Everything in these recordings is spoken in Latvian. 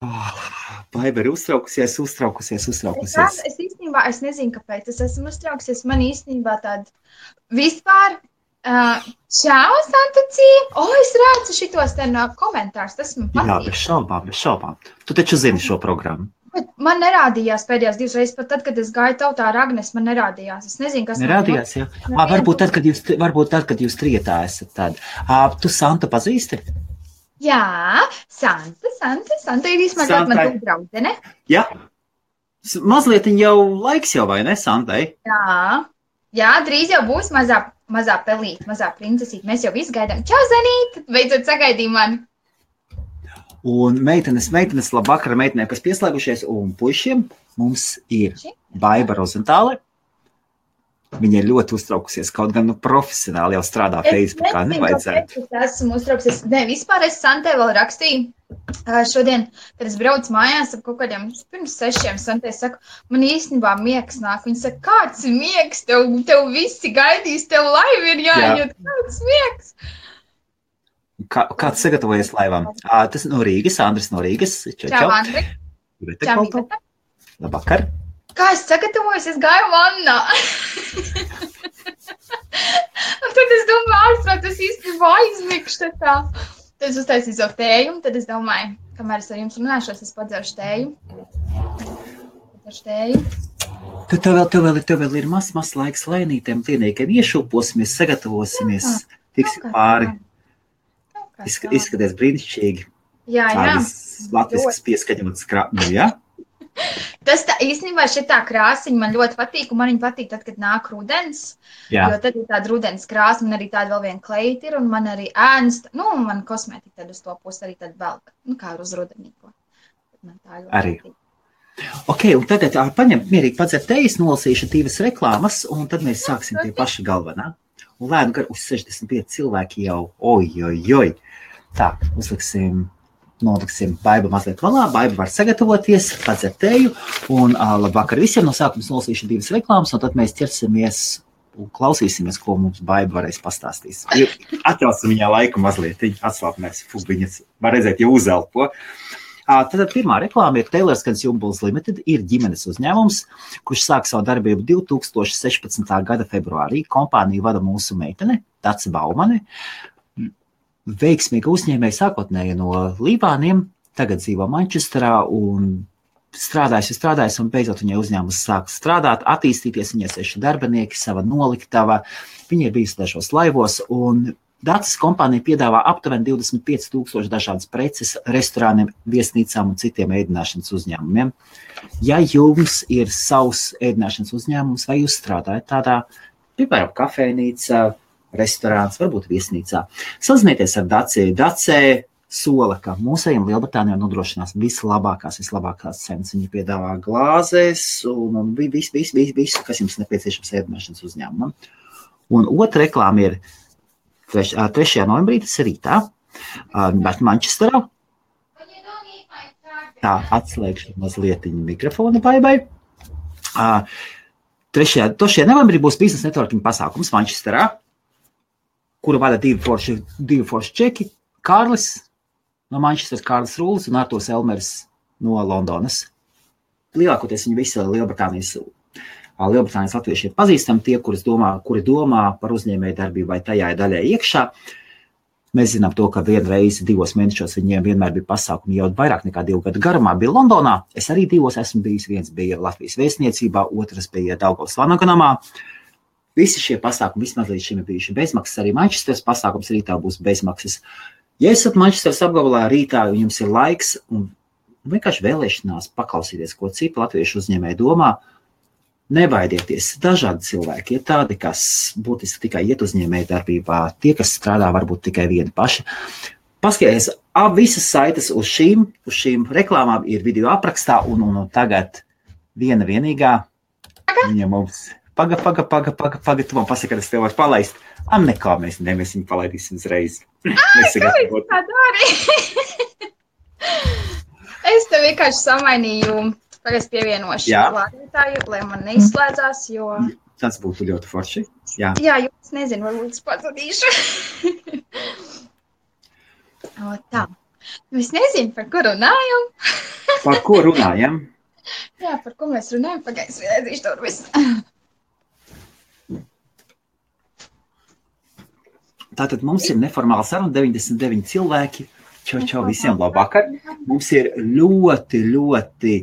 Baiba ir uztraukusies. Es īstenībā, es nezinu, kāpēc es esmu uztraukusies. Man īstenībā tāda vispār, čau, Santucija! Es redzu šitos te no komentārus, tas man patīk. Jā, bez šaubām. Tu taču zini šo programmu. Bet man nerādījās pēdējās 2 reizes, pat tad, kad es gāju tautā ar Agnes, man nerādījās. Es nezinu, kas nerādījās, jā. Varbūt tad, kad jūs trietā esat tad. Tu Santu pazīsti? Jā, Santa ir īstenībā man tu draudzene. Jā. Mazliet jau laiks jau, vai ne, Santai? Jā, drīz jau būs mazā pelīte, mazā princesīte. Mēs jau visu gaidām. Čau, Zanīt! Beidzot sagaidīja mani. Un meitenes, labvakar meitenēm, kas pieslēgušies, un puišiem mums ir Baiba Rozentāle. Viņa ir ļoti uztraukusies, kaut gan profesionāli jau strādā Facebookā, nevajadzētu. Es esmu uztraukusies. Nē, vispār es Santai vēl rakstīju šodien, kad es braucu mājās ap kaut kādiem pirms 6, Santai saku, man īstenībā miegs nāk. Viņa saka, kāds ir miegs? Tev visi gaidīs, tev laiva ir jāiet, kāds miegs? Kāds sagatavojies laivām? Tas no Rīgas, Andris no Rīgas. Čau, Andri. Čau, Labvakar. Kā es sagatavojos? Es gāju vannā. Un tad es domāju, tas īstenībā aizmikšu tā. Tad es uztaisīju savu tēju, un tad es domāju, kamēr es ar jums runāšos, es padzeršu tēju. Tev vēl ir mazs laiks lēnītiem klienīkiem. Iešūposimies, sagatavosimies, tiksim pāri. Izskaties brīnišķīgi. Jā. Latviskas pieskaņotas krāpņu, jā? Tas tā, īstenībā šitā krāsiņa man ļoti patīk, un man viņa patīk tad, kad nāk rudens. Jā. Jo tad ir tāda rudens krāsa, man arī tāda vēl viena kleita ir, un man arī ēnas, man kosmētika tad uz to pusi arī tad velk, kā uz rudenīko. Arī. Ok, un tagad paņem mierīgi padzert tejas, nolasīšu 2 reklāmas, un tad mēs sāksim pie paša galvenā. Un lēnu gar uz 65 cilvēki jau, oj. Tā, noliksim Baiba mazliet valā, Baiba var sagatavoties, padzert teju, un labvakar visiem no sākums nolasīšu 2 reklāmas, un tad mēs ķersimies un klausīsimies, ko mums Baiba varēs pastāstīs. Atļausim viņā laiku mazliet, atslāpnēs, viņas var redzēt, jau uzelpo. Tad pirmā reklāma ir Taylors Consumables Limited, ir ģimenes uzņēmums, kurš sāk savu darbību 2016. gada februārī. Kompāniju vada mūsu meitene, Dace Baumane. Veiksmīga uzņēmēja sākotnēji no Libāniem, tagad dzīvo Mančesterā un strādājas, un beidzot viņai uzņēmums sāk strādāt, attīstīties, viņai 6 darbinieki, sava noliktava, viņa ir bijusi dažos laivos, un Daces kompānija piedāvā aptuveni 25,000 dažādas preces restorāniem, viesnīcām un citiem ēdināšanas uzņēmumiem. Ja jums ir savs ēdināšanas uzņēmums vai jūs strādājat tādā, piemēram, kafejnīca, restorāns, varbūt viesnīcā, sazinieties ar Dace. Dace sola, ka mūsējiem Lielbritānijā nodrošinās vislabākās cenas. Viņi piedāvā glāzes un visu, kas jums nepieciešams ēdināšanas uzņēmumam. Un otra reklāma ir 3. novembrī, tas ir rītā, Mančesterā. Tā, atslēgšu mazliet mikrofonu Baibai. 3. novembrī būs biznesa networking pasākums Mančesterā, kuru vada 2 forši čeki, Kārlis no Mančesteras, Kārlis Rūlis un Arturs Elmers no Londonas. Lielākoties viņi visi Lielbritānijas latvieši ir pazīstami, tie, kuri domā par uzņēmēju darbību vai tajā daļai iekšā. Mēs zinām to, ka vienreiz 2 mēnešos viņiem vienmēr bija pasākumi jau vairāk nekā 2 gadu garumā bija Londonā. Es arī 2 esmu bijis, viens bija Latvijas vēstniecībā, otrs bija Daugavas Vanagonamā. Visi šie pasākumi vismaz līdz šim ir bijuši bezmaksas, arī Mančesteras pasākums rītā būs bezmaksas. Ja esat Mančesteras apgabalā rītā, un jums ir laiks un vienkārši vēlēšanās paklausīties, ko citi latviešu uzņēmēji domā, nebaidieties, dažādi cilvēki ir tādi, kas būtiski tikai iet uzņēmēju darbībā, tie, kas strādā varbūt tikai vieni paši. Paskaties, visas saites uz šīm reklāmām ir video aprakstā, un tagad vienīgā, viņa mums, paga, tu man pasaka, ka es tev varu palaist. Nekā, mēs viņu palaidīsim uzreiz. Kā dari? Es tev vienkārši samainīju. Tagad es pievienošu lādētāju, lai man neizslēdzās, jo... Tas būtu ļoti forši. Jā, jūs nezinu, varbūt es pazudīšu. Tā. Es nezinu, par ko runājam. Par ko runājam? Jā, par ko mēs runājam, pagaidzi, vienēdzīšu to visu. Tātad mums ir neformāla saruna, 99 cilvēki. Čau visiem, labvakar. Mums ir ļoti, ļoti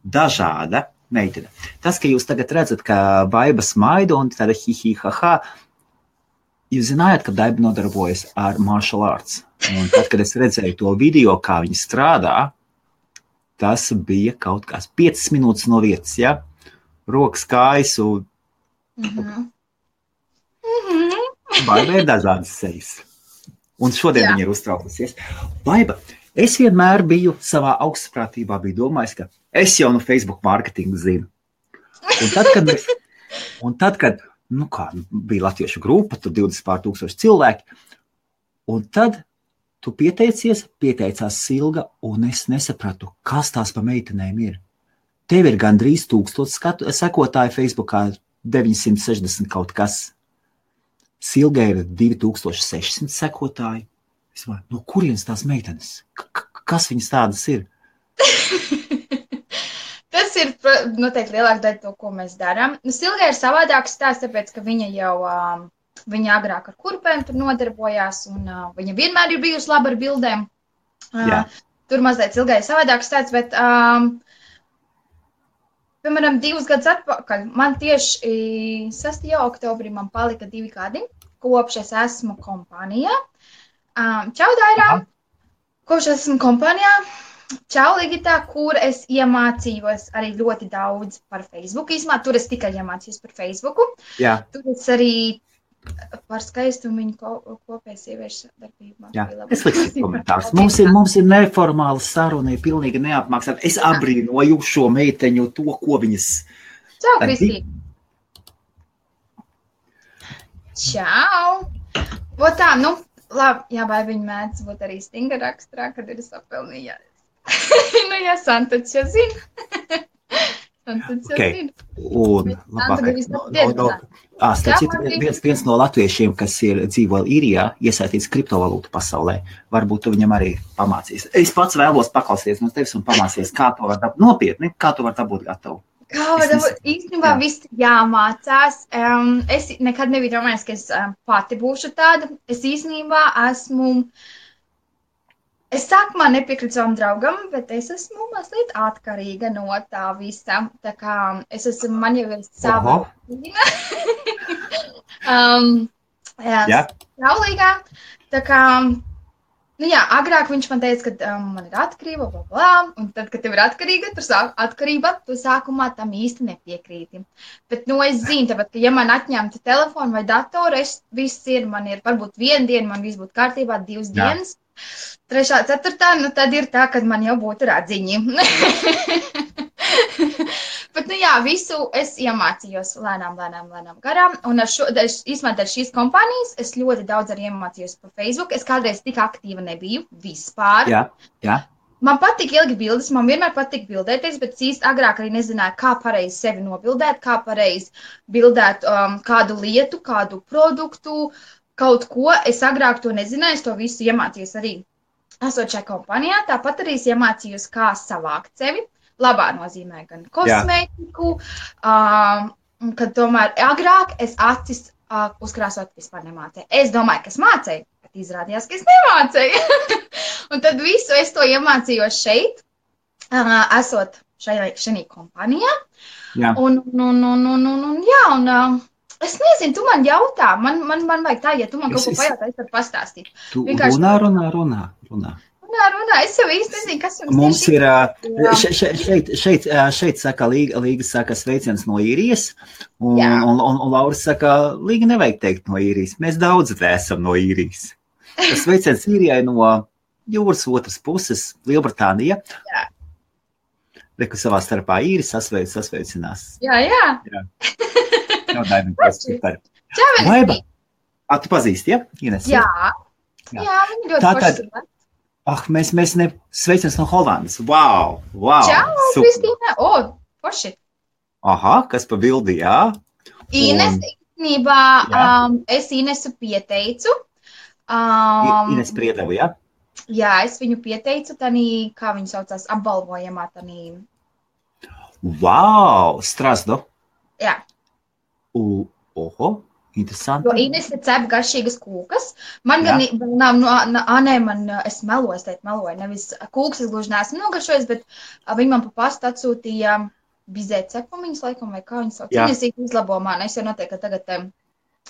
dažāda meitene. Tas, ka jūs tagad redzat, ka Baiba smaida un tāda hi-hi-ha-ha, jūs zinājāt, ka Baiba nodarbojas ar martial arts. Un tad, kad es redzēju to video, kā viņi strādā, tas bija kaut kas 5 minūtes no vietas, ja? Rokas, kājas un... Baiba ir dažādas sejas. Un šodien viņa ir uztraukusies. Baiba, es vienmēr biju savā augstprātībā, biju domājis, ka es jau no Facebook marketingu zinu. Un tad, kad bija latviešu grupa, tur 20,000 cilvēki, un tad tu pieteicās Silga, un es nesapratu, kas tās pa meitenēm ir. Tev ir gandrīz 1000 sekotāji Facebookā, 960 kaut kas. Silga ir 2600 sekotāji. Es domāju, no kurienes tās meitenes? Kas viņas tādas ir? Tas ir noteikti lielāka daļa to, ko mēs darām. Silga ir savādāks stāsts, tāpēc, ka viņa jau viņa agrāk ar kurpēm tur nodarbojās, un viņa vienmēr ir bijusi laba ar bildēm. Tur mazliet Silgai ir savādāks stāsts, bet... Piemēram, 2 gadus atpakaļ, man tieši 6. oktobrī man palika 2 gadi, kopš es esmu kompānijā. Čau, Dairā! Kopš es esmu kompānijā, čau, Ligitā, kur es iemācījos arī ļoti daudz par Facebooku. Īsumā, tur es tikai iemācījos par Facebooku. Jā. Tur es arī par skaistumu viņu kopēju sieviešu darbībā. Jā, es likšu komentārus. Mums ir neformāla saruna, ir pilnīgi neapmaksāta. Es abrīnoju šo meiteņu, to, ko viņas... Čau, Kristī! Čau! Tā, labi, jā, vai viņi mēdz būt arī stinga raksturā, kad ir sapelnījās. Jā, Santačs jau zina. Okay. Un viens no latviešiem, kas dzīvo īrijā, iesaistīts kriptovalūtu pasaulē, varbūt tu viņam arī pamācīs. Es pats vēlos paklausīties no tevis un pamācīties, kā to var dabūt nopietni, kā to var dabūt gatavu. Kā var dabūt? Īstenībā viss jāmācās. Es nekad nebiju domājis, ka es pati būšu tāda. Es īstenībā esmu... Es sākumā nepiekrītu savam draugam, bet es esmu mazliet atkarīga no tā visa. Tā kā es esmu, man jau ir sava rutīna. Saulīgā. Tā kā, agrāk viņš man teica, ka man ir atkarība, un tad, kad tev ir atkarība, tu sākumā tam īsti nepiekrīti. Bet, es zinu, tāpēc, ka ja man atņemtu telefonu vai datoru, viss ir, man ir varbūt 1 diena, man viss būtu kārtībā, 2 dienas. 3., 4., tad ir tā, kad man jau būtu radziņi. Bet, visu es iemācījos lēnām garām. Un īstenībā ar šīs kompānijas es ļoti daudz arī iemācījos par Facebook. Es kādreiz tik aktīva nebiju vispār. Jā. Man patīk ilgi bildes, man vienmēr patīk bildēties, bet īsti agrāk arī nezināju, kā pareizi sevi nobildēt, kā pareizi bildēt kādu lietu, kādu produktu, kaut ko. Es agrāk to nezināju, es to visu iemācījos arī esot šajā kompānijā. Tāpat arī es iemācījos, kā savākt sevi. Labā nozīmē gan kosmētiku, kad tomēr agrāk es acis uzkrāsot vispār nemācēju. Es domāju, ka es mācēju, bet izrādījās, ka es nemācēju. Un tad visu es to iemācījos šeit, esot šajā kompānijā. Jā. Es nezinu, tu man jautā, man vajag tā, ja tu man kaut ko pajautā, es varu pastāstīt. Tu runā. Es jau īsti nezinu, kas jums mums ir. Šeit saka, Līga saka sveiciens no īrijas, un Laura saka, Līga nevajag teikt no īrijas. Mēs daudz esam no īrijas. Tas sveiciens īrijai no jūras otras puses, Lielbritānija. Jā. Reku savā starpā īri sasveicinās. Jā. Baiba. Tu pazīsti, ja? Ines? Jā, viņi ļoti forši. Mēs sveiciens no Holandas. Wow. Čau, Kristīne. Forši. Aha, kas pa bildi, jā? Ines, īstenībā, es Inesu pieteicu. Ines Priedevu, jā? Jā, es viņu pieteicu tanī, kā viņu saucās, apbalvojamā tanī. Wow, Strasdo. Jā. Oho, interesanti. Jo Inese cep garšīgas kūkas. Man gan nav, es meloju, nevis kūkas es gluži neesmu nogaršojis, bet viņi man pa pastu atsūtīja bizē cepumiņas, laikam, vai kā viņas sauc. Viņas izlabo man, es jau noteikti tagad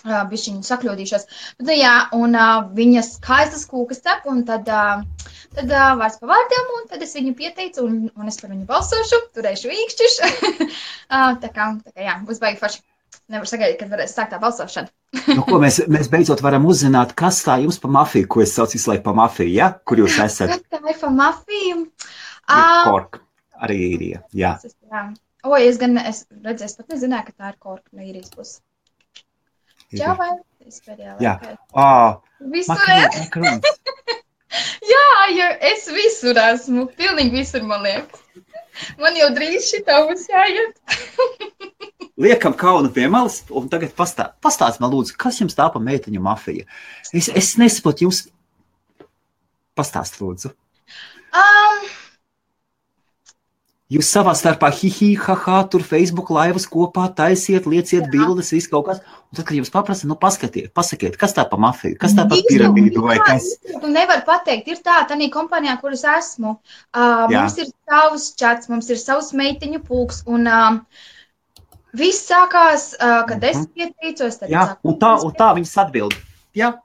bišķiņu sakļūdīšos. Bet, jā, un viņas skaistas kūkas cep, un tad vārds pa vārdiem, un tad es viņu pieteicu, un es par viņu balsošu, turēšu īkšķiš. tā kā, jā, būs baigi forši. Nevar sagaidīt, kad varēs sākt tā balsošana. Ko mēs beidzot varam uzzināt, kas tā jums pa mafiju, ko es saucu visu laiku pa mafiju, ja? Kur jūs esat? Kas tā ir pa mafiju? Kork, arī īrija, jā. O, es redzēju, es pat nezināju, ka tā ir Kork no īrijas puses. Jā, vai? Es pēdējā laikā. Visur Jā, jo es visur esmu. Pilnīgi visur, man liekas. Man jau drīz šitā būs jāiet. Liekam kaunu pie malas, un tagad pastāst man lūdzu, kas jums tā pa meiteņu mafija? Es nesaprotu, jums pastāst lūdzu. Jūs savā starpā haha, tur Facebook laivas kopā taisiet, lieciet bildes, viss kaut kas. Un tad, kad jums paprasa, pasakiet, kas tā pa mafiju, kas tā pa piramīdu vai kas? Tu nevar pateikt, ir tā, tanī kompānijā, kuras esmu. Mums ir savs čats, mums ir savs meiteņu pulks, un viss sākās, kad es pieteicos. Jā, un tā viņas atbild. Jā.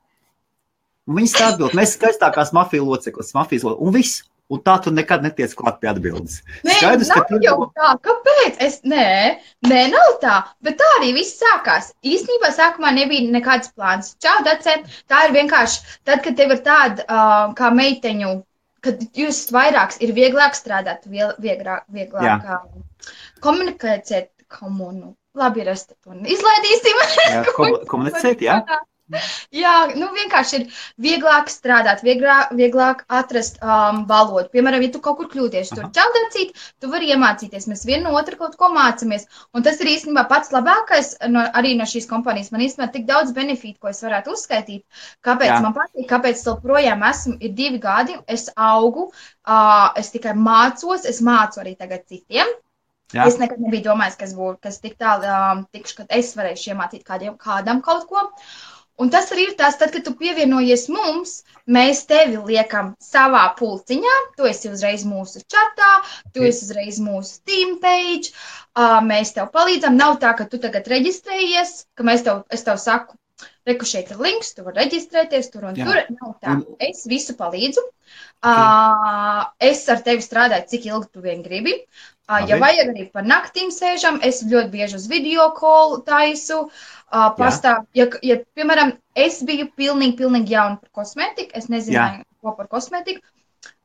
Un viņas tā atbild, mēs skaistākās mafijas loceklis, un viss. Un tā tu nekad netiec klāt pie atbildes. Nē, Skaidrs, nav jau tā. Kāpēc? Nē, nav tā. Bet tā arī viss sākās. Īstenībā sākumā nebija nekāds plāns. Čau, Dace, tā ir vienkārši, tad, kad tev ir tāda kā meiteņu, kad jūs vairāks, ir vieglāk strādāt, vieglāk komunikēt komunu. Labi, izlaidīsim. Jā, komunicēt, jā. Jā, vienkārši ir vieglāk strādāt, vieglāk atrast valodu. Piemēram, ja tu kaut kur kļūdies, tur čaldacīt, tu vari iemācīties. Mēs vienu no otru kaut ko mācamies. Un tas ir īstenībā pats labākais arī no šīs kompānijas. Man īstenībā tik daudz benefītu, ko es varētu uzskaitīt. Kāpēc man patīk, kāpēc es projām esmu, ir 2 gadi, es augu, es tikai mācos, es mācu arī tagad citiem. Jā. Es nekad nebiju domājis, kas tik tālu tikšu, kad es varēšu iemācīt kādam kaut ko. Un tas arī ir tas, tad, kad tu pievienojies mums, mēs tevi liekam savā pulciņā, tu esi uzreiz mūsu čatā, tu esi uzreiz mūsu team page, mēs tev palīdzam. Nav tā, ka tu tagad reģistrējies, ka es tev saku, reku šeit ir links, tu vari reģistrēties tur un tur. Nav tā. Es visu palīdzu. Es ar tevi strādāju, cik ilgi tu vien gribi. Ja vajag arī par naktīm sēžam, es ļoti bieži uz video call taisu. Ja, piemēram, es biju pilnīgi jauna par kosmētiku, es nezināju, ko par kosmētiku,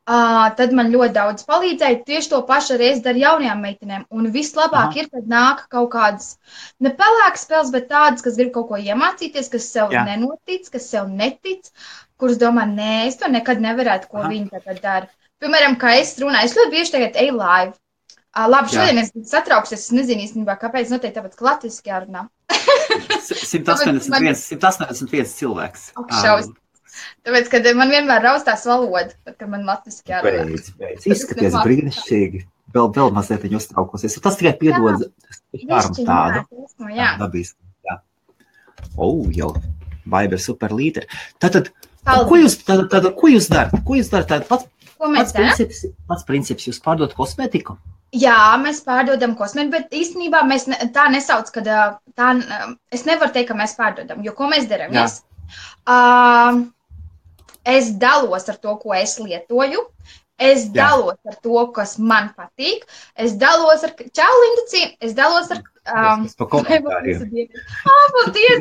tad man ļoti daudz palīdzēja. Tieši to pašu arī es daru jaunajām meitenēm. Un vislabāk ir, kad nāk kaut kādas ne pelēkas spēles, bet tādas, kas grib kaut ko iemācīties, kas sev nenotic, kas sev netic, kuras domā, nē, es to nekad nevarētu, ko viņi tagad dara. Piemēram, kā es runāju, es ļoti bieži tagad eju live. Labi, šodien es satraukšos, es nezinu īstenībā, kāpēc, noteikti tāpēc, ka latviski jārunā. 181 cilvēks. Tāpēc, kad man vienmēr raustās valoda, tad, kad man latviski jārunā. Beidz. Izskaties brīnišķīgi. Vēl mazliet viņa uztraukosies. Tas tikai piedod tādu. Jā. Dabiski. Jā. Jau. Baiba ir super līderi. Tātad, ko jūs darat? Ko jūs darat? Pats princips, jūs pārdot kosmētiku? Jā, mēs pārdodam kosmētiku, bet īstenībā mēs tā nesauc, kad es nevaru teikt, ka mēs pārdodam, jo ko mēs darām? Es dalos ar to, ko es lietoju, es dalos ar to, kas man patīk, es dalos ar čau, Linduci, es dalos ar paldies,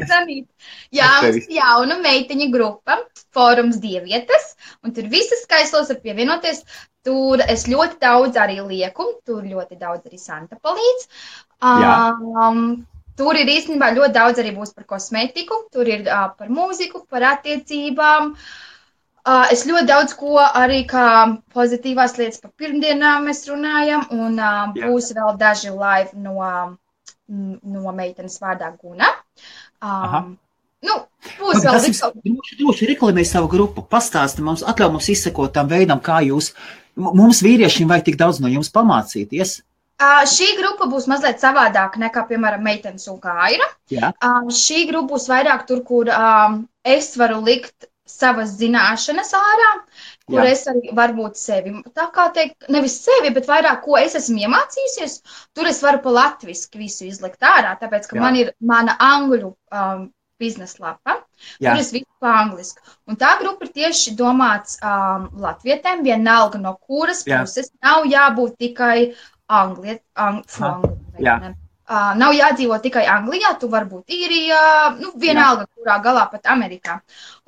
Danīt. Jā, mums jauna meiteņa grupa, fórums Dievietes, un tur visas skaislos var pievienoties. Tur es ļoti daudz arī lieku, tur ļoti daudz arī Santa palīdz. Tur ir īstenībā ļoti daudz arī būs par kosmētiku, tur ir par mūziku, par attiecībām. Es ļoti daudz ko arī kā pozitīvās lietas par pirmdienām mēs runājam, un būs vēl daži live no meitenes vārdā Guna. Nu, būs vēl droši reklamēj savu grupu, pastāsti mums, atļauj mums izsekot tam veidam, kā jūs, mums vīriešiem vajag tik daudz no jums pamācīties. Šī grupa būs mazliet savādāka nekā, piemēram, meitenes un Kaira. Šī grupa būs vairāk tur, kur es varu likt savas zināšanas ārā, kur es arī varbūt sevi, tā kā teikt, nevis sevi, bet vairāk, ko es esmu iemācījusies, tur es varu pa latviski visu izlikt ārā, tāpēc, ka man ir mana angļu biznesa lapa, tur es visu pa angliski. Un tā grupa ir tieši domāts latvietēm, vienalga no kuras puses, nav jābūt tikai nav jādzīvo tikai Anglijā, tu vari būt Īrijā, vienalga, kurā galā pat Amerikā.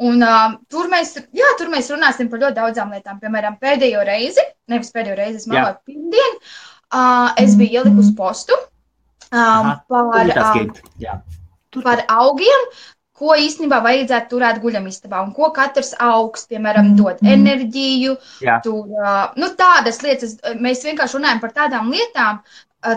Un tur mēs runāsim par ļoti daudzām lietām. Piemēram, pēdējo reizi, es meloju pirmdien, es biju ielikusi postu par augiem, ko īstenībā vajadzētu turēt guļamistabā un ko katrs augs, piemēram, dod enerģiju, tādas lietas. Mēs vienkārši runājam par tādām lietām,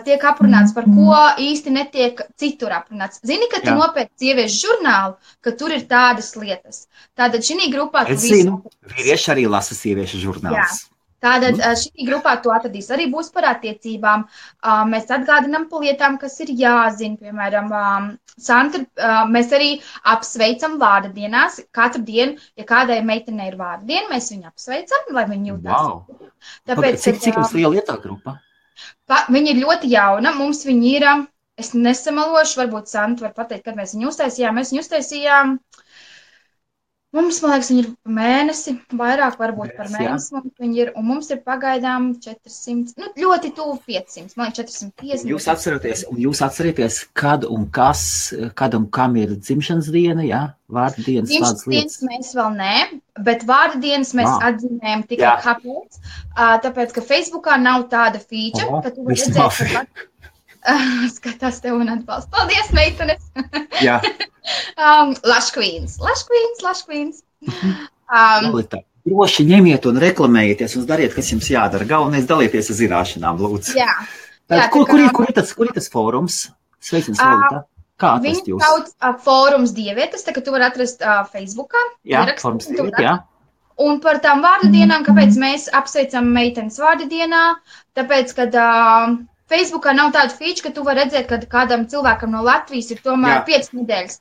tiek aprunāts, par ko īsti netiek citur aprunāts. Zini, ka tu nopērci sieviešu žurnālu, ka tur ir tādas lietas. Tātad šī grupā tu zinu, vīrieši arī lasa sieviešu žurnālus. Tātad šī grupā tu atradīs arī būs par attiecībām. Mēs atgādinām par lietām, kas ir jāzina. Piemēram, mēs arī apsveicam vārda dienās. Katru dienu, ja kādai meitenei ir vārda diena, mēs viņu apsveicam, lai viņi jūtās. Tāpēc, cik jums liela ir tā grupa? Viņa ir ļoti jauna. Mums viņa ir, es nesamalošu, varbūt Santa var pateikt, kad mēs viņu uztaisījām. Mēs viņu uztaisījām. Mums, man liekas, viņi ir mēnesi, vairāk varbūt par mēnesi mums viņi ir, un mums ir pagaidām 400, ļoti tuvu 500, man liekas 450. Jūs atcerieties, kad un kam ir dzimšanas diena, vārda dienas, tādas lietas? Dzimšanas dienas mēs vēl nē, bet vārda dienas mēs atzīmējam tikai kāpēc, tāpēc, ka Facebookā nav tāda feature, ka tu vari redzēt, skatās tev un atbalst. Paldies, meitenes! Jā. Lush Queens. Droši ņemiet un reklamējieties un dariet, kas jums jādara. Galvenais dalieties ar zināšanām, lūdzu. Kur ir tas fórums? Sveicins, Lolita. Kā atrast jūs? Viņi sauc fórums dievietes, tā ka tu vari atrast Facebookā. Fórums dievietes, Un par tām vārdu dienām, kāpēc mēs apsveicam meitenes vārdu dienā, tāpēc, kad Facebookā nav tāda feature, ka tu vari redzēt, ka kādam cilvēkam no Latvijas ir tomēr 5 nedēļas.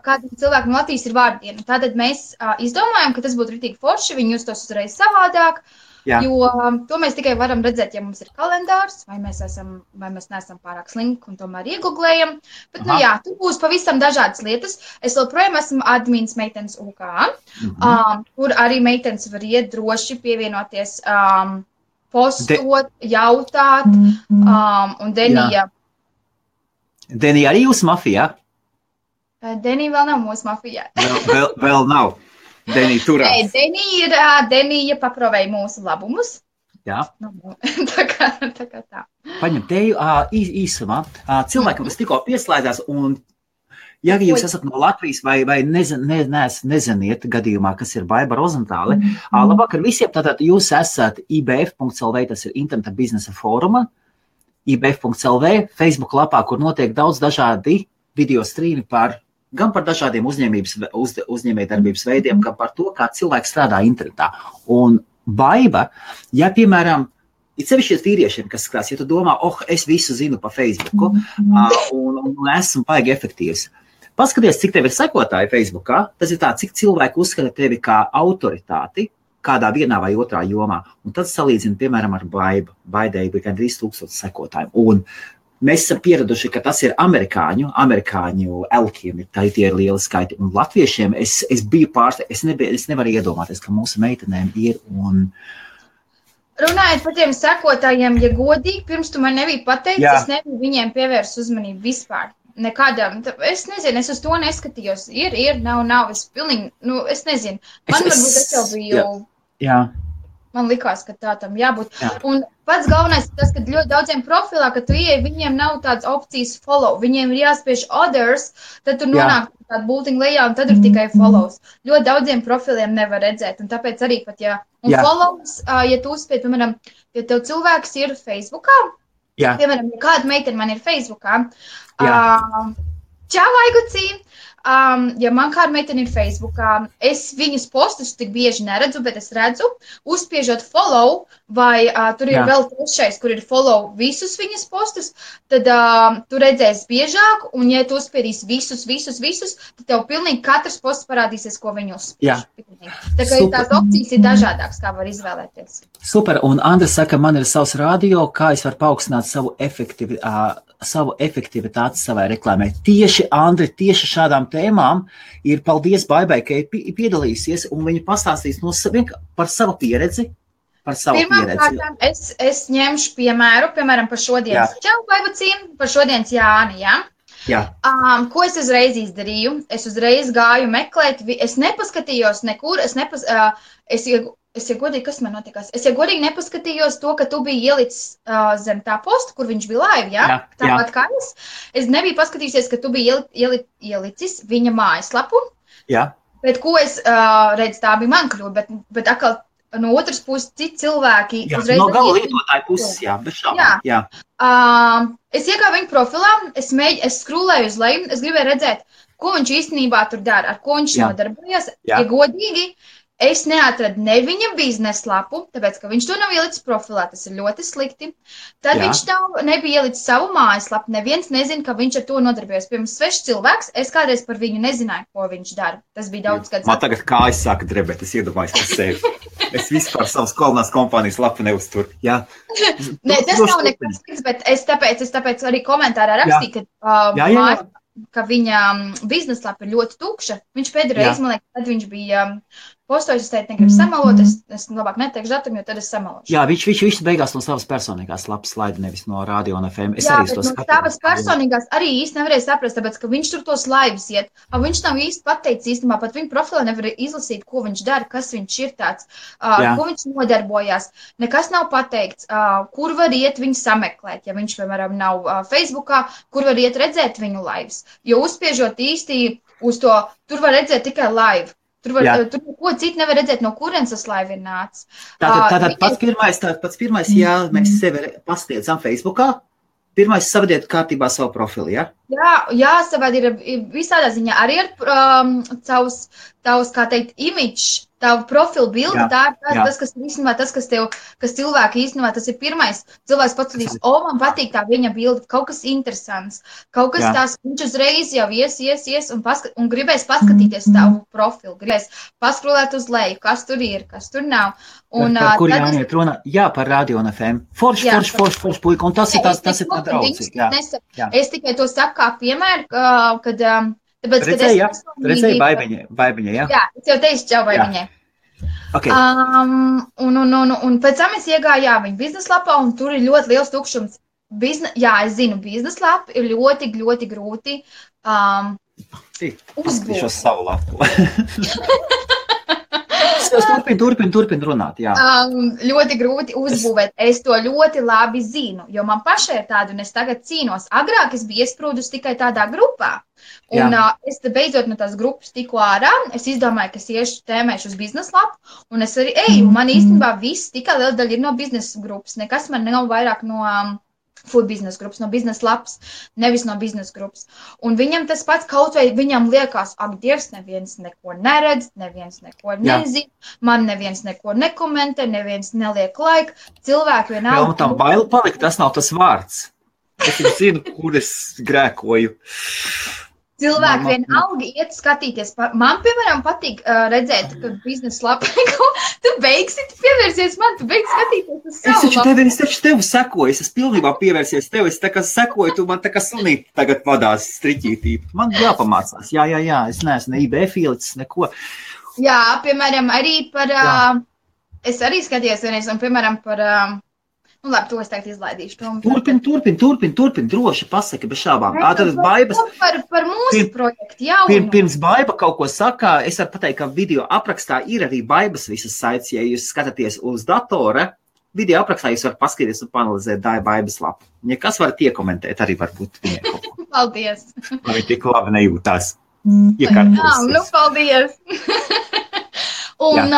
Kādam cilvēkam no Latvijas ir vārdiena. Tātad mēs izdomājam, ka tas būtu ritīgi forši, viņi justos uzreiz savādāk, jo to mēs tikai varam redzēt, ja mums ir kalendārs, vai mēs neesam pārāk slinki un tomēr iegooglējam. Bet, tur būs pavisam dažādas lietas. Es joprojām esmu admins meitenes UK, kur arī meitenes var iet droši pievienoties postot, jautāt, un Denija. Denija arī jūsu mafijā? Denija vēl nav mūsu mafijā. Vēl nav. Denija turās. Denija paprovēja mūsu labumus. Jā. Tā kā tā. Paņem teju īsumā. Cilvēkam, kas tikko pieslēdzās, un ja jūs esat no Latvijas vai neziniet gadījumā, kas ir Baiba Rozentāle, labvakar visiem, tātad jūs esat IBF.lv, tas ir Interneta biznesa fóruma, IBF.lv, Facebook lapā, kur notiek daudz dažādi video strīmi gan par dažādiem uzņēmējdarbības veidiem, gan par to, kā cilvēki strādā internetā. Un Baiba, ja, piemēram, ir sevišķies vīriešiem, kas skatās, ja tu domā, es visu zinu pa Facebooku, un esmu baigi efektīvs. Paskaties, cik tev ir sekotāji Facebookā, tas ir tā, cik cilvēki uzskata tevi kā autoritāti kādā vienā vai otrā jomā. Un tad salīdzina, piemēram, ar Baibu. Baidai bija gan 3000 sekotājiem. Un mēs esam pieraduši, ka tas ir amerikāņu elkiem, tie ir lieli skaiti. Un latviešiem es biju es nevaru iedomāties, ka mūsu meitenēm ir un... Runājot par tiem sekotājiem, ja godīgi, pirms tu man nebija pateicis, es nebiju viņiem pievērst uzmanību vispār. Nekādām, es nezinu, es uz to neskatījos. Ir, nav, es pilnīgi, es nezinu. Man varbūt es jau biju, man likās, ka tā tam jābūt. Un pats galvenais ir tas, ka ļoti daudziem profilā, ka tu ieej, viņiem nav tādas opcijas follow, viņiem ir jāspiež others, tad tu nonāk tādu bultiņu lejā un tad ir tikai follows. Ļoti daudziem profiliem nevar redzēt, un tāpēc arī pat, follows, ja tu uzspied, piemēram, ja tev cilvēks ir Facebookā, piemēram, ja kāda meitene man ir Facebookā, čau, Aigucī, ja man kāda meitene ir Facebookā, es viņas postus tik bieži neredzu, bet es redzu, uzspiežot follow, vai tur ir vēl trešais, kur ir follow visus viņas postus, tad tu redzēsi biežāk, un ja tu uzspiedīsi visus, tad tev pilnīgi katrs posts parādīsies, ko viņi uzspiež. Tā kā tās opcijas ir dažādākas, kā var izvēlēties. Super, un Andris saka, man ir savs radio, kā es varu paaugstināt savu efektivitāti savai reklāmai. Tieši, Andri, tieši šādām tēmām ir paldies Baibai, ka ir piedalīsies, un viņa pastāstīs par savu pieredzi. Pirmkārt, es ņemšu piemēram, par šodienas Čau, Baibacīm, par šodienas Jāni, Jā. Ko es uzreiz izdarīju? Es uzreiz gāju meklēt, es nepaskatījos nekur, Es godīgi, kas man notikās? Es godīgi nepaskatījos to, ka tu biji ielicis zem tā posta, kur viņš bija live, tāpat kā es. Es nebiju paskatījusies, ka tu biji ielicis viņa mājaslapu. Jā. Bet ko es redzu, tā bija man kļūda, bet atkal no otras puses citi cilvēki uzreiz... No gala lietotāju puses, bez šaubām. Jā. Es iegāju viņa profilā, es skrūlēju uz leju, es gribēju redzēt, ko viņš īstenībā tur dara, ar ko viņš nodarbojas. Ja godīgi, es neatradu ne viņa biznesa lapu, tāpēc, ka viņš to nav ielicis profilā, tas ir ļoti slikti. Tad viņš nebija ielicis savu mājaslapu, neviens nezina, ka viņš ar to nodarbojas. Pirms svešs cilvēks, es kādreiz par viņu nezināju, ko viņš dara. Tas bija daudz gadus. Man tagad kājas sāka drebēt, es iedomājos par sevi. Es vispār savas kolonās kompānijas lapu neuzturu. Jā. Ne, tas nav nekas slikts, bet es tāpēc arī komentārā rakstīju, ka viņa biznesa lapa ir ļoti tukša. Viņš pēdējo reizi, man liekas, tad viņš bija postojis, es teicu, negribu samalot, es labāk neteikšu datumu, jo tad es samalošu. Jā, viņš beigās no savas personīgās lapas slaida, nevis no radio un FM. Jā, bet no savas personīgās arī īsti nevarēja saprast, tāpēc, ka viņš tur tos laivus iet. Viņš nav īsti pateicis īstenībā, pat viņa profilā nevar izlasīt, ko viņš dara, kas viņš ir tāds, ko viņš nodarbojās. Nekas nav pateikts, kur var iet viņu sameklēt, ja viņš, piemēram, nav Facebookā, kur var iet redzēt viņu laivus. Jo uzspiežot īsti uz to, tur var redzēt tikai laivu. Tur neko citu nevar redzēt, no kurienes tas laiva ir nācis. Tātad pats pirmais, ja mēs sevi pastiedzam Facebookā, pirmais savadiet kārtībā savu profilu, ja? Jā, savādi ir visādā ziņā arī ar tavs, kā teikt, imidžs, tavu profilu bildi, tā ir tas, kas īstenībā, kas cilvēki īstenībā, tas ir pirmais. Cilvēks paskatīs, man patīk tā viņa bildi, kaut kas interesants, kaut kas tās, viņš uzreiz jau ies un gribēs paskatīties tavu profilu, gribēs paskrolēt uz leju, kas tur ir, kas tur nav. Un, par kur jāiet runa? Jā, par radio un FM. Forši, puika, un tas ir tā draudzīgi. Es tikai to saku kā piemēru, kad... Tāpēc, redzēji Baibiņai, jā? Jā, es jau teicu Čau Baibiņai. Okay. Un pēc tam es iegāju, viņa biznesa lapā, un tur ir ļoti liels tukšums. Es zinu, biznesa lapa ir ļoti, ļoti grūti uzbūt. Šo savu lapu. Turpin runāt, jā. Ļoti grūti uzbūvēt. Es to ļoti labi zinu, jo man pašai ir tāda, un es tagad cīnos. Agrāk es biju iesprūdus tikai tādā grupā. Un es beidzot no tās grupas tiku ārā, es izdomāju, ka es tēmēšu uz biznesa lapu, un es arī eju. Man īstenībā viss tikai liela daļa ir no biznesa grupas. Nekas man nav vairāk no food biznesa grupas, no biznesa lapas, nevis no biznesa grupas. Un viņam tas pats kaut vai viņam liekas, ak, Dievs, neviens neko neredz, neviens neko nezina, man neviens neko nekomentē, neviens neliek laiku, cilvēki vienalga. Jā, un tam baila palikt, tas nav tas vārds. Es zinu, kur es grēkoju. Cilvēki vienalga iet skatīties. Man, piemēram, patīk redzēt, ka biznesa lapa, tu beigsi pievērsies man, tu beigsi skatīties uz savu lapu. Es taču tevi sekoju, es pilnībā pievērsies tevi, es tā kā sekoju, tu man tā kā sunīt tagad vadās striķītī. Man jāpamācās, jā, es neesmu ne IB filicis, neko. Jā, piemēram, arī par, es arī skatījos vienreiz, un, piemēram, par... Nu, labi, to es tagad izlaidīšu. Turpin, droši pasaki, bez šābām. Par mūsu projektu, jā. Pirms Baiba kaut ko saka, es varu pateikt, ka video aprakstā ir arī Baibas visas saites, ja jūs skatāties uz datora, video aprakstā jūs varat paskatīties un panalizēt Baibas lapu. Ja kas varat iekomentēt, arī varbūt viņai kaut ko. Paldies. Lai viņi tik labi nejūtās. Paldies. Un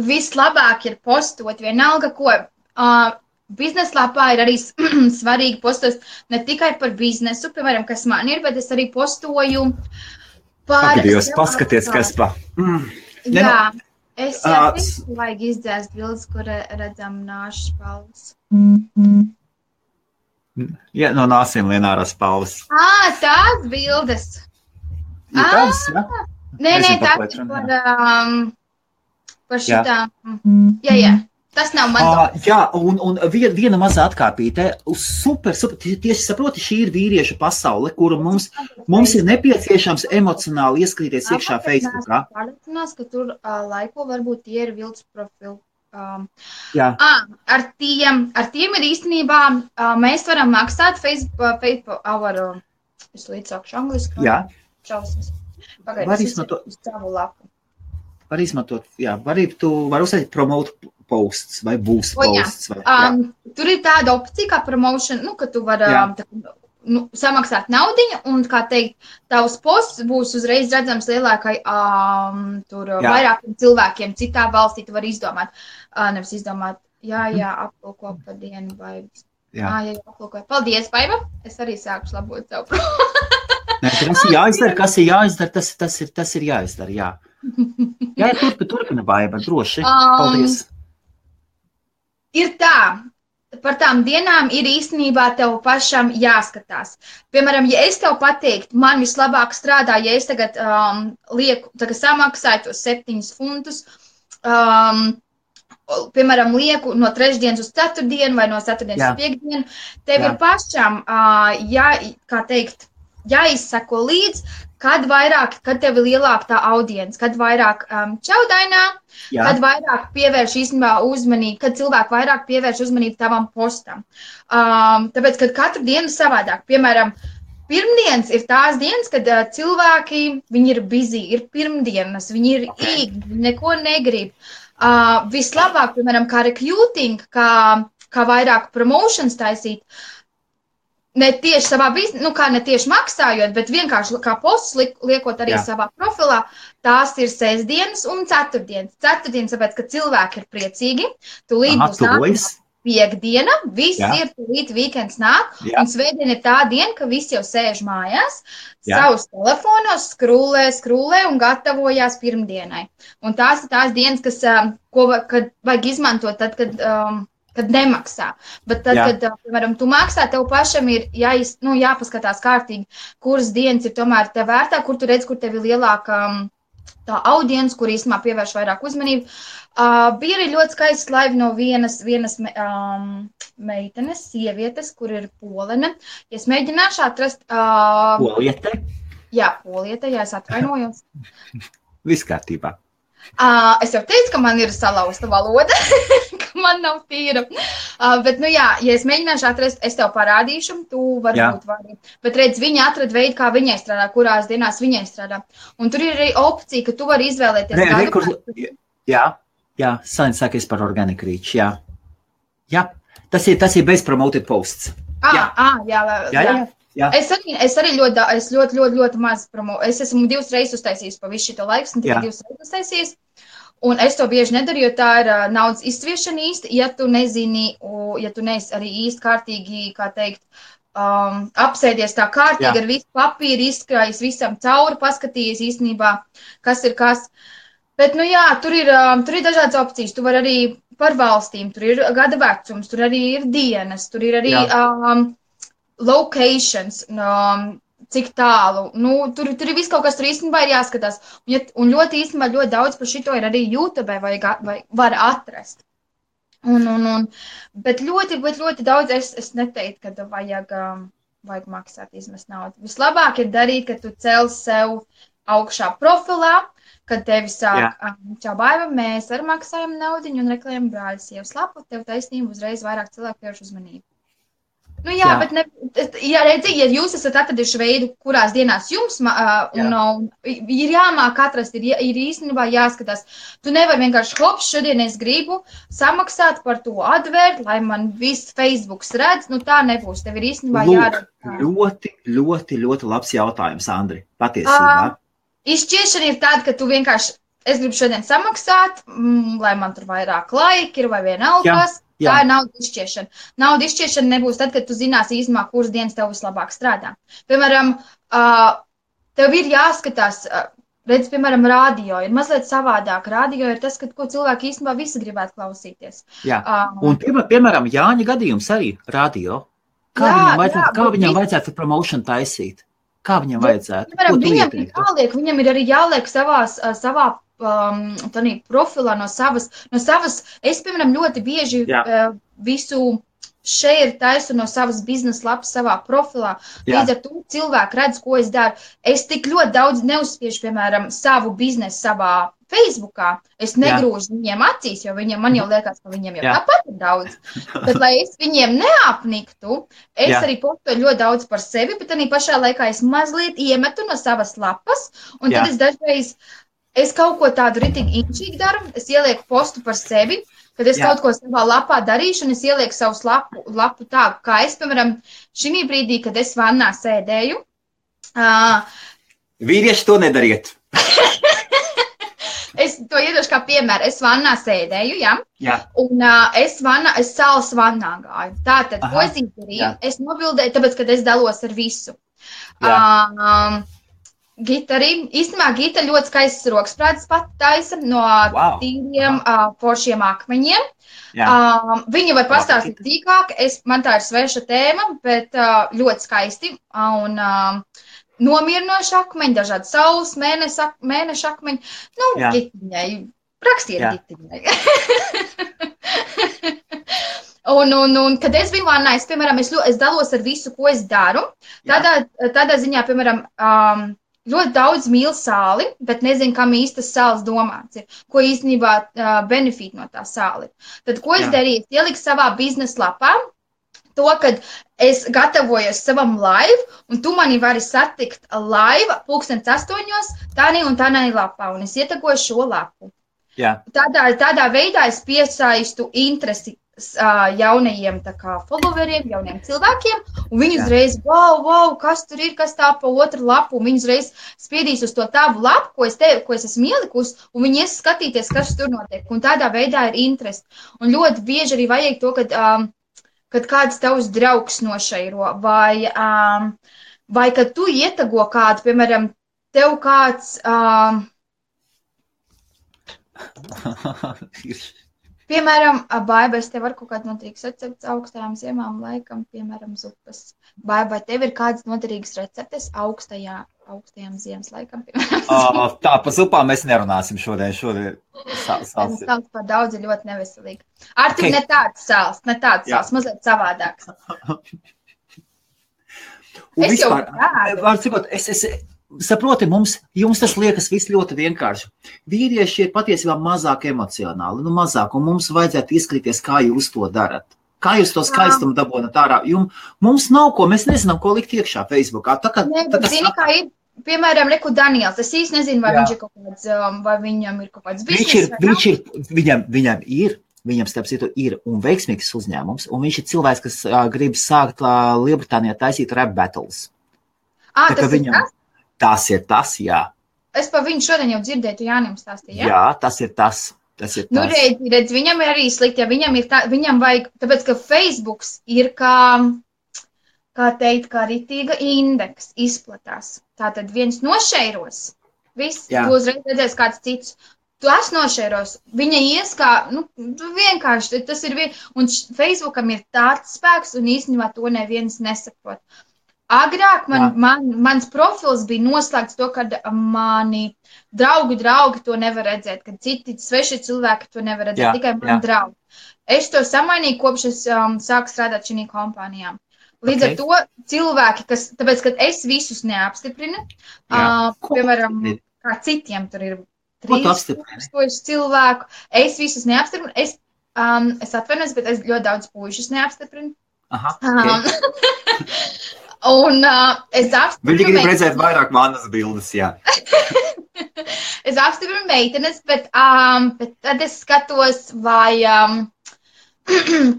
vislabāk ir postot vienalga, ko... Biznesa lapā ir arī svarīgi postot ne tikai par biznesu, piemēram, kas man ir, bet es arī postoju Pagaidījos, paskaties, kas pa. Jā, es vajag izdzēst bildes, kur redzam nāšu spalvas. Jā, no nāsiem lienārās spalvas. Tās bildes. Ir tādas, jā? Nē, tā ir par šitām. Jā. Tas nav man. Jā, un viena mazā atkāpīte. Super. Tieši saproti, šī ir vīriešu pasaule, kuru mums ir nepieciešams emocionāli ieskrīties iekšā Facebookā. Pārliecinās, ka tur laiko varbūt tie ir vilts profili. Jā. Ar tiem ir īstenībā, mēs varam maksāt Facebook es līdzsākšu angliski. Jā. Šausmas. Pagaidās uz savu lapu. Var izmantot, jā, tu vari uzsākt promote posts vai boost posts. Tur ir tāda opcija kā promotion, ka tu vari samaksāt naudiņu un, kā teikt, tavs posts būs uzreiz redzams lielākai vairākiem cilvēkiem citā valstī. Tu vari izdomāt, nevis izdomāt, aplūko par dienu vai... Jā, aplūko. Paldies, Baiba. Es arī sākušu labot savu Nē, tas ir jāizdara, kas ir jāizdara, tas ir jāizdara, jā. Jā, turpina Baiba, droši. Paldies. Ir tā, par tām dienām ir īstenībā tev pašam jāskatās. Piemēram, ja es tev pateiktu, man vislabāk strādā, ja es tagad samaksāju tos 7 funtus, piemēram, lieku no 3 uz 4 vai no 4 uz 5 dienu, tev ir pašam, jāizsako līdz, kad tev ir lielāka tā audience, kad vairāk čaudainā, kad vairāk pievērš īstenībā uzmanību, kad cilvēki vairāk pievērš uzmanību tavam postam. Tāpēc, kad katru dienu savādāk, piemēram, pirmdienas ir tās dienas, kad cilvēki, viņi ir busy, ir pirmdienas, viņi ir īgi, viņi neko negrib. Vislabāk, piemēram, kā recruiting, kā vairāk promotions taisīt, ne tieši savā biznesā, ne tieši maksājot, bet vienkārši kā posts liekot arī savā profilā, tās ir sestdienas un ceturtdienas. Ceturtdienas, tāpēc, ka cilvēki ir priecīgi, tūlīt būs nākamā piekdiena, viss ir tūlīt weekends nāk, un svētdiena ir tā diena, ka visi jau sēž mājās, savus telefonos, skrūlē un gatavojās pirmdienai. Un tās ir tās dienas, kad vajag izmantot tad, kad nemaksā. Bet tad, kad, piemēram, tu maksā, tev pašam ir jāpaskatās kārtīgi, kuras dienas ir tomēr tev vērtā, kur tu redz, kur tev ir lielāka tā audience, kur īstenībā pievērš vairāk uzmanību. Bija arī ļoti skaists live no vienas meitenes, sievietes, kur ir polene. Ja es mēģināšu atrast... Poliete? Jā, poliete, es atvainojos. Viss kārtībā. Es jau teicu, ka man ir salauzta valoda, ka man nav tīra. Bet, ja es mēģināšu atrast, es tev parādīšu, tu varbūt vari. Bet redz, viņa atrada veidu, kā viņai strādā, kurās dienās viņai strādā. Un tur ir arī opcija, ka tu vari izvēlēties Saņem sākies par organic reach, jā. Tas ir bez promoted posts. Jā. Es arī ļoti maz promotu. Es esmu 2 reizes uztaisījis pa visu šito laiku, un tikai 2 reizes uztaisījis. Un es to bieži nedaru, jo tā ir naudas izsviešana īsti, ja tu nezini, ja tu neesi arī īsti kārtīgi, kā teikt, apsēdies tā kārtīgi ar visu papīru, izkrājis visam cauri, paskatījies īstenībā, kas ir kas. Bet, tur ir dažādas opcijas. Tu vari arī par valstīm, tur ir gada vecums, tur arī ir dienas, tur ir arī locations, cik tālu. Tur ir viss kaut kas, tur īstenībā ir jāskatās. Un ļoti īstenībā ļoti daudz par šito ir arī YouTube vai var atrast. Bet ļoti daudz es neteiktu, ka vajag maksāt, izmest naudu. Vislabāk ir darīt, ka tu cel sev augšā profilā, kad tevi sāk, čau Baiba, mēs arī maksājam naudiņu un reklējam brāļas sievas lapu, tev taisnība uzreiz vairāk cilvēku pievērš uzmanību. Bet redzi, ja jūs esat atraduši veidu, kurās dienās jums ir jāmāk atrast, ir īstenībā jāskatās. Tu nevari vienkārši, šodien es gribu samaksāt par to advērt, lai man viss Facebooks redz, tā nebūs. Tev ir īstenībā jāredz. Ļoti labs jautājums, Andri, patiesībā. Izšķiešana ir tāda, ka tu vienkārši, es gribu šodien samaksāt, lai man tur vairāk laika ir vai vienalgas. Tā ir naudas izšķiešana. Naudas izšķiešana nebūs tad, kad tu zinās īstenībā, kuras dienas tev vislabāk strādā. Piemēram, tev ir jāskatās, redz, piemēram, radio ir mazliet savādāk. Radio ir tas, ko cilvēki īstenībā visi gribētu klausīties. Jā, un piemēram, Jāņa gadījums arī radio. Kā viņam vajadzētu promotion taisīt? Kā viņam vajadzētu? Piemēram, viņam ir arī jāliek savā profilā no savas. Es, piemēram, ļoti bieži visu share taisu no savas biznesa lapas savā profilā. Līdz ar to cilvēki redz, ko es daru. Es tik ļoti daudz neuzspiežu, piemēram, savu biznesu savā Facebookā. Es negrūžu viņiem acīs, jo man jau liekas, ka viņiem jau tāpat ir daudz. Tad, lai es viņiem neapniktu, es arī postoju ļoti daudz par sevi, bet arī pašā laikā es mazliet iemetu no savas lapas, un tad es dažreiz kaut ko tādu ritīgi inčīgi daru, es ielieku postu par sevi, kad es kaut ko savā lapā darīšu, un es ielieku savus lapu tā, kā es, piemēram, šī brīdī, kad es vannā sēdēju. Vīrieši to nedariet. Es to iedošu kā piemēru. Es vannā sēdēju, un es salas vannā gāju. Tātad, ko es izdarīju? Es nobildēju, tāpēc, kad es dalos ar visu. Gita arī. Īstenībā Gita ļoti skaistas roksprādes pat taisa no tīriem foršiem akmeņiem. Viņa var pastāstīt tīkāk. Man tā ir sveša tēma, bet ļoti skaisti. Un nomierinoši akmeņi, dažādi saules, mēneša akmeņi. Nu, Gitiņai. Rakstiet Gitiņai. Un kad es biju vannā, piemēram, es dalos ar visu, ko es daru. Tādā ziņā, piemēram, ļoti daudz mīl sāli, bet nezinu, kam īstas sāls domāts ir, ko īstenībā benefīt no tā sāli. Tad, ko es darīju? Es ieliku savā biznesa lapā to, kad es gatavojos savam live, un tu mani vari satikt live 8:00 tādī un tādī lapā, un es ietegoju šo lapu. Tādā veidā es piesaistu interesi jaunajiem followeriem, jauniem cilvēkiem, un viņi uzreiz, wow, kas tur ir, kas tā pa otru lapu, un viņi uzreiz spiedīs uz to tavu lapu, ko es esmu ielikus, un viņi ies skatīties, kas tur notiek, un tādā veidā ir interesi. Un ļoti bieži arī vajag to, kad kāds tavs draugs nošairo, vai kad tu ietago kādu, piemēram, tev kāds... Piemēram, Baiba, es tev varu kaut kāds noderīgs recepts augstajām ziemām laikam, piemēram, zupas. Baiba, vai tev ir kāds noderīgs receptes augstajām ziemas laikam, piemēram? Tā, pa zupām mēs nerunāsim šodien. Sāls par daudz ir ļoti neveselīgi. Artur, ne tāds sāls, mazliet savādāks. Es jau tādu. Saproti, jums tas liekas viss ļoti vienkārši. Vīrieši ir patiesībā mazāk emocionāli, mazāk, un mums vajadzētu izskatīties, kā jūs to darat. Kā jūs to skaistumu dabonat ārā? Mums nav ko, mēs nezinām, ko likt iekšā Facebookā. Zini, kā ir, piemēram, Reku Daniels, es īsti nezinu, vai viņš ir kaut kāds, vai viņam ir kaut kāds biznes. Viņam starp citu ir un veiksmīgs uzņēmums, un viņš ir cilvēks, kas grib sākt Lielbritānijā taisīt rap battles. Tas ir tas, jā. Es par viņu šodien jau dzirdēju, tu Jānim stāstīji, jā? Jā, tas ir tas. Nu, redz, viņam ir arī slikti, ja viņam vajag, tāpēc, ka Facebooks ir kā ritīga indeks izplatās. Tātad viens nošeiros, viss, tu uzreiz redzēs kāds cits. Tu esi nošeiros, viņa ies kā, vienkārši, tas ir un Facebookam ir tāds spēks, un īstenībā to neviens nesaprot. Agrāk mans profils bija noslēgts to, kad mani draugi to nevar redzēt, kad citi sveši cilvēki to nevar redzēt, tikai mani draugi. Es to samainīju, kopš es sāku strādāt šī kompānijā. Līdz ar to cilvēki, tāpēc, kad es visus neapstiprinu, piemēram, kā citiem tur ir 3000 cilvēku, es visus neapstiprinu, es atvainojos, bet es ļoti daudz puišus neapstiprinu. Un es apstiprinu... Viņi grib redzēt vairāk manas bildes, jā. Es apstiprinu meitenes, bet tad es skatos, vai...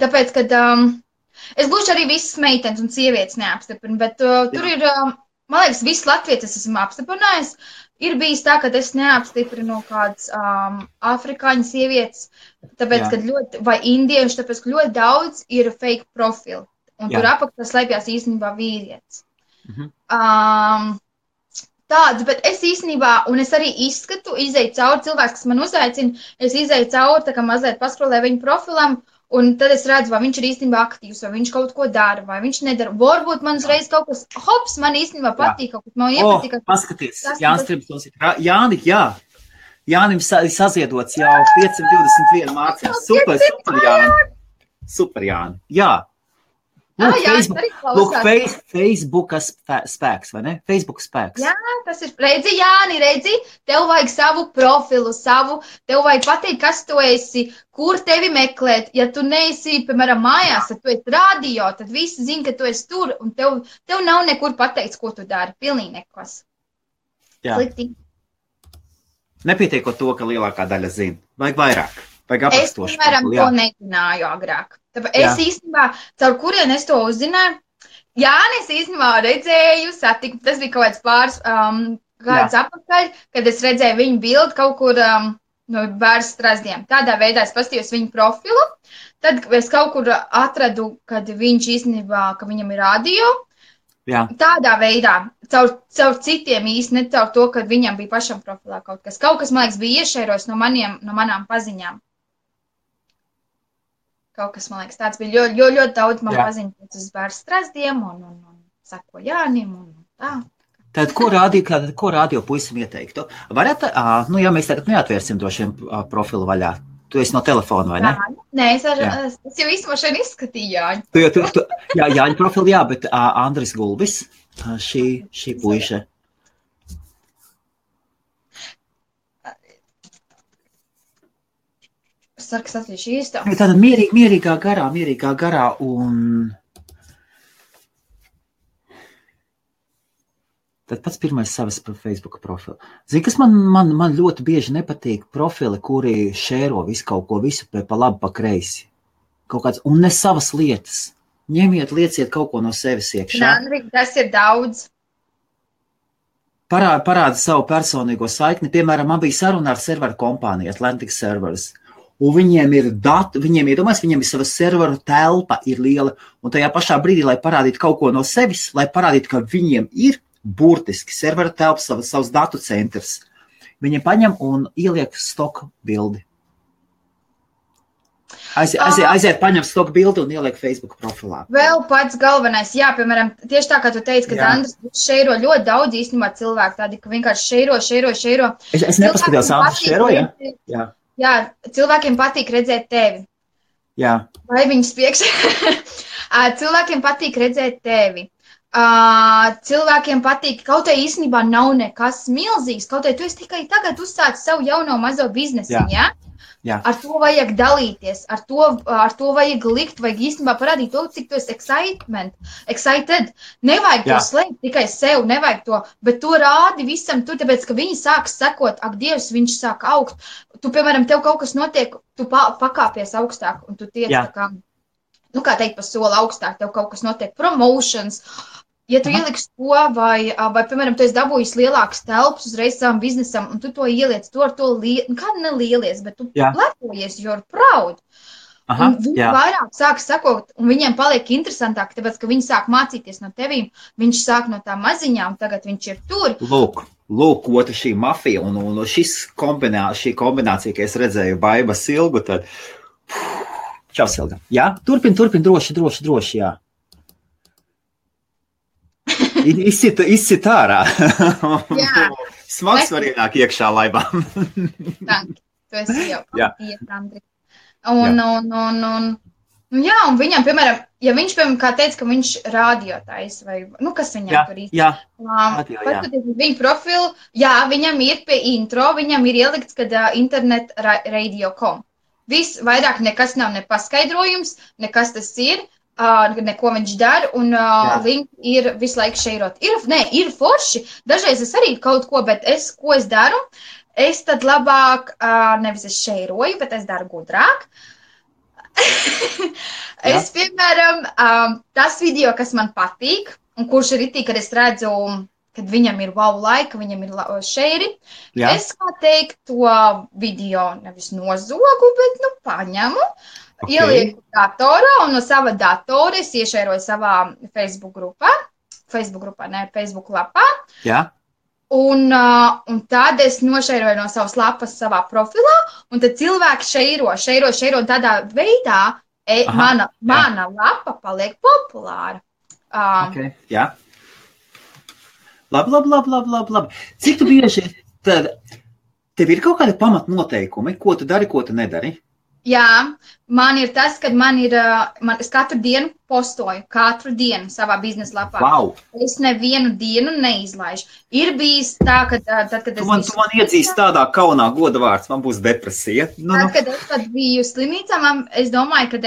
tāpēc, kad... es gluži arī visas meitenes un sievietes neapstiprinu, bet tur ir... man liekas, visas latvietes esmu apstiprinājis. Ir bijis tā, ka es neapstiprinu kādas afrikāņu sievietes, tāpēc, kad ļoti... vai indieši, tāpēc, ka ļoti daudz ir fake profili. Un tur apakšā slēpjās īstenībā vīrietis. tāds, bet es īstenībā, un es arī izskatu, izēju cauri cilvēks, kas man uzaicina, es izēju cauri, tā kā mazliet paskrolēju viņu profilam, un tad es redzu, vai viņš ir īstenībā aktīvs, vai viņš kaut ko dara, vai viņš nedara. Varbūt man uzreiz kaut kas, hops, man īstenībā patīk, kaut kas man iepatīk. Paskaties, Jānis Tribsons ir, Jāni, jā. Jānim saziedots jau 521 mārciņas. Super, Jāni. Super, Jāni. Jā. Lūk, Facebooka spēks, vai ne? Facebook spēks. Jā, tas ir, redzi, Jāni, tev vajag savu profilu, tev vajag pateikt, kas tu esi, kur tevi meklēt. Ja tu neesi, piemēram, mājās, tad tu esi radio, tad visi zina, ka tu esi tur, un tev nav nekur pateikt, ko tu dari. Pilnīgi nekas. Jā. Slikti. Nepietiekot to, ka lielākā daļa zina. Vajag vairāk. Vajag aprakstošu. Es, piemēram, to nezināju agrāk. Tāpēc es īstenībā, caur kurien es to uzzināju, Jāni, es īstenībā redzēju, satiku, tas bija kaut kāds pāris gadus apakaļ, kad es redzēju viņu bildi kaut kur no bērnu strazdiem. Tādā veidā es paskatījos viņu profilu, tad es kaut kur atradu, kad viņš īstenībā, ka viņam ir radio. Jā. Tādā veidā, caur citiem īsti, ne caur to, ka viņam bija pašam profilā kaut kas. Kaut kas, man liekas, bija iešēros no manām paziņām. Kaut kas, man liekas, tāds bija ļoti daudz man paziņot uz bērnu strazdiem un sako Jānim un tā. Tad, ko radio puisim ieteiktu? Varat, jā, mēs tagad neatvērsim to šiem profilu vaļā. Tu esi no telefona, vai ne? Nē, es jau īstenībā šeit izskatīju Jāņu. Jā, Jāņu profilu, jā, bet Andris Gulbis, šī puiša. Es ceru, ka es atvīšu īsto. Tāda mierīgā garā un... Tad pats pirmais savas Facebook profilu. Zini, kas man ļoti bieži nepatīk profili, kuri šēro visu kaut ko, visu pa labi, pa kreisi. Kaut kāds, un ne savas lietas. Ņemiet, lieciet kaut ko no sevis iekšā. Tas ir daudz. Parāda savu personīgo saikni. Piemēram, man bija saruna ar serveru kompāniju, Atlantic Servers. Un viņiem ir dati, viņiem ir sava serveru telpa ir liela. Un tajā pašā brīdī, lai parādītu kaut ko no sevis, lai parādītu, ka viņiem ir burtiski servera telpa, savs datu centrs. Viņi paņem un ieliek stoku bildi. Aiziet, paņem stoku bildi un ieliek Facebook profilā. Vēl pats galvenais, jā, piemēram, tieši tā, kā tu teici, ka Andris šeiro ļoti daudz īstenībā cilvēku, tādi, ka vienkārši šeiro. Es nepaskatījos, Andris šeiro, jā? Jā, cilvēkiem patīk redzēt tevi. Jā. Vai viņas priekš? Cilvēkiem patīk redzēt tevi. Cilvēkiem patīk, kaut vai īstenībā nav nekas milzīgs, kaut vai tu esi tikai tagad uzsācis savu jauno mazo biznesu, jā? Jā. Ar to vajag dalīties, ar to vajag likt, vajag īstenībā parādīt to, cik tu esi excited. Nevajag to slēgt tikai sev, nevajag to, bet to rādi visam tur, tāpēc, ka viņi sāk sekot, ak, Dievs, viņš sāk augt. Tu, piemēram, tev kaut kas notiek, tu pakāpies augstāk, un tu tiec tā kā, kā teikt, pa soli augstāk, tev kaut kas notiek, promotions. Ja tu ieliksi to, vai, piemēram, tu esi dabūjis lielākas telpas uzreiz savam biznesam, un tu to ieliec, tu ar to kādu nelielies, bet tu lepojies, you're proud. Un viņi vairāk sāk sakot, un viņiem paliek interesantāk, tāpēc, ka viņi sāk mācīties no tevīm, viņš sāk no tā maziņām, tagad viņš ir tur. Lūk, otra šī mafija, un šī kombinācija, ka es redzēju Baiba Silgu, tad, čau Silga, jā? Turpin, droši, jā. Izcit ārā. Smags var ienāk iekšā laibām. Tanki, tu esi jau iet, Andri. Un viņam, piemēram, ja viņš, piemēram, kā teica, ka viņš rādiotais, vai, kas viņam tur īsti? Paskatīt viņu profilu, viņam ir pie intro, viņam ir ielikts, kad internet radio.com. Viss vairāk nekas nav nepaskaidrojums, nekas tas ir. Neko viņš dara, un link ir visu laiku šeirot. Ir forši. Dažreiz es arī kaut ko, bet ko es daru? Es tad labāk, nevis es šeiroju, bet es daru gudrāk. Es, piemēram, tas video, kas man patīk, un kurš ir itī, kad es redzu, kad viņam ir wow laika, viņam ir šeiri, es, kā teikt, to video nevis nozogu, bet, paņemu. Okay. Ielieku datorā, un no sava datora es iešēroju savā Facebook lapā. Jā. Un tad es nošeiroju no savas lapas savā profilā, un tad cilvēki šeiro, un tādā veidā mana lapa paliek populāra. Okay, jā. Labi. Cik tu bieži, tev ir kaut kādi pamatnoteikumi, ko tu dari, ko tu nedari? Jā, man ir tas, ka es katru dienu postoju, katru dienu savā biznesa lapā. Wow. Es nevienu dienu neizlaižu. Ir bijis tā, ka tad, kad es... Tu man iedzīsi tādā kaunā goda vārds, man būs depresija. Kad es biju slimnīcā, es domāju, ka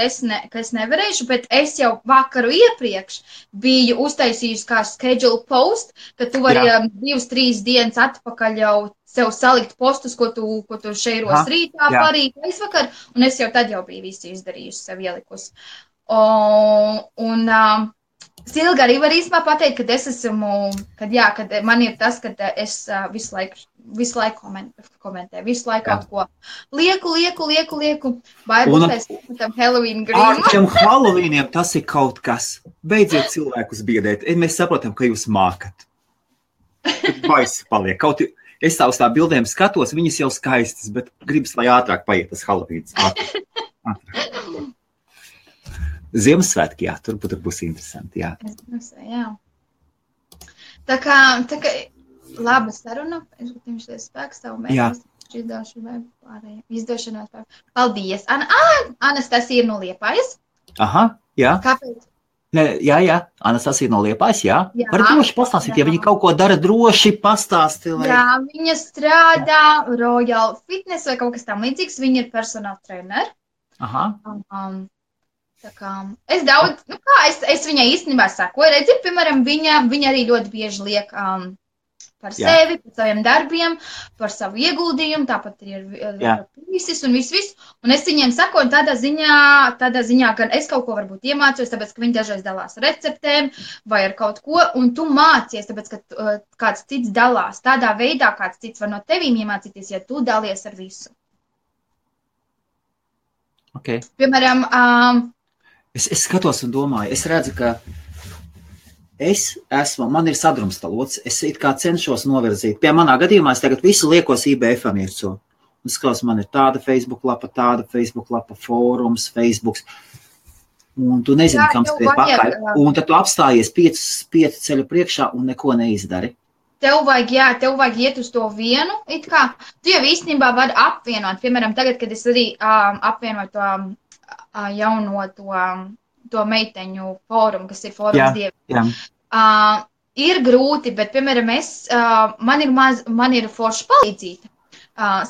es nevarēšu, bet es jau vakaru iepriekš biju uztaisījusi kā schedule post, ka tu vari 2-3 dienas atpakaļ jau sev salikt postus, ko tu šeiros rītā, parīt, aizvakar, un es jau tad jau biju visu izdarījusi, sev ielikusi. Silga arī var īstenībā pateikt, kad es esmu, kad man ir tas, kad es visu laiku komentēju, visu laiku kaut ko lieku, vai būs tam Halloween grīmu. Ar šiem Halloweeniem tas ir kaut kas. Beidziet cilvēkus biedēt. Mēs saprotam, ka jūs mākat. Baisi paliek. Kaut es tā uz tā bildēm skatos, viņas jau skaistas, bet gribas, lai ātrāk paiet tas Halloweens. Ātrāk. Ziemassvētki, jā, tur būs interesanti, jā. Jā. Tā kā laba saruna, es gribētu šeit spēks tavu mērķis, izdošanās pārējiem. Paldies. Anastasija ir no Liepājas. Aha, jā. Kāpēc? Jā, Anastasija no Liepājas, jā. Var droši pastāstīt, ja viņa kaut ko dara, droši pastāsti. Lai... Jā, viņa strādā Royal Fitness vai kaut kas tam līdzīgs, viņa ir personal trainer. Aha. Tā kā es daudz, es viņai īstenībā sakoju, redzi, piemēram, viņa arī ļoti bieži liek par sevi, par saviem darbiem, par savu ieguldījumu, tāpat ir visis un viss. Un es viņiem sakoju tādā ziņā, gan es kaut ko varbūt iemācos, tāpēc, ka viņi dažreiz dalās receptēm vai ar kaut ko, un tu mācies, tāpēc, ka kāds cits dalās. Tādā veidā kāds cits var no tevīm iemācīties, ja tu dalies ar visu. Okay. Piemēram, Es skatos un domāju, es redzu, ka man ir sadrumstalots, es it kā cenšos novirzīt. Pie manā gadījumā es tagad visu liekos IBF-am iekso. Un skatos, man ir tāda Facebook lapa, fórums, Facebooks. Un tu nezini, kam skriet pakaļ. Un tad tu apstājies 5 ceļu priekšā un neko neizdari. Tev vajag iet uz to vienu, it kā. Tu jau īstenībā vari apvienot. Piemēram, tagad, kad es arī apvienoju to jauno to meiteņu fórumu, kas ir fórums dieviem. Ir grūti, bet, piemēram, man ir forša palīdzīta,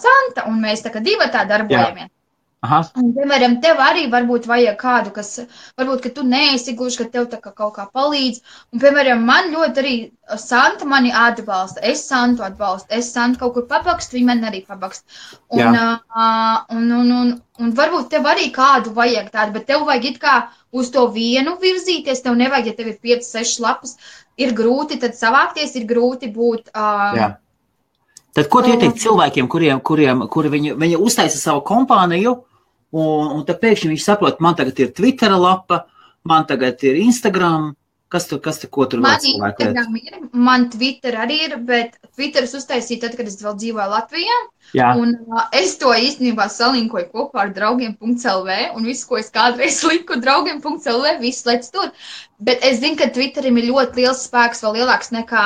Santa, un mēs tā kā divatā darbojamies. Aha. Un, piemēram, tev arī varbūt vajag kādu, kas, varbūt, ka tu neesi gluži, ka tev tā kā kaut kā palīdz. Un, piemēram, man ļoti arī Santa mani atbalsta, es Santu atbalstu, es Santu kaut kur pabakstu, viņa man arī pabakst. Un varbūt tev arī kādu vajag tādu, bet tev vajag it kā uz to vienu virzīties, tev nevajag, ja tev ir 5-6 lapas, ir grūti tad savākties, ir grūti būt... Tad ko tu ieteikt cilvēkiem, kuri viņi uztaisa savu kompāniju, un tad pēkšņi viņš saprot, man tagad ir Twittera lapa, man tagad ir Instagram, ko tur vēl cilvēku liet? Man Twitter arī ir, bet Twitteris uztaisīja tad, kad es vēl dzīvoju Latvijā. Jā. Un es to īstenībā salinkoju kopā ar draugiem.lv, un visu, ko es kādreiz liku draugiem.lv, viss lec tur. Bet es zinu, ka Twitterim ir ļoti liels spēks, vēl lielāks nekā...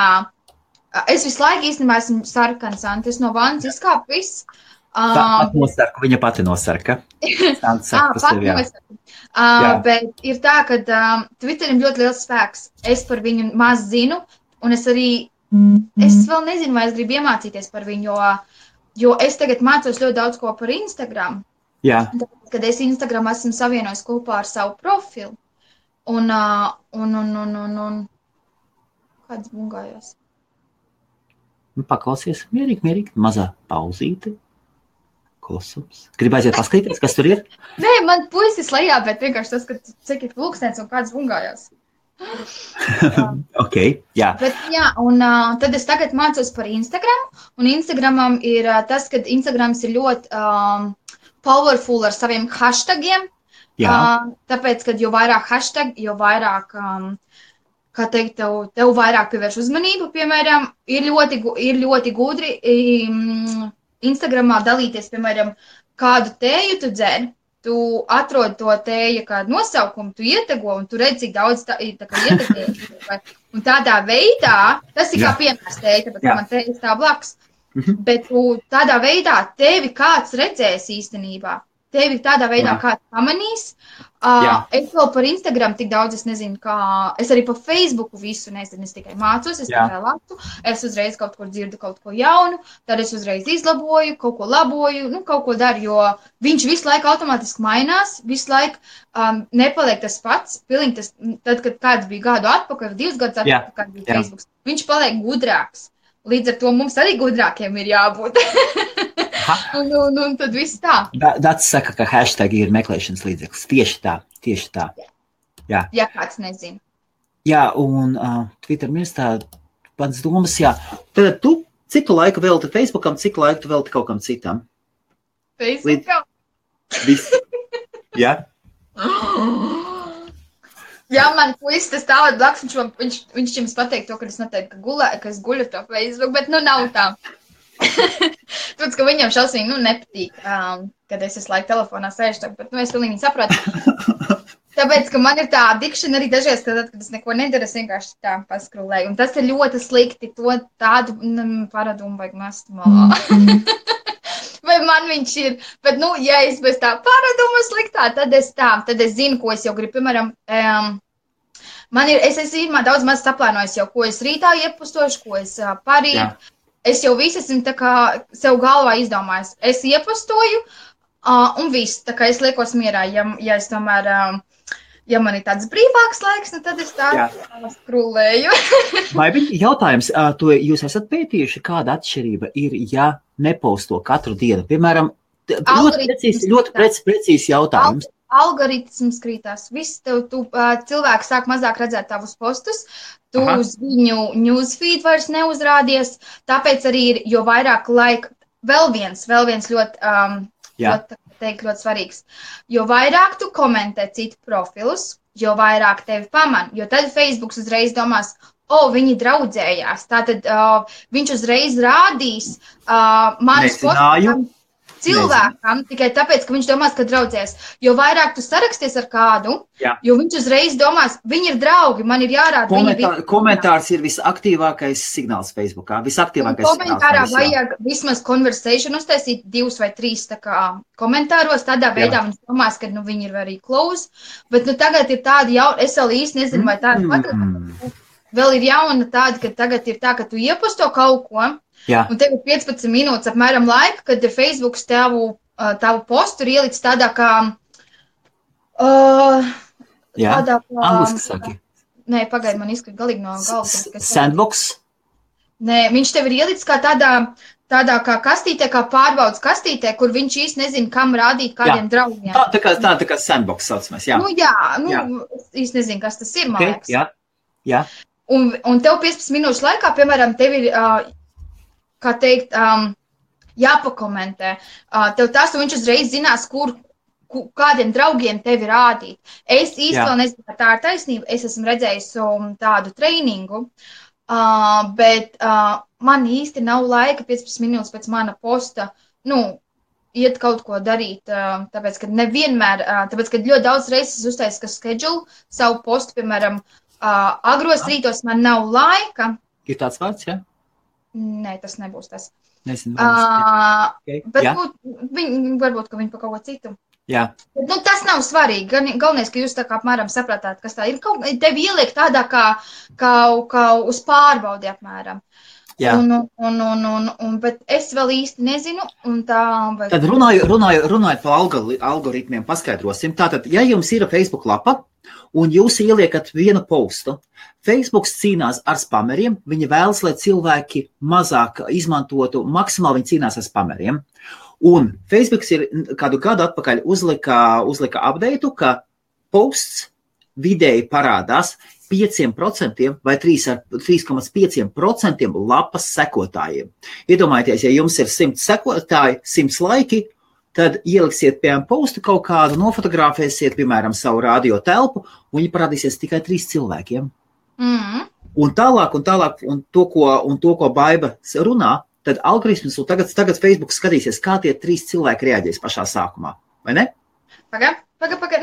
Es visu laiku īstenībā esmu sarkans, es no vannas izkāpu viss. Viņa pati nosarka. Bet ir tā, ka Twitterim ļoti liels spēks. Es par viņu maz zinu, un es vēl nezinu, vai es gribu iemācīties par viņu, jo es tagad mācos ļoti daudz ko par Instagram. Jā. Kad es Instagram esmu savienojis kopā ar savu profilu. Un kāds bungājos? Paklausies mierīgi, mazā pauzīte, klusums. Gribu aiziet paskatīties, kas tur ir? Nē, man puisis lejā, bet vienkārši tas, ka cik ir pulkstens un kāds bungājās. Ok, jā. Bet jā, un tad es tagad mācos par Instagram, un Instagramam ir tas, ka Instagrams ir ļoti powerful ar saviem hashtagiem. Jā. Tāpēc, kad jo vairāk hashtag, jo vairāk kā teikt, tev vairāk pievērš uzmanību, piemēram, ir ļoti gudri Instagramā dalīties, piemēram, kādu tēju tu dzer, tu atrod to tēju kādu nosaukumu, tu ietego, un tu redz, cik daudz tā kā ietegoja. Un tādā veidā, tas ir kā piemērs tēja, tāpēc man tēja stāv blakus, bet tādā veidā tevi kāds redzēs īstenībā. Tevi tādā veidā kāds pamanīs. Es vēl par Instagram tik daudz, es nezinu, es arī par Facebooku visu nezinu, es tikai mācos, es tikai lasu, es uzreiz kaut kur dzirdu kaut ko jaunu, tad es uzreiz izlaboju, kaut ko laboju, kaut ko daru, jo viņš visu laiku automātiski mainās, visu laiku nepaliek tas pats, pilnīgi tas, tad, kad kāds bija gadu atpakaļ, 2 gadus atpakaļ, kad bija Facebooks, viņš paliek gudrāks. Līdz ar to mums arī gudrākiem ir jābūt. Un tad viss tā. Dats saka, ka hashtag ir meklēšanas līdzeklis. Tieši tā. Jā. Ja kāds nezina. Jā, un Twitter mirstā pats domas, jā. Tad tu, cik tu laiku velti Facebookam, cik laiku tu velti kaut kam citam? Facebookam? Viss. Jā. Jā, man puisis tas tālāk blakus, viņš jums pateikt to, ka es noteikti, ka es guļu to Facebook, bet nav tā. Tāpēc, ka viņam šausmīgi, nepatīk, kad es laiku telefonā sēžu, bet, es pilnīgi saprotu. Tāpēc, ka man ir tā adikšana arī dažreiz, kad es neko nedaru, es vienkārši tā paskrulēju. Un tas ir ļoti slikti, to tādu paradumu vajag mest malā. Vai man viņš ir, bet, ja es bez tā paraduma sliktā, tad es zinu, ko es jau gribu, piemēram, es esmu daudz maz saplānojis jau, ko es rītā iepostošu, ko es parīt, es jau visu esmu tā kā sev galvā izdomājis, es iepostoju, un viss, tā kā es liekos mierā, ja es tomēr, ja man ir tāds brīvāks laiks, tad es tā skrulēju. Vai jautājums, jūs esat pētījuši, kāda atšķirība ir, ja neposto katru dienu? Piemēram, ļoti precīzi jautājums. Algoritms krītās. Viss cilvēki sāk mazāk redzēt tavus postus, tu uz viņu newsfeed vairs neuzrādies, tāpēc arī ir, jo vairāk laika, vēl viens ļoti svarīgs, jo vairāk tu komentē citu profilus, jo vairāk tevi paman, jo tad Facebooks uzreiz domās, viņi draudzējās, tātad viņš uzreiz rādīs manus postus cilvēkam, tikai tāpēc, ka viņš domās, ka draudzēs. Jo vairāk tu saraksties ar kādu, jo viņš uzreiz domās, viņi ir draugi, man ir jārāda. Komentārs ir visaktīvākais signāls Facebookā. Komentārā vajag vismaz conversation uztaisīt 2 vai 3 tā kā komentāros, tādā veidā viņš domās, ka viņi ir arī close, bet tagad ir tādi es vēl īsti nezinu, vai tādi patīk. Vēl ir jauna tāda, ka tagad ir tā, ka tu ieposto kaut ko, un tev ir 15 minūtes apmēram laika, kad Facebooks tavu postu ir ielicis tādā kā... Angliski saki. Nē, pagaid, man izkrīt galīgi no galvas. Sandbox? Nē, viņš tev ir ielicis kā tādā kā kastītē, kā pārbaudas kastītē, kur viņš īsti nezina, kam rādīt kādiem draugiem. Tā kā sandbox saucamais, jā. Īsti nezinu, kas tas ir, man liekas. Jā. Un tev 15 minūšu laikā, piemēram, tev ir, kā teikt, jāpakomentē. Tev tas, un viņš uzreiz zinās, kādiem draugiem tevi rādīt. Es īsti vēl nezinu, ka tā ir taisnība. Es esmu redzējis tādu treiningu, bet man īsti nav laika 15 minūtes pēc mana posta, iet kaut ko darīt, tāpēc, ka nevienmēr, tāpēc, ka ļoti daudz reizes uztaisīju, ka schedule savu postu, piemēram, agros rītos man nav laika. Ir tāds vārds, jā? Nē, tas nebūs tas. Nezinu. Bet varbūt, ka viņi pa kaut ko citu. Jā. Bet, tas nav svarīgi. Galvenais, ka jūs tā kā apmēram saprātāt, kas tā ir. Tevi ieliek tādā kā uz pārbaudi apmēram. Jā. Bet es vēl īsti nezinu. Tad runājot par algoritmiem, paskaidrosim. Tātad, ja jums ir Facebook lapa, un jūs ieliekat vienu postu, Facebooks cīnās ar spameriem, viņi vēlas, lai cilvēki mazāk izmantotu, maksimāli viņi cīnās ar spameriem. Un Facebooks ir kādu gadu atpakaļ uzlika updateu, ka posts vidēji parādās 5% vai 3,5% lapas sekotājiem. Iedomājieties, ja jums ir 100 sekotāji, 100 laiki, tad ieliksiet, piemēram, postu kaut kādu, nofotografēsiet, piemēram, savu radio telpu, un viņi parādīsies tikai 3 cilvēkiem. Un tālāk, un to, ko Baiba runā, tad algoritms, un tagad Facebook skatīsies, kā tie 3 cilvēki reaģēs pašā sākumā, vai ne? Paga,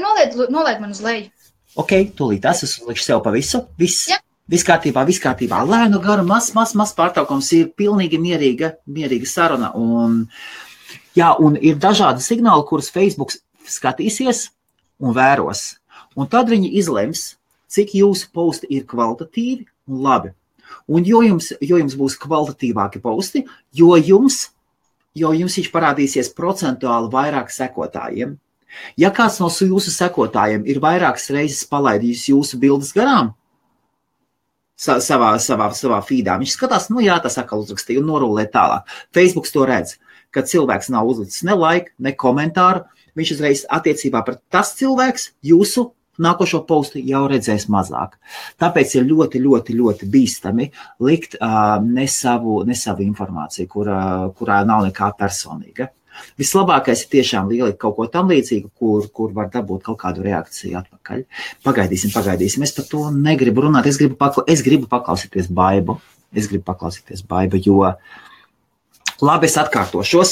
nolaid man uz leju. Ok, tūlīt es uzlikšu sev pa visu, viss kārtībā, lēnu garu, maz pārtraukums, ir pilnīgi mierīga saruna, un ir dažādi signāli, kurus Facebook skatīsies un vēros, un tad viņi izlems, cik jūsu posti ir kvalitatīvi un labi. Un jo jums būs kvalitatīvāki posti, jo jums viņš parādīsies procentuāli vairāk sekotājiem. Ja kāds no jūsu sekotājiem ir vairākas reizes palaidījis jūsu bildes garām savā feedā, viņš skatās, tas atkal uzrakstīja un norulē tālāk. Facebook to redz, kad cilvēks nav uzlicis ne like, ne komentāru, viņš uzreiz attiecībā par tas cilvēks jūsu nākošo postu jau redzēs mazāk. Tāpēc ir ļoti bīstami likt ne savu informāciju, kurā nav nekā personīga. Vislabākais ir tiešām ielikt kaut ko tam līdzīgu, kur var dabūt kaut kādu reakciju atpakaļ. Pagaidīsim. Es par to negribu runāt. Es gribu paklausīties Baibu. Jo labi, es atkārtošos.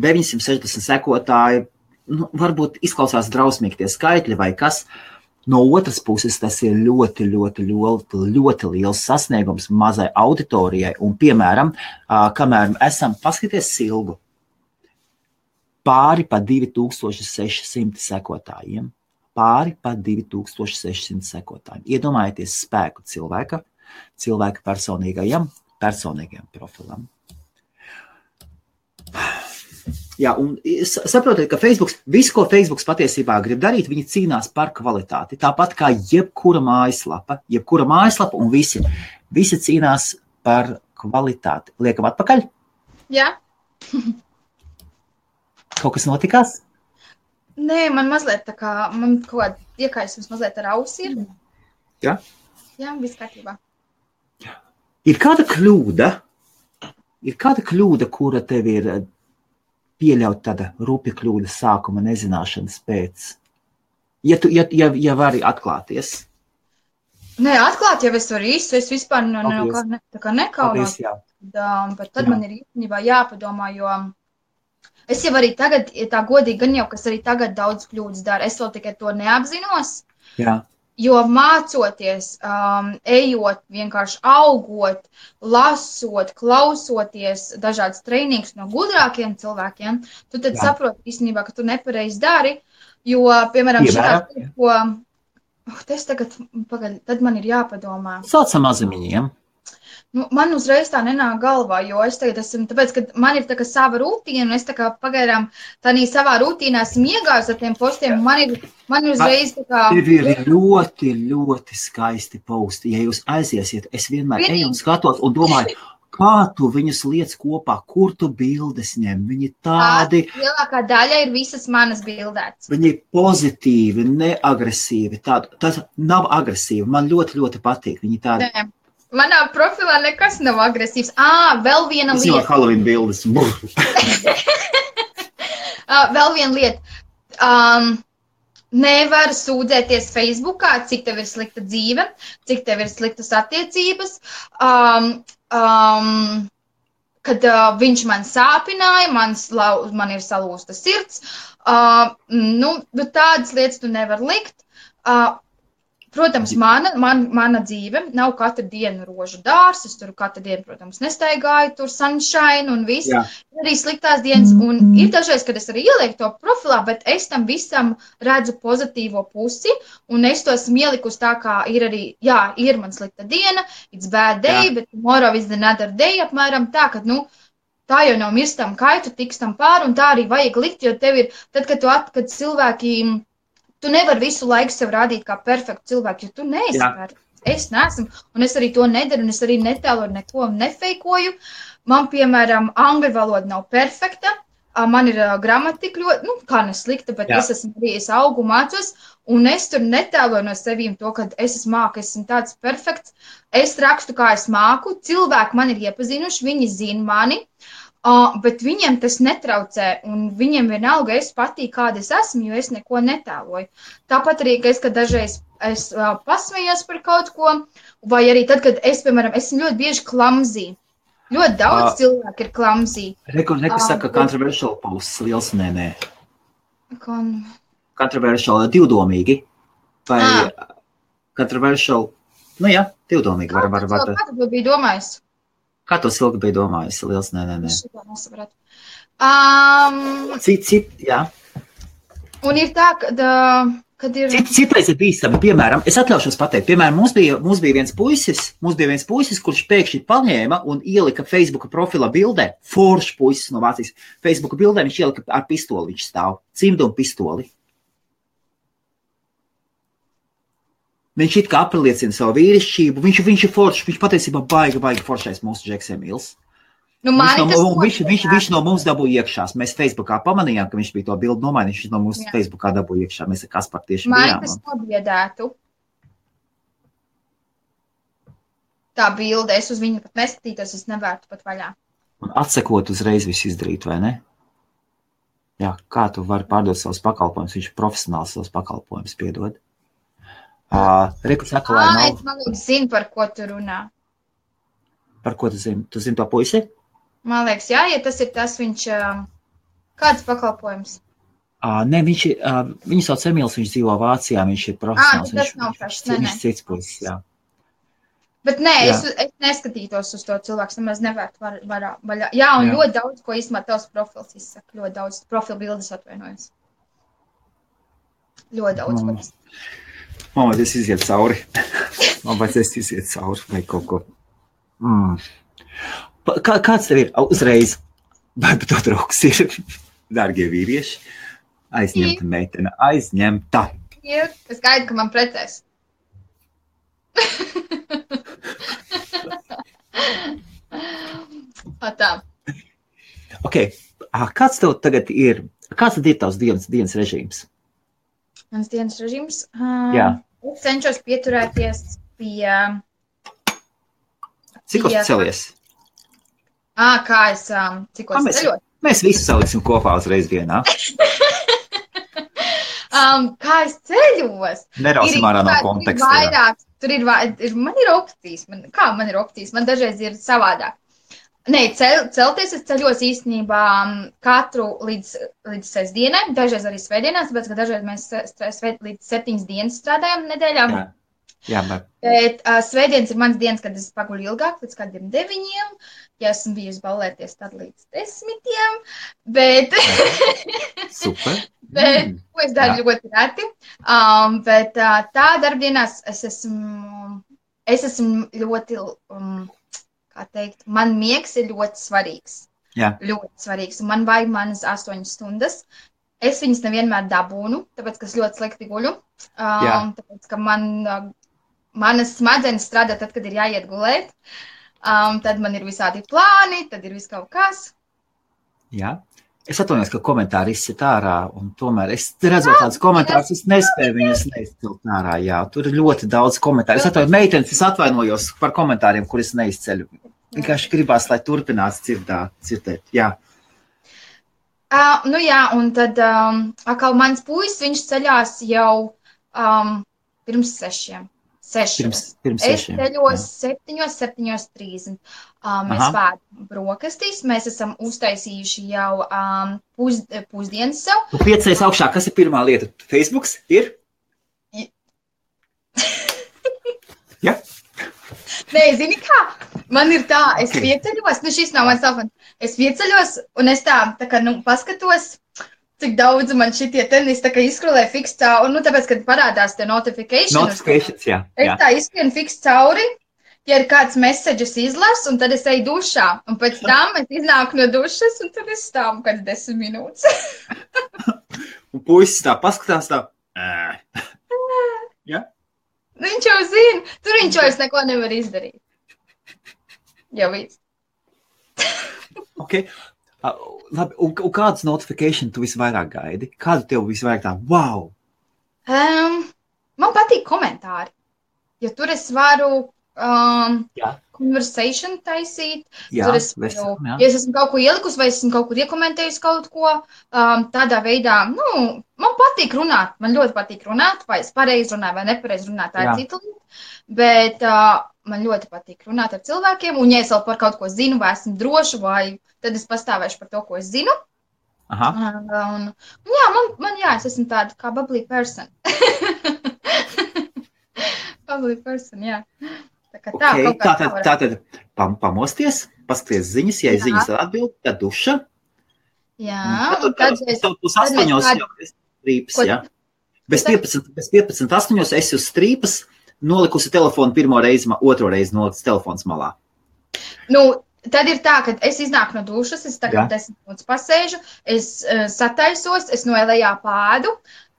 960 sekotāji, varbūt izklausās drausmīgi tie skaitļi vai kas. No otras puses, tas ir ļoti liels sasniegums mazai auditorijai. Un, piemēram, kamēr esam paskaties Silgu, pāri pa 2600 sekotājiem. Iedomājieties spēku cilvēka personīgajam profilam. Un saprotiet, ka visu, ko Facebooks patiesībā grib darīt, viņi cīnās par kvalitāti. Tāpat kā jebkura mājaslapa un visi cīnās par kvalitāti. Liekam atpakaļ? Jā. Kaut kas notikās? Nē, man mazliet man kaut kāda iekaisums mazliet ar ausi ir. Jā? Jā, viss kārtībā. Ir kāda kļūda, kura tev ir pieļaut tāda rupja kļūda sākuma nezināšanas pēc? Ja vari atklāties. Nē, atklāt jau es varu īstu, es vispār nekaunos. Bet tad man ir īstenībā jāpadomā, jo es jau arī tagad, tā godīgi gan jau, kas arī tagad daudz kļūdas dara, es vēl tikai to neapzinos. Jā. Jo mācoties, ejot, vienkārši augot, lasot, klausoties dažādas treinīgas no gudrākiem cilvēkiem, tu tad saproti īstenībā, ka tu nepareizi dari, jo, piemēram, tad man ir jāpadomā. Saucam mazamiņiem. Man uzreiz tā nenāk galvā, jo es tagad esmu, tāpēc, ka man ir tā kā sava rutīna, un es tā kā pagaidām tādā savā rutīnā esmu iegājusi ar tiem postiem, man ir uzreiz tā kā... Tev ir ļoti skaisti posti. Ja jūs aiziesiet, es vienmēr eju un skatos un domāju, kā tu viņus liec kopā, kur tu bildes ņem. Viņi tādi... Lielākā daļa ir visas manas bildētas. Viņi ir pozitīvi, neagresīvi. Tas nav agresīvi. Man ļoti patīk. Viņi tādi... Nē. Manā profilā nekas nav agresīvs. Vēl viena lieta. Es jau Halloween bildes. Vēl viena lieta. Nevar sūdzēties Facebookā, cik tev ir slikta dzīve, cik tev ir sliktas attiecības. Kad viņš man sāpināja, man ir salūsta sirds. Tādas lietas tu nevar likt. Protams, mana dzīve nav katru dienu rožu dārs, es tur katru dienu, protams, nestaigāju, tur sunshine un viss, arī sliktās dienas, un ir dažreiz, kad es arī ielieku to profilā, bet es tam visam redzu pozitīvo pusi, un es to esmu ielikusi tā, kā ir arī, ir man slikta diena, it's bad day, bet tomorrow is another day, apmēram tā, ka, tā jau nav mirstam kaitu, tikstam pāri, un tā arī vajag likt, jo tev ir, tad, kad cilvēki... Tu nevari visu laiku sev rādīt kā perfektu cilvēku, jo tu neesi perfekts. Es neesmu, un es arī to nedaru, un es arī netēloju neko nefeikoju. Man, piemēram, angļu valoda nav perfekta, man ir gramatika ļoti, kā neslikta, bet es augu mācos, un es tur netēloju no sevīm to, ka es esmu tāds perfekts. Es rakstu, kā es māku, cilvēki man ir iepazinuši, viņi zina mani, bet viņiem tas netraucē, un viņiem vienalga es patīk, kāda es esmu, jo es neko netēloju. Tāpat arī, ka es, kad dažreiz es pasmējos par kaut ko, vai arī tad, kad es, piemēram, esmu ļoti bieži klamzī. Ļoti daudz cilvēku ir klamzī. Reku saka, controversial posts, liels nē. Controversial, divdomīgi. Vai controversial, nu jā, divdomīgi. Kā tu biji domājis? Kā to Silga bija domājis? Liels nē. Es šito nesapratu. Jā. Un ir tā, kad ir... Citreiz ir bīstami, piemēram, es atļaušos pateikt, piemēram, mums bija viens puisis, kurš pēkšņi paņēma un ielika Facebooka profila bildē, foršs puisis no Vācijas, Facebooka bildē viņš ielika ar pistoli, viņš stāv, cimdu un pistoli. Viņš it kā apliecina savu vīrišķību, viņš ir foršs, viņš patiesībā baigi foršais mūsu Džeks Emīls. Viņš no mums dabūja iekšās. Mēs Facebookā pamanījām, ka viņš bija to bildu nomainījis. Viņš no mums Facebookā dabūja iekšā. Mēs ar Kasparu tieši bijām. Man tas nobiedētu. Tā bilde, es uz viņu pat neskatītos, es nevērtu pat vaļā. Un atsekot uzreiz visu izdarīt, vai ne? Jā, kā tu vari pārdot savus pakalpojumus? Viņš ir profesionāls savus pakalpojumus, piedod. Reku saka, lai nav... Es man liekas, zinu, par ko tu runā. Par ko tu zini? Tu zini to puisi? Man liekas, jā, ja tas ir tas, viņš... Kāds pakalpojums? Nē, viņu sauc Emīls, viņš dzīvo Vācijā, viņš ir profesionāls. Tas nav pašs, viņš cits puisis, jā. Bet nē, es neskatītos uz to cilvēku, nemaz nevērtu vaļā. Jā, un ļoti daudz, ko īstenībā tavs profils izsaka. Ļoti daudz profilu bildes atvainojas. Ļoti daudz, ko izsaka. Man vajag iziet cauri. Vai kaut ko. Kāds tev ir uzreiz? Vai to draugs ir? Dārgie vīrieši, aizņemta meitene, aizņemta. Ir, es gaidu, ka man precēs. Tā. Ok, kāds tev tagad ir, kāds tad ir tavs dienas režīms? Mans dienas režīms? Jā. Es cenšos pieturēties pie... Cikos tu celies? Cikos ceļot? Mēs visu saliksim kopā uzreiz dienā. Kā es ceļos? Nerausim ārā no konteksta. Vairāk, man ir opcijas. Kā man ir opcijas? Man dažreiz ir savādāk. Nē, celties es ceļos īstenībā katru līdz sestdienai, dažreiz arī svētdienās, tāpēc, ka dažreiz mēs līdz 7 dienas strādājam nedēļā. Jā, bet svētdienas ir mans dienas, kad es paguļu ilgāk, līdz kādiem 9. Ja esmu bijusi ballēties, tad līdz 10. Bet... Super. Bet, ko es daru ļoti reti. Bet tā darbdienās es esmu ļoti... Kā teikt, man miegs ir ļoti svarīgs. Jā. Ļoti svarīgs. Un man vajag manas 8 stundas. Es viņas nevienmēr dabūnu, tāpēc, ka es ļoti slikti guļu. Tāpēc, ka manas smadzenes strādā tad, kad ir jāiet gulēt. Tad man ir visādi plāni, tad ir viss kaut kas. Jā. Es atvainojos, ka komentāri izsit ārā, un tomēr es redzot tādus komentārus, es nespēju viņus neizcelt ārā, jā. Tur ir ļoti daudz komentāru. Es atvainojos, meitenes, es atvainojos par komentāriem, kur es neizceļu. Vienkārši gribās, lai turpinās dzirdēt, jā. Nu jā, un tad atkal mans puisis, viņš ceļās jau pirms 6. Pirms 6. Es ceļos 7:30. Mēs pēdam brokastīs. Mēs esam uztaisījuši jau pusdienas sev. Tu 5 augšā, kas ir pirmā lieta? Facebooks ir? Ja? Nē, zini kā? Man ir tā, es pieceļos, šis nav mans telefons. Es pieceļos un es tā kā, paskatos, cik daudz man šitie tenis tā kā izskrolē fiks cauri, tāpēc, kad parādās te notifications, jā. Es tā izskrienu fiks cauri, ja ir kāds messages izlasu, un tad es eju dušā, un pēc tam es iznāku no dušas, un tad es stāvu kāds 10 minūtes. Un puisis tā paskatās tā. Ja? Viņš jau zina, tur viņš vairs neko nevar izdarīt. Jau viss. Ok. Labi, un kādas notification tu visvairāk gaidi? Kādu tev visvairāk tā, wow? Man patīk komentāri, jo tur es varu conversation taisīt. Jā, Tur es varu, ja es esmu kaut ko ielikusi vai esmu kaut kur iekomentējusi kaut ko, tādā veidā, man patīk runāt, man ļoti patīk runāt, vai es pareizi runāju vai nepareizi runāt, tā ir cita lieta, bet man ļoti patīk runāt ar cilvēkiem, un ja es vēl par kaut ko zinu, vai esmu droša, vai tad es pastāvēšu par to, ko es zinu. Aha. Es esmu tāda kā bubbly person. Bubbly person, jā. Tātad pamosties, paskaties ziņas, ja ziņas atbild, tad duša. Jā. Tad uz 8 jau esi strīpas, jā. Bez 15, 8 esi uz strīpas, nolikusi telefonu pirmo reizi, otro reizi nolikus telefons malā. Tad ir tā, ka es iznāku no dušas, es tagad 10 minūtes pasēžu, es sataisos, es noelējā pādu,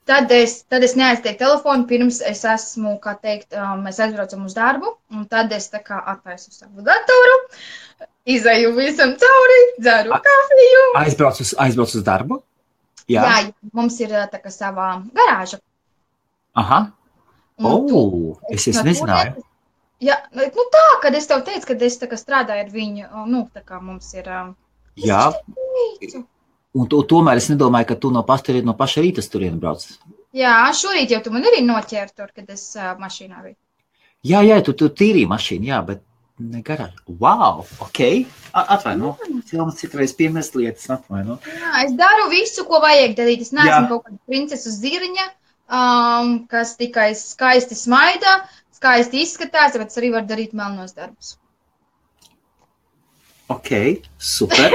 tad es neaiztieku telefonu, pirms es esmu, kā teikt, mēs aizbraucam uz darbu, un tad es tā kā attaisu savu datoru, izēju visam cauri, dzeru kafiju. Aizbrauc uz darbu? Jā, mums ir tā kā savā garāža. Aha. Es nezināju. Jā, tā, kad es tev teicu, kad es tā kā strādāju ar viņu, tā kā mums ir... Jā, un tomēr es nedomāju, ka tu no paša rīta turien brauc. Jā, šorīt jau tu man arī noķēri tur, kad es mašīnā biju. Jā, tu tīrīji mašīnu, jā, bet ne garāžu. Wow, ok. Atvaino, cilvēks citreiz piemest lietas, atvaino. Jā, es daru visu, ko vajag darīt. Es neesmu kaut kāda princesu ziriņa, kas tikai skaisti smaida, skaisti izskatās, bet es arī varu darīt melnos darbus. Ok, super.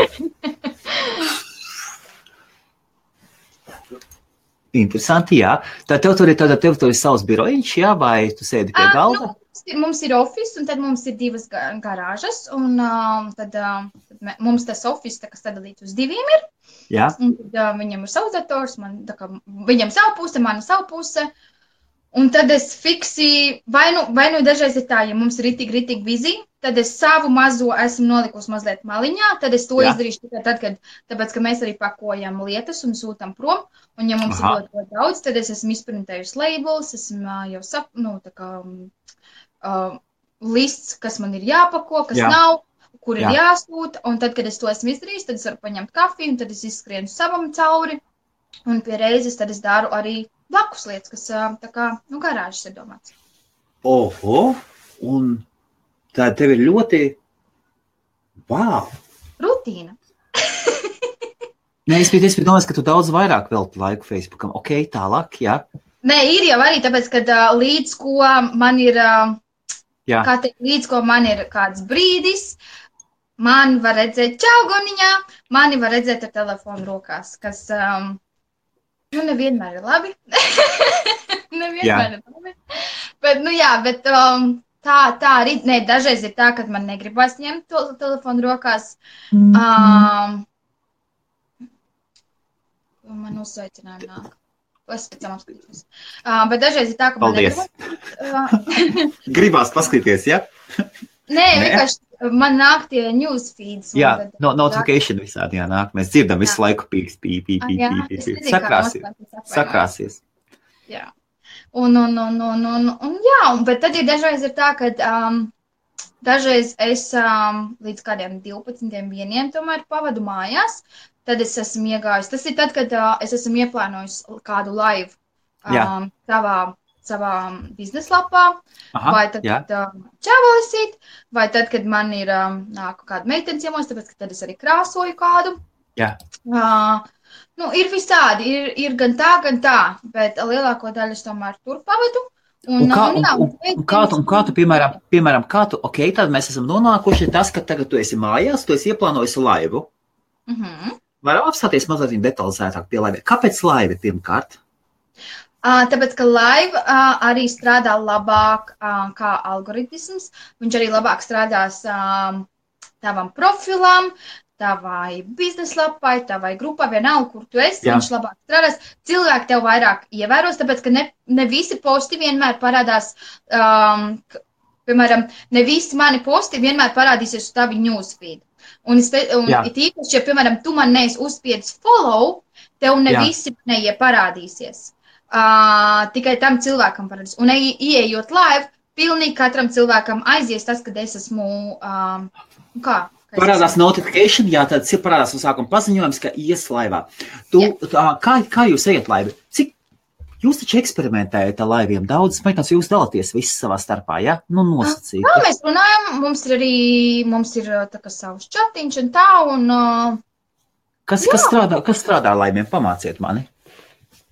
Interesanti, jā. Tad tev tur ir savs birojiņš, jā, vai tu sēdi pie galda? Mums ir office, un tad mums ir 2 garāžas, un tad mums tas office, kas sadalīts uz 2 ir. Jā. Un tad viņam ir savs dators, viņam savu puse, mana savu puse. Un tad es fiksi, vai nu dažreiz ir tā, ja mums ir ritīgi bizi, tad es savu mazo esmu nolikusi mazliet maliņā, tad es to izdarīšu tikai tad, tāpēc, ka mēs arī pakojam lietas un sūtam prom, un ja mums ir ļoti daudz, tad es esmu izprintējusi labels, esmu jau lists, kas man ir jāpako, kas nav, kur ir jāsūta, un tad, kad es to esmu izdarījis, tad es varu paņemt kafiju, un tad es izskrienu savam cauri, un pie reizes tad es daru arī blakus lietas, kas tā kā, garāžas ir domāts. Oho, un tā tev ir ļoti, wow. Rutīna. Nē, es biju domājis, ka tu daudz vairāk velti laiku Facebookam. Ok, tālāk, jā. Nē, ir jau arī tāpēc, ka līdz ko man ir, līdz ko man ir kāds brīdis, man var redzēt čaugoniņā, mani var redzēt ar telefonu rokās, kas... nevienmēr ir labi. Nevienmēr ir labi. Bet tā arī, dažreiz ir tā, kad man negribas ņemt to telefonu rokās. Man uzsveicinājumi nāk. Es pēc tam apskatīšos. Bet dažreiz ir tā, ka man negribas. Gribās paskatīties, ja? Nē, vienkārši man nāk tie newsfeeds. Jā, notification visādi jānāk. Mēs dzirdam visu laiku pīks. Sakrāsies. Jā. Bet tad ir dažreiz ir tā, ka dažreiz es līdz kādiem 12, 1 tomēr pavadu mājās, tad es esmu iegājis. Tas ir tad, kad es esmu ieplānojis kādu live savā bizneslapā, vai tad, kad čāvalisīt, vai tad, kad man ir nāku kāda meitenes ciemos, tāpēc, ka tad es arī krāsoju kādu. Jā. Ir visādi, ir gan tā, bet lielāko daļu es tomēr tur pavadu. Kā tu, piemēram, tad mēs esam nonākuši tas, ka tagad tu esi mājās, tu esi ieplānojis laivu. Varam apstāties mazliet detalizētāk pie laiva. Kāpēc laiva pirmkārt? Tāpēc, ka live arī strādā labāk kā algoritms. Viņš arī labāk strādās tavam profilam, tavai bizneslapai, tavai grupai, vienalga, kur tu esi, viņš labāk strādās. Cilvēki tev vairāk ievēros, tāpēc, ka ne visi posti vienmēr parādās, piemēram, ne visi mani posti vienmēr parādīsies uz tavi newsfeed. Un it īpaši, ja, piemēram, tu man neesi uzspiedis follow, tev ne visi neieparādīsies. Tikai tam cilvēkam parādīs. Un ieejot live, pilnīgi katram cilvēkam aizies tas, kad es esmu, Parādās notification, jā, tad parādās no sākuma paziņojums, ka ies laivā. Kā jūs ejat laivi? Cik jūs taču eksperimentējat ar laiviem? Daudz, meitās, jūs dalāties visi savā starpā, ja? Nu, nosacīt. Jā, mēs runājam, mums ir tā kā savs čatiņš un tā, un... Kas strādā ar laiviem? Pamāciet mani.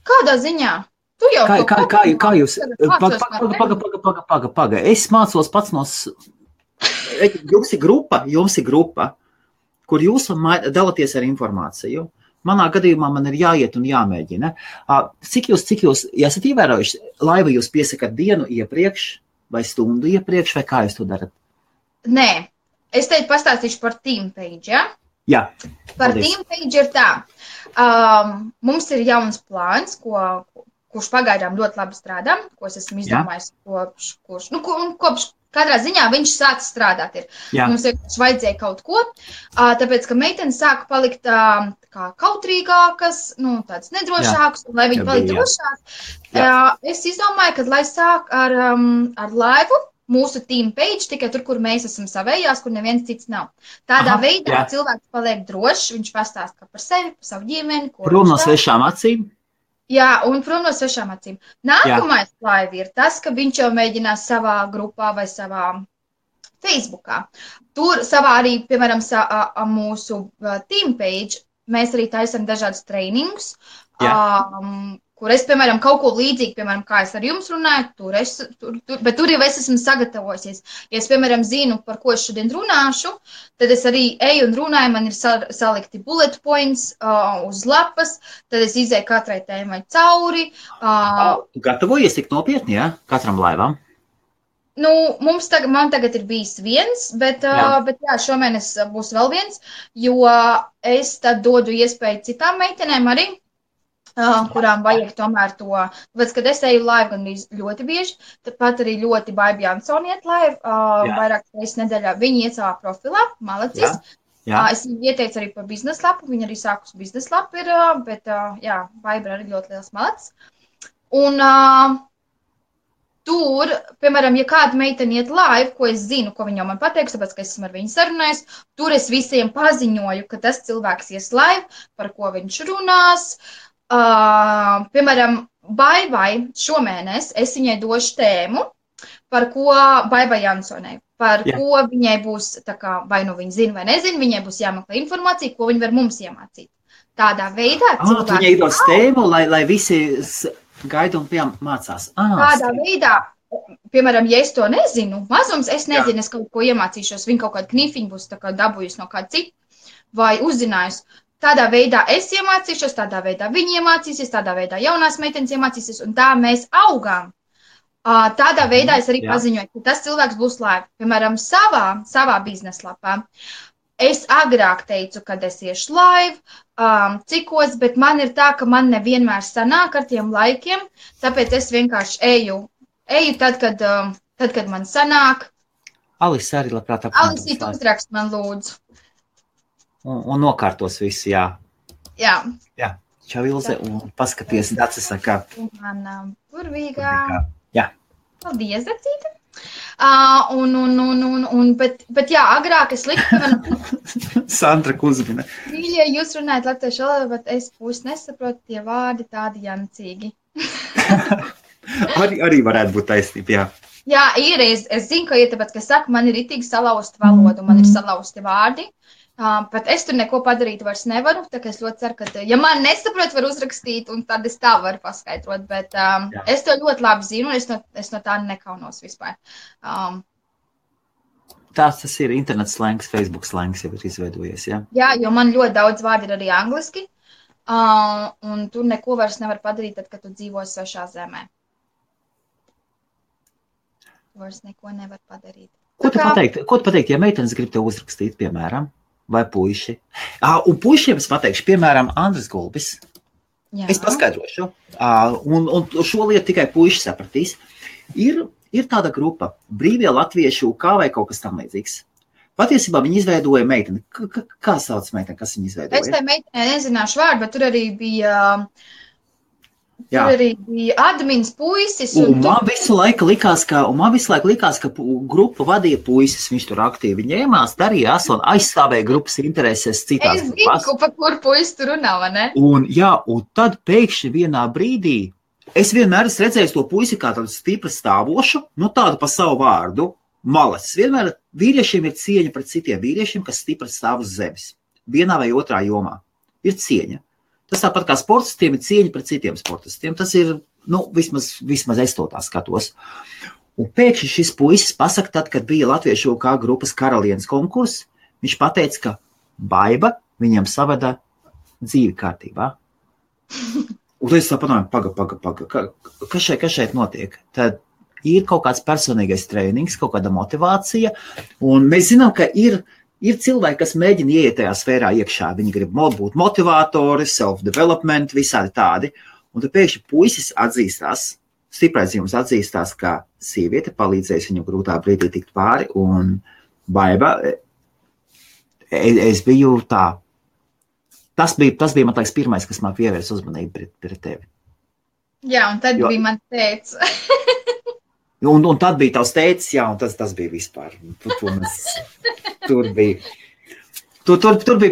Kādā ziņā? Tu jau kā jūs... Paga. Es mācos pats no... Jums ir grupa, kur jūs dalaties ar informāciju. Manā gadījumā man ir jāiet un jāmēģina. Cik jūs esat ievērojuši, laivu jūs piesakat dienu iepriekš vai stundu iepriekš, vai kā jūs to darat? Nē, es teicu pastāstīšu par Teampage, ja? Jā. Par Teampage ir tā. Mums ir jauns plāns, kurš pagaidām ļoti labi strādā, ko es esmu izdomājis kopš katrā ziņā viņš sāca strādāt. Mums vienkārši vajadzēja kaut ko, tāpēc, ka meitenes sāka palikt kā kautrīgākas, tāds nedrošākas, un lai viņi palikt drošāk. Es izdomāju, ka lai sāk ar laivu, mūsu Teampage, tikai tur, kur mēs esam savējās, kur neviens cits nav. Tādā veidā cilvēks paliek drošs, viņš pastāsta par sevi, par savu ģimeni. Prom no svešām acīm. Jā, un prom no svešām acīm. Nākamais laivi ir tas, ka viņš jau mēģinās savā grupā vai savā Facebookā. Tur savā arī, piemēram, mūsu Teampage, mēs arī taisam dažādus trainingus, kur es, piemēram, kaut ko līdzīgi, piemēram, kā es ar jums runāju, bet tur jau es esmu sagatavojusies. Ja es, piemēram, zinu, par ko es šodien runāšu, tad es arī eju un runāju, man ir salikti bullet points uz lapas, tad es izēju katrai tēmai cauri. Gatavojies tik nopietni, ja? Katram laivam? Man tagad ir bijis viens, bet šomēnes būs vēl viens, jo es tad dodu iespēju citām meitenēm arī, kurām vajag tomēr to, tāpēc, kad es eju laivu gan ļoti bieži, tāpat arī ļoti Baiba Jansoni iet laivu, vairāk reizes nedēļā, viņi iet savā profilā, malacis. Es viņu ieteicu arī par bizneslapu, viņa arī sākus bizneslapu ir, bet Baiba arī ļoti liels malacis. Un tur, piemēram, ja kāda meitene iet laivu, ko es zinu, ko viņa man pateiks, tāpēc, ka es esmu ar viņu sarunājis, tur es visiem paziņoju, ka tas cilvēks ies laivu, par ko viņš runās. Piemēram, Baibai šomēnes es viņai došu tēmu, par ko Baibai Jansonai, par ko viņai būs, tā kā, vai nu viņa zina vai nezina, viņai būs jāmeklē informācija, ko viņa var mums iemācīt. Tādā veidā cilvēki... Viņai dos tēmu, lai visi gaida un mācās. Tādā veidā, piemēram, ja es to nezinu, mazums, es nezinu, es kaut ko iemācīšos, viņa kaut kādu knifiņu būs tā kā dabūjusi no kāda cita, vai uzzinājusi. Tādā veidā es iemācīšos, tādā veidā viņi iemācīsies, tādā veidā jaunās meitenes iemācīsies, un tā mēs augām. Tādā veidā es arī paziņoju, ka tas cilvēks būs laiva. Piemēram, savā bizneslapā. Es agrāk teicu, kad es iešu laivu, cikos, bet man ir tā, ka man nevienmēr sanāk ar tiem laikiem, tāpēc es vienkārši eju tad, kad man sanāk. Alisa arī labprāt apkārt. Alisa, tu uzrakst man lūdzu. Un nokārtos visu, jā. Jā. Čau, Ilze, un paskaties, Dacis saka. Manā burvīgā. Jā. Paldies, Dacīte. Bet jā, agrāk es liku, Sandra Kuzmina. Mīļie, jūs runājat latviešu valodā, bet es pusi nesaprotu tie vārdi tādi jancīgi. arī varētu būt taisnība, jā. Jā, ir, es zinu, ka ir tāpēc, ka saku, man ir itīgi salauzta valoda, man ir salauzti vārdi. Bet es tur neko padarīt vairs nevaru, tā kā es ļoti ceru, ka, ja man nesaprot, var uzrakstīt, un tad es tā varu paskaidrot, bet es to ļoti labi zinu, un es no tā nekaunos vispār. Tas ir internets slēngs, Facebook slēngs jau ir izveidojies, jā? Jā, jo man ļoti daudz vārdi ir arī angliski, un tur neko vairs nevar padarīt, tad, kad tu dzīvo svešā zemē. Tu vairs neko nevar padarīt. Ko tu pateikt, ja meitenes grib tev uzrakstīt, piemēram? Vai puiši. Un puišiem es pateikšu, piemēram, Andris Gulbis. Jā. Es paskaidrošu. Un šo lietu tikai puiši sapratīs. Ir tāda grupa, brīvie latviešu kā vai kaut kas tam līdzīgs. Patiesībā viņi izveidoja meiteni. Kā sauc meiteni, kas viņi izveidoja? Es tai meiteni nezināšu vārdu, bet tur arī bija Jā. Tur arī bija admins puisis. Un man visu laiku likās, ka grupu vadīja puisis, viņš tur aktīvi ņēmās, darījās un aizstāvēja grupas intereses citās grupās. Es zinu, pa kur puisis tur runā, vai ne? Un tad pēkšņi vienā brīdī, es vienmēr esmu redzējis to puisi kā tādu stipri stāvošu, tādu pa savu vārdu, malacis. Vienmēr vīriešiem ir cieņa pret citiem vīriešiem, kas stipri stāv uz zemes. Vienā vai otrā jomā ir cieņa. Tas tāpat kā sportistiem ir cieņa pret citiem sportistiem. Tas ir, vismaz es to tā skatos. Un pēkšņi šis puisis pasaka tad, kad bija Latviešu kā grupas karalienes konkurss, viņš pateica, ka Baiba viņam savada dzīvi kārtībā. Un es saprotu, paga, kas šeit notiek? Tad ir kaut kāds personīgais trēnings, kaut kāda motivācija, un mēs zinām, ka ir cilvēki, kas mēģina ieiet tajā sfērā iekšā. Viņi grib būt motivatori, self-development, visādi tādi. Un tad pēkšņi puisis atzīstās, stiprais jums atzīstās, ka sieviete palīdzēs viņu grūtā brīdī tikt pāri. Un Baiba, es biju tā. Tas bija man liekas pirmais, kas man pievērs uzmanību pret tevi. Jā, un tad bija man teica. Un tad bija tavs teicis, jā, un tas bija vispār. Tur bija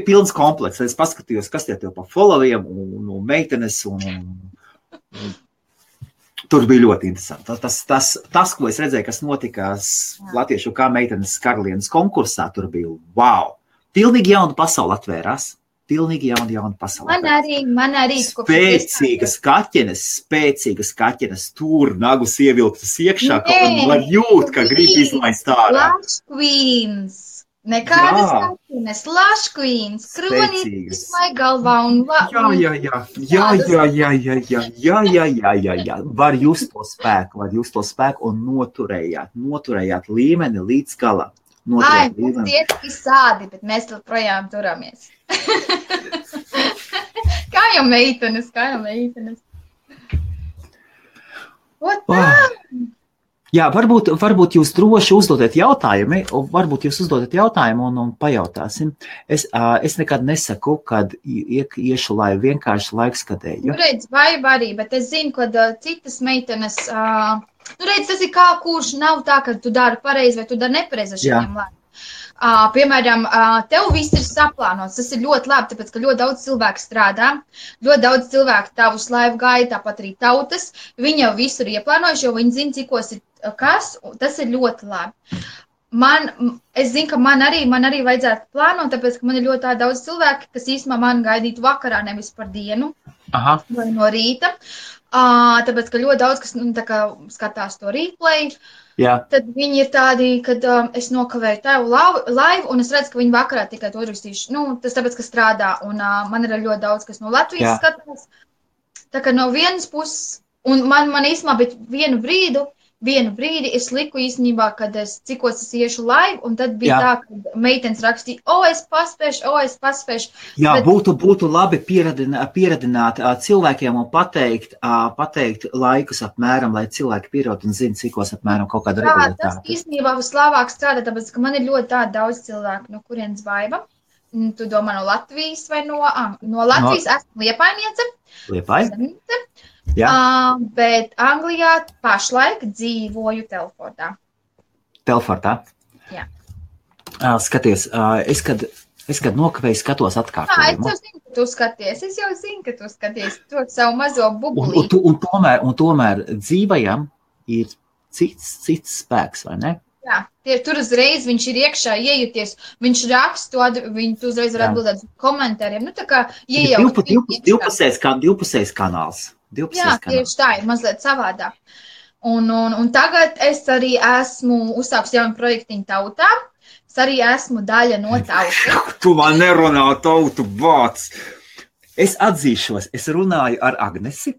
pilns komplekss. Es paskatījos, kas tev pa followiem un meitenes. Un tur bija ļoti interesanti. Tas, ko es redzēju, kas notikās Latviešu kā meitenes karalienes konkursā, tur bija wow. Pilnīgi jauna pasaule atvērās. Pilnīgi jauna pasaule. Man arī. Spēcīgas kaķenes, tur nagus ievilktas iekšā, ka var jūt, ka grib izlaist ārā. Lush Queens. Nekādas kaķenes. Lush Queens. Kronītis vai galvā un Jā. Var just to spēku un noturējāt līmeni līdz galam. Ai, mums tietiski sādi, bet mēs vēl projām turamies. Kā jau meitenes. Jā, varbūt jūs droši uzdodat jautājumu un pajautāsim. Es nekad nesaku, kad iešu laivu vienkārši laikskatēju. Redz, vai arī, bet es zinu, kad citas meitenes... redz, tas ir kā kurš nav tā, ka tu dari pareizi vai tu dari nepareizi šiem laivu. Piemēram, tev viss ir saplānots. Tas ir ļoti labi, tāpēc, ka ļoti daudz cilvēku strādā, ļoti daudz cilvēku tavus laivu gaida, tāpat arī tautas. Viņi jau visu ir ieplānojuši, jo viņi zina, cikos ir kas, tas ir ļoti labi. Es zinu, ka man arī vajadzētu plānot, tāpēc, ka man ir ļoti daudz cilvēku, kas īstenībā man gaidītu vakarā, nevis par dienu vai no rīta. Tāpēc, ka ļoti daudz, kas skatās to replay, tad viņi ir tādi, kad es nokavēju tavu laivu, un es redzu, ka viņi vakarā tikai to uzrakstīšu. Tas tāpēc, ka strādā, un man ir ļoti daudz, kas no Latvijas skatās. Tā kā no vienas puses, un man īstenībā bija vienu brīdi es liku īstenībā, kad cikos es iešu laivu, un tad bija tā, ka meitenes rakstīja, es paspēšu. Jā, bet... būtu labi pieradināt cilvēkiem un pateikt laikus apmēram, lai cilvēki pierod un zina, cikos apmēram kaut kāda regulātāta. Tas īstenībā vislabāk strādā, tāpēc, ka man ir ļoti daudz cilvēku, no kurienes Baiba. Tu domā no Latvijas vai no Latvijas? Esmu Liepainiece. Liepāja? Bet Anglijā pašlaik dzīvoju Telfordā. Telfordā? Jā. Skaties, es kad nokavēju skatos atkārtojumu. Es jau zinu, ka tu skaties to savu mazo bubulīti. Un tomēr dzīvajam ir cits spēks, vai ne? Jā, tur uzreiz viņš ir iekšā iejuties, viņš raksta, tu uzreiz var atbildēt komentāriem. Tā kā divpusējs kanāls. Jā, tieši tā ir mazliet savādāk. Un tagad es arī esmu uzsāks jaunu projektiņu tautā. Es arī esmu daļa no tautas. Tu man nerunā tautu vārds. Es atzīšos, es runāju ar Agnesi.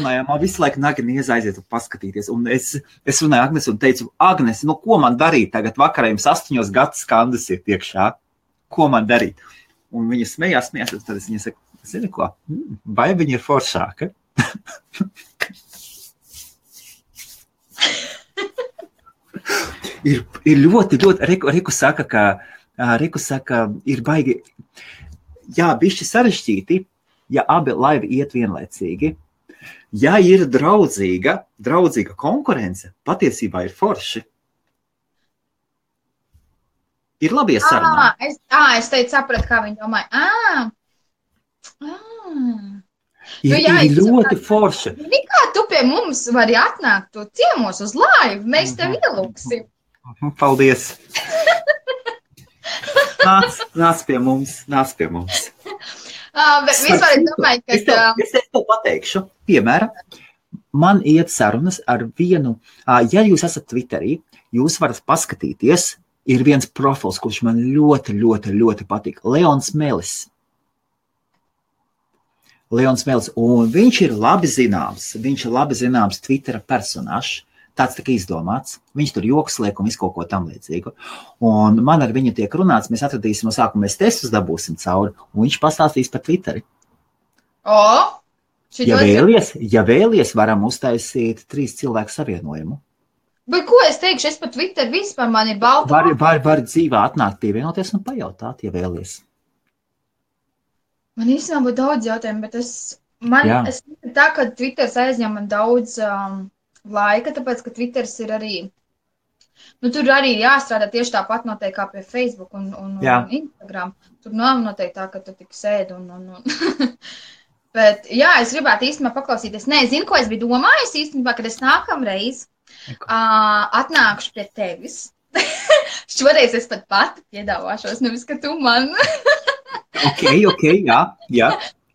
Man visu laiku Agnese aiziet un paskatīties. Un es runāju Agnesi un teicu, Agnesi, ko man darīt tagad vakarā, jums 8 gadus skandas ir iekšā? Ko man darīt? Un viņa smējās, tad es viņai saku, zini ko, vai viņa ir foršāka? ir ļoti, Riku saka, ir baigi, bišķi sarežģīti, ja abi laivi iet vienlaicīgi. Ja ir draudzīga konkurence, patiesībā ir forši. Ir labi iesarunāt. Es teicu, sapratu, kā viņi domāja. Ir ļoti forši. Kā tu pie mums vari atnākt tu ciemos uz laivu, mēs tev ielūksim. Paldies. Nāc pie mums. Bet vispār es domāju, ka... Es tev pateikšu, piemēram, man iet sarunas ar vienu, ja jūs esat Twitterī, jūs varat paskatīties, ir viens profils, kurš man ļoti, ļoti, ļoti patīk. Leons Melis, un viņš ir labi zināms Twittera personāžs, tāds tā kā izdomāts. Viņš tur joks liek un visu kaut ko tam līdzīgu. Un man ar viņu tiek runāts, mēs atradīsim no sākuma, mēs testus dabūsim cauri, un viņš pastāstīs par Twitteri. Ja vēlies, varam uztaisīt 3 cilvēku savienojumu. Bet ko es teikšu, es pat Twitter vispār man ir balta. Var dzīvā atnākt pievienoties un pajautāt, ja vēlies. Man īstenībā būtu daudz jautājumu, bet es tā, ka Twitters aizņem man daudz laika, tāpēc, ka Twitters ir arī, tur arī jāstrādā tieši tāpat noteikti kā pie Facebook un Instagram. Tur nav noteikti tā, ka tu tik sēdi un. Bet, jā, es gribētu īstenībā paklausīties. Nē, zinu, ko es biju domājis īstenībā, kad es nākamreiz atnākšu pie tevis. Šoreiz es pat pati piedāvāšos, nevis, ka tu man. Ok, jā.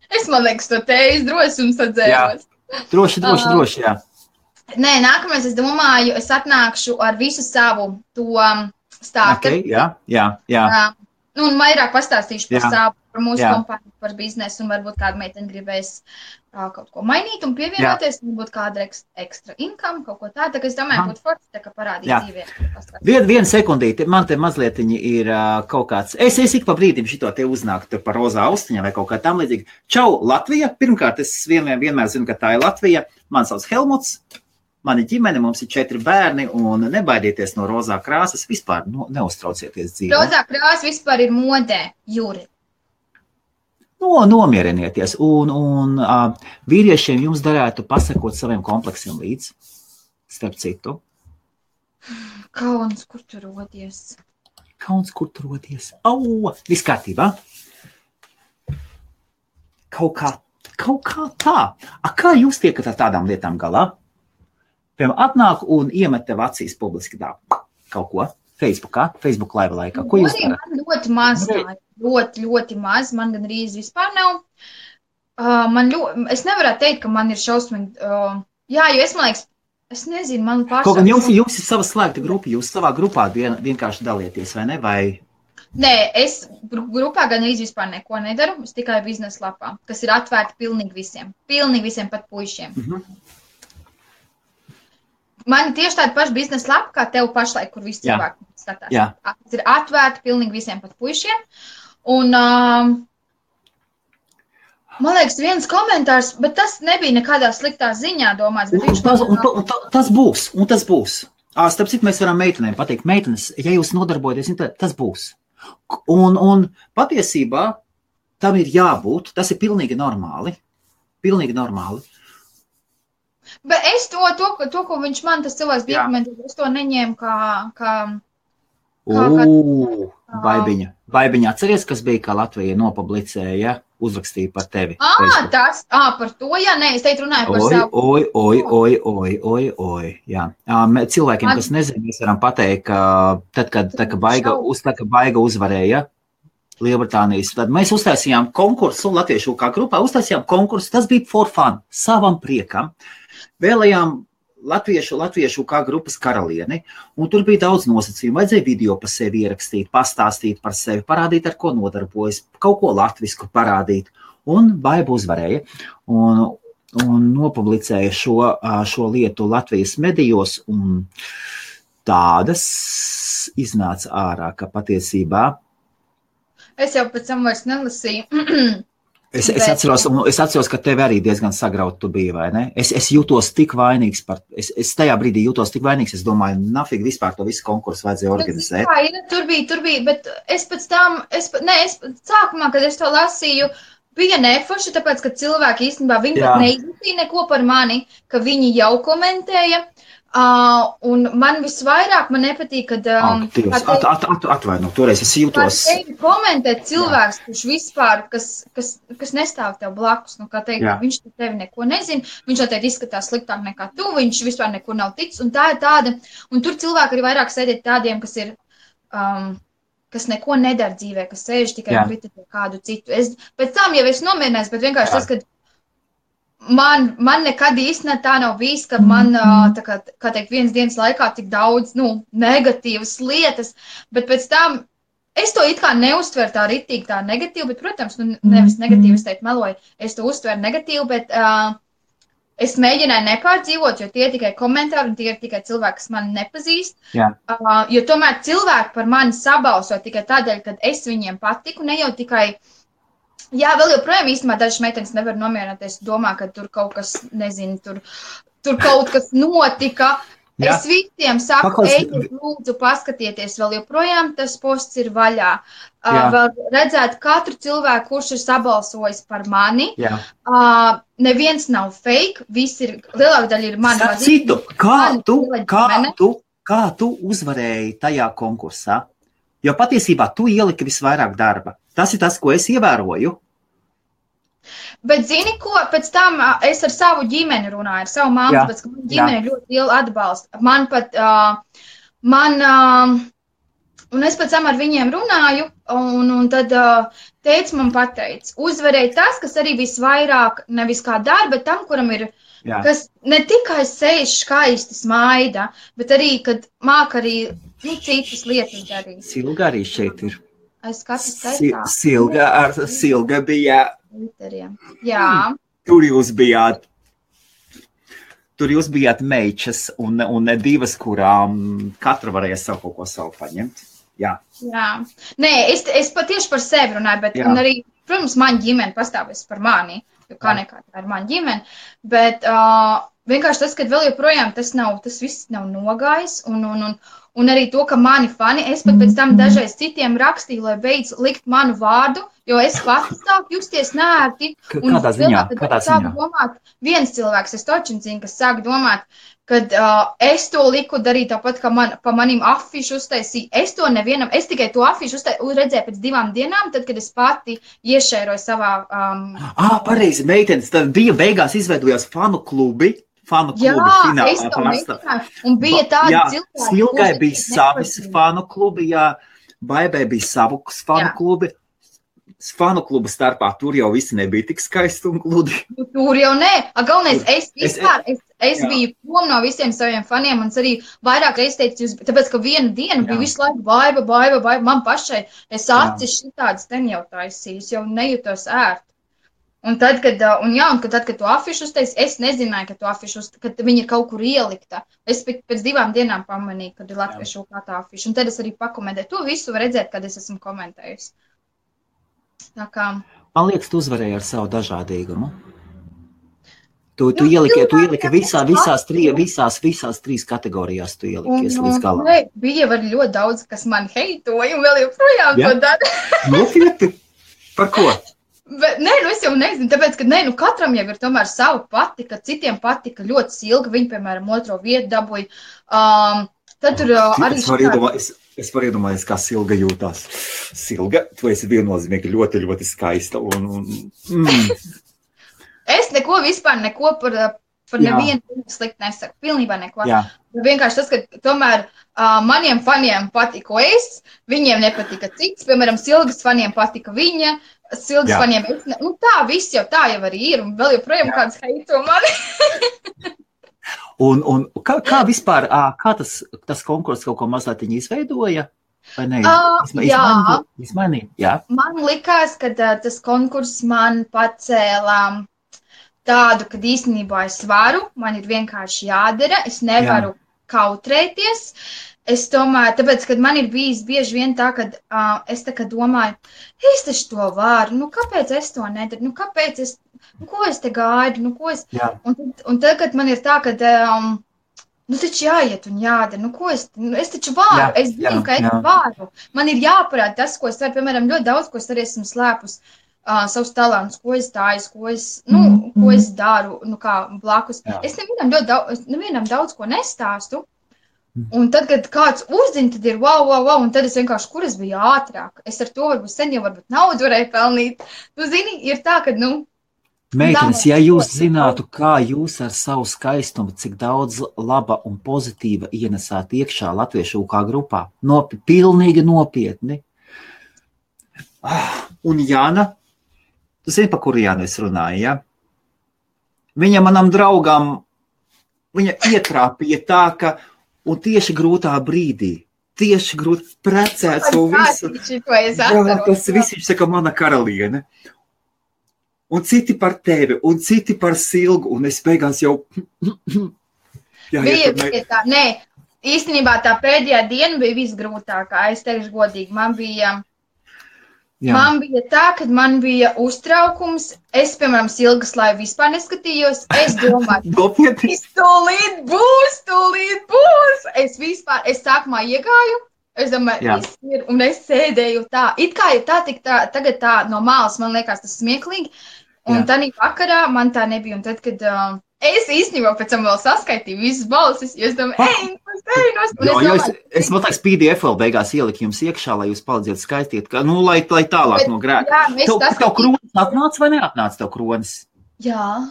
Es, man liekas, to teiz drosums atzēros. Droši, jā. Nē, nākamais, es domāju, es atnākšu ar visu savu to startu. Ok, jā. Un vairāk pastāstīšu par mūsu kompāniju, par biznesu, un varbūt kāda meitene gribēs kaut ko mainīt un pievienoties, varbūt kāda ekstra income, kaut ko tā. Tā kā es domāju, būtu forši, tā kā parādīt dzīvē. Vienu sekundīti, man te mazlietiņi ir kaut kāds, es ik pa brīdim šito te uznāktu par rozā austiņā vai kaut kā tam līdzīgi. Čau, Latvija! Pirmkārt, es vienmēr zinu, ka tā ir Latvija. Man sauc Helmuts. Mani ģimene, mums ir 4 bērni, un nebaidieties no rozā krāsas, vispār neuztraucieties dzīvē. Rozā krāsa vispār ir modē, Juri. Nomierieties, un vīriešiem jums darētu pasakot saviem kompleksiem līdz, starp citu. Kauns, kur tu rodies? Viss kārtībā. Kaut kā tā. Kā jūs tiekat ar tādām lietām galā? Piemēram, atnāk un iemet tev acīs publiski tā kaut ko Facebook live laikā. Ko jūs darāt? Man ļoti maz tā, ļoti maz, man gan rīz vispār nav. Es nevarētu teikt, ka man ir šausmīgi, jo es, man liekas, es nezinu, man pašā. Kaut gan jums ir sava slēgta grupa, jūs savā grupā vienkārši dalieties, vai ne? Nē, es grupā gan rīz vispār neko nedaru, es tikai biznesa lapā, kas ir atvērta pilnīgi visiem pat puišiem. Man ir tieši tāda paša biznesa lapa, kā tev pašlaik, kur visi cilvēki skatās. Tas ir atvērti pilnīgi visiem pat puišiem. Un, man liekas, viens komentārs, bet tas nebija nekādā sliktā ziņā domāts. Tas būs. Starp citu, mēs varam meitenēm pateikt, meitenes, ja jūs nodarbojaties, tas būs. Un patiesībā tam ir jābūt, tas ir pilnīgi normāli. Bet es to, ko viņš man, tas cilvēks bija komentējis, es to neņēmu kā Baibiņa, atceries, kas bija, kā Latvija nopublicēja, uzrakstīja par tevi. Par to, es teikt runāju par savu. Jā. Cilvēkiem, kas nezina, mēs varam pateikt, ka tad, kad Baiga uzvarēja Lielbritānijas, tad mēs uztaisījām konkursu, latviešu kā grupā uztaisījām konkursu, tas bija for fun, savam priekam. Vēlējām latviešu kā grupas karalieni, un tur bija daudz nosacījumu. Vajadzēja video par sevi ierakstīt, pastāstīt par sevi, parādīt, ar ko nodarbojas, kaut ko latvisku parādīt. Un Baiba uzvarēja un nopublicēja šo lietu Latvijas medijos, un tādas iznāca ārā, ka patiesībā. Es jau pēc tam vairs nelasīju. Es atceros, ka tev arī diezgan sagrauti tu biji, vai ne? Es jūtos tik vainīgs es tajā brīdī jūtos tik vainīgs, es domāju, nafīgi vispār to visu konkursu vajadzēja organizēt. Tur bija, bet es pēc tam, sākumā, kad es to lasīju, bija neforši, tāpēc, ka cilvēki īstenībā viņi Jā. pat neizlasīja neko par mani, ka viņi jau komentēja. Un man visvairāk man nepatīk, kad atvaino, toreiz es jūtos. Tevi komentē cilvēks, kurš vispār, kas nestāv tev blakus, nu, kā teikt, viņš tevi neko nezina, viņš noteikti izskatās sliktāk nekā tu, viņš vispār neko nav ticis, un tā ir tāda, un tur cilvēki arī vairāk sēdēt tādiem, kas ir, kas neko nedara dzīvē, kas sēž tikai un kritizē kādu citu. Pēc tam jau es nomierināju, bet vienkārši tas, kad man nekad īstenībā tā nav bijis, ka man, tā kā teikt, vienas dienas laikā tik daudz, negatīvas lietas, bet pēc tam es to it kā neuztveru tā ritīgi tā negatīvi, bet, protams, nevis negatīvi, es teikt meloju, es to uztveru negatīvi, bet es mēģināju nepārdzīvot, jo tie ir tikai komentāri un tie ir tikai cilvēki, kas mani nepazīst, jo tomēr cilvēki par mani sabalso tikai tādēļ, kad es viņiem patiku, ne jau tikai. Jā, vēl joprojām īstenībā dažas meitenes nevar nomierināties, domā, ka tur kaut kas, nezinu, tur kaut kas notika. Jā. Es visiem saku, ejiet, lūdzu, paskatieties, vēl joprojām tas posts ir vaļā. Vēl redzēt katru cilvēku, kurš ir sabalsojis par mani. Neviens nav fake, viss ir, lielāka daļa ir mani. Citu, kā tu uzvarēji tajā konkursā? Jo patiesībā tu ieliki visvairāk darba. Tas ir tas, ko es ievēroju. Bet zini, ko pēc tam es ar savu ģimeni runāju, ar savu māmu, tāpēc, ka man ģimene ļoti lielu atbalstu. Man pat, un es pēc tam ar viņiem runāju, un tad teica man pateica, uzvarēja tas, kas arī visvairāk, nevis kā dara, bet tam, kuram ir, kas ne tikai sēž skaisti smaida, bet arī, kad māk arī citas lietas darīt. Silga arī šeit ir. Es skatos taisā. Silga bija. Jā. Tur jūs bijāt meičas un divas, kurām katra varēja savu kaut ko savu paņemt. Jā. Nē, es patieši par sevi runāju, bet un arī, protams, man ģimene pastāvēs par mani, jo kā nekā tā ir man ģimene, bet vienkārši tas, kad vēl joprojām tas viss nav nogājis un arī to, ka mani fani, es pat pēc tam dažreiz citiem rakstīju, lai beidz likt manu vārdu, jo es pati sāku justies nērti. Kādā ziņā? Domāt, viens cilvēks, es točin zinu, kas sāk domāt, kad es to liku darīt tāpat, ka pa manim afišu uztaisīju. Es to nevienam, es tikai to afišu redzēju pēc 2 dienām, tad, kad es pati iešēroju savā... Pareizi, meitenes, tad bija beigās izveidojās fanu klubi finālā. Es to mēģināju, un bija tādi cilvēki. Silgai bija savis fanu klubi, Baibai bija savus fanu klubi. Fanu klubu starpā tur jau visi nebija tik skaisti un gludi. Tur jau nē. Galvenais, es biju prom no visiem saviem faniem, un es arī vairāk reiz teicu, tāpēc, ka vienu dienu bija visu laiku Baiba, man pašai, es acis šitādas ten jau taisīju, es jau nejūtos ērti. Un tad, kad tu afišu uztaisi, es nezināju, ka tu afišu uztaisi, kad viņi ir kaut kur ielikta. Es pēc 2 dienām pamanīju, kad ir latviešu kā tā afišu. Un tad es arī pakomentēju. To visu var redzēt, kad es esmu komentējusi. Tā kā... Man liekas, tu uzvarēji ar savu dažādīgumu. Tu ieliki visās 3 kategorijās, tu ielikies līdz galam. Bija var ļoti daudz, kas man heitoja, un vēl joprojām to dara. Nopietni? Par ko? Bet, es jau nezinu, tāpēc, ka katram jau ir tomēr savu patika, citiem patika ļoti Silga, viņi, piemēram, 2. vietu dabūja. Tad tur arī... Es varu iedomāties, kā Silga jūtās. Silga, tu esi viennozīmīgi ļoti, ļoti skaista. Es neko par nevienu slikti nesaku, pilnībā neko. Vienkārši tas, ka tomēr maniem faniem patika es, viņiem nepatika cits, piemēram, Silgas faniem patika viņa, Silgas faniem es, tā viss jau tā jau arī ir, un vēl joprojām kāds heito mani. Un kā vispār, kā tas konkurss kaut ko mazliet izveidoja? Vai ne? Izmainīja? Man likās, ka tas konkurss man pacēlā tādu, kad īstenībā es varu, man ir vienkārši jādara, es nevaru kautrēties. Es domāju, tāpēc, kad man ir bijis bieži vien tā, kad es tā kā domāju, es taču to varu, kāpēc es to nedaru, kāpēc ko es te gaidu, Un tad, kad man ir tā, kad, taču jāiet un jādara, es taču varu, es zinu, ka es varu. Man ir jāparāda tas, ko es varu, piemēram, ļoti daudz, ko es arī esmu slēpus. savus talantus, ko es tāju, ko es daru, kā blakus. Jā. Es nevienam daudz ko nestāstu. Un tad, kad kāds uzzina, tad ir wow, un tad es vienkārši, kur es biju ātrāk. Es ar to varbūt sen jau naudu varēju pelnīt. Tu zini, ir tā, ka, Meitenes, ja jūs zinātu, kā jūs ar savu skaistumu, cik daudz laba un pozitīva ienesāt iekšā latviešu kā grupā, pilnīgi nopietni. Un Jāna, tu zini, pa kuru Jānu es runāju, ja? Viņa manam draugam, viņa ietrāpīja tā, ka un tieši grūtā brīdī, precēt to visu. Tas viss, viņš saka, mana karaliene. Un citi par tevi, un citi par Silgu, un es beigās jau... Bija tā, nē, īstenībā tā pēdējā diena bija visgrūtākā, es teikšu godīgi, man bija tā, kad man bija uztraukums, es, piemēram, Silgas laivu vispār neskatījos, es domāju, tūlīt būs, es sākumā iegāju, es domāju, un es sēdēju tā, it kā ir tagad tā no malas, man liekas tas smieklīgi, un tādā vakarā man tā nebija, un tad, kad es īstenībā pēc tam vēl saskaitīju visas balsis, jo es domāju, es liekas PDF vēl beigās ieliku jums iekšā, lai jūs palīdziet skaistīt, lai tālāk no grēka. Tev kronis atnāca vai neatnāca tev kronis? Jā.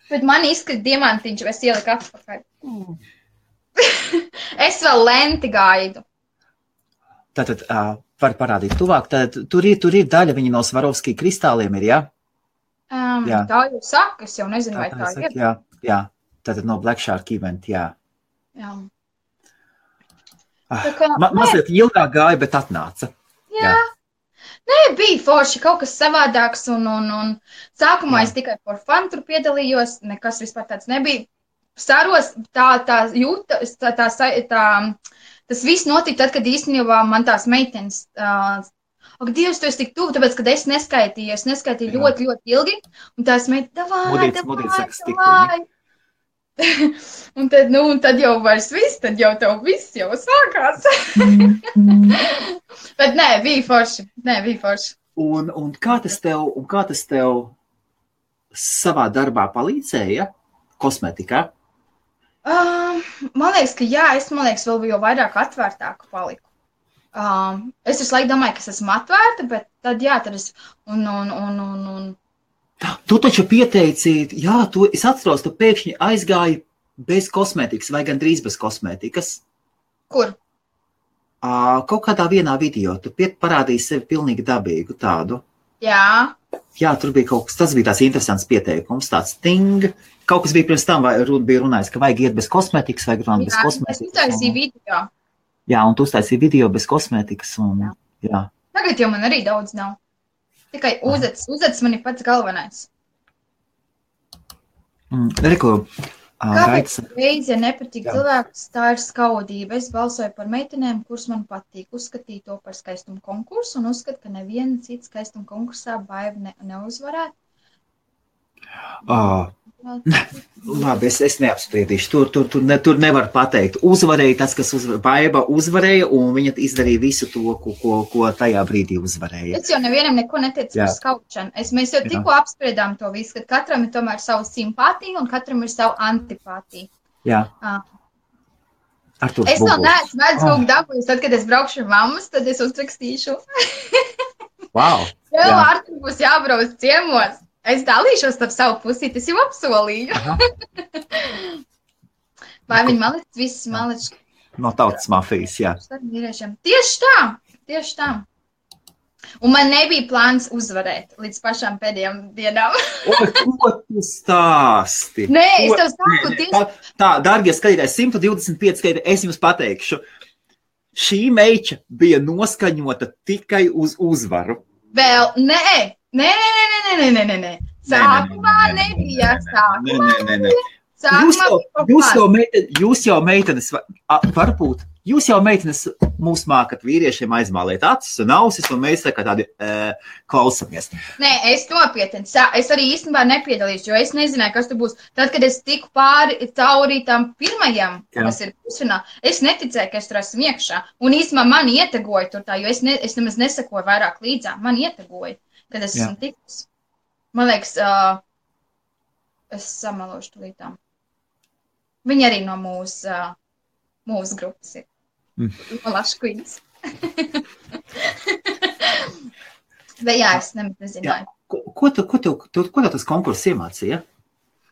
Bet man izskat diamantiņš, es ieliku atpakaļ. Es vēl lenti gaidu. Tātad, var parādīt tuvāk, tad tur ir daļa, viņa no Svarovskī kristāliem ir, ja? Tā jau saka, es jau nezinu, vai tā ir. Jā, tātad no Black Shark event, jā. Mazliet ilgāk gāja, bet atnāca. Jā. Nē, bija forši kaut kas savādāks, un sākumā es tikai for fun tur piedalījos, nekas vispār tāds nebija. Saros, tas viss notika tad, kad īstenībā man tās meitenes, ak, Dievs, tu esi tik tuvu, tāpēc, kad es neskaitīju ļoti, ļoti ilgi, un tās meitenes, davai. Un tad jau vairs viss, tad jau tev viss jau sākās. Bet nē, bija forši. Un kā tas tev savā darbā palīdzēja kosmetikā? Man liekas, ka jā, es vēl jau vairāk atvērtāku paliku. Es visu laiku domāju, ka es esmu atvērta, bet tad es... Tu taču pieteici, es atceros, tu pēkšņi aizgāji bez kosmetikas vai gandrīz bez kosmetikas. Kur? Kaut kādā vienā video, tu parādīji sevi pilnīgi dabīgu tādu. Jā. Jā, tur bija kaut kas, tas bija tās interesants pieteikums, tāds ting. Kaut kas bija pirms tam, vai bija runājis, ka vajag iet bez kosmetikas, vai grunāt bez kosmetikas. Es uztaisīju video. Jā, un tu uztaisīji video bez kosmetikas. Jā. Tagad jau man arī daudz nav. Tikai uzets man ir pats galvenais. Reku, kāpēc reizi, ja nepatīk cilvēks, tā ir skaudība. Es balsoju par meitenēm, kuras man patīk. Uzskatīju to par skaistumu konkursu un uzskatu, ka neviena cita skaistuma konkursā Baiva neuzvarētu. Labi, es neapspriedīšu. Tur nevar pateikt. Uzvarēja tas, kas Baiva uzvarēja, un viņa izdarīja visu to, ko tajā brīdī uzvarēja. Es jau nevienam neko neteicu par skaušanu. Mēs jau tikko apspriedām to visu, ka katram ir tomēr savu simpātiju un katram ir savu antipātiju. Jā. Es vēl neesmu mēdz kaut dabūjus, tad, kad es braukšu ar mammas, tad es uzrakstīšu. Wow. Tev Artur būs jābrauc ciemos. Es dalīšos ar savu pusīti, es jau apsolīju. Vai viņi malic, visas malic? No tautas mafijas, jā. Tieši tā. Un man nebija plāns uzvarēt līdz pašām pēdējām dienām. Ko tu stāsti? Nē, es tev saku tieši. Tā, dārgie skatītāji, 125 skatītāji, es jums pateikšu. Šī meiča bija noskaņota tikai uz uzvaru. Vēl, nē. Sākumā nebija. Jūs jau meitenes, varbūt, jūs jau meitenes mūs mākat vīriešiem aizmālēt acis un ausis, un mēs tā kā tādi klausamies. Nē, es nopietni. Es arī īstenībā nepiedalīšu, jo es nezināju, kas tur būs. Tad, kad es tiku cauri tam pirmajam, kas ir pusfinā, es neticēju, ka es tur esmu iekšā. Un īstenībā man ietegoja tur tā, jo es nemaz nesakoju vairāk līdzām. Man ietegoja. kad es esmu tikus. Man liekas, es samalošu tulītām. Viņi arī no mūsu grupas ir. No Lašu Queens. Bet jā, es nezināju. Ko tev tas konkurss iemācīja?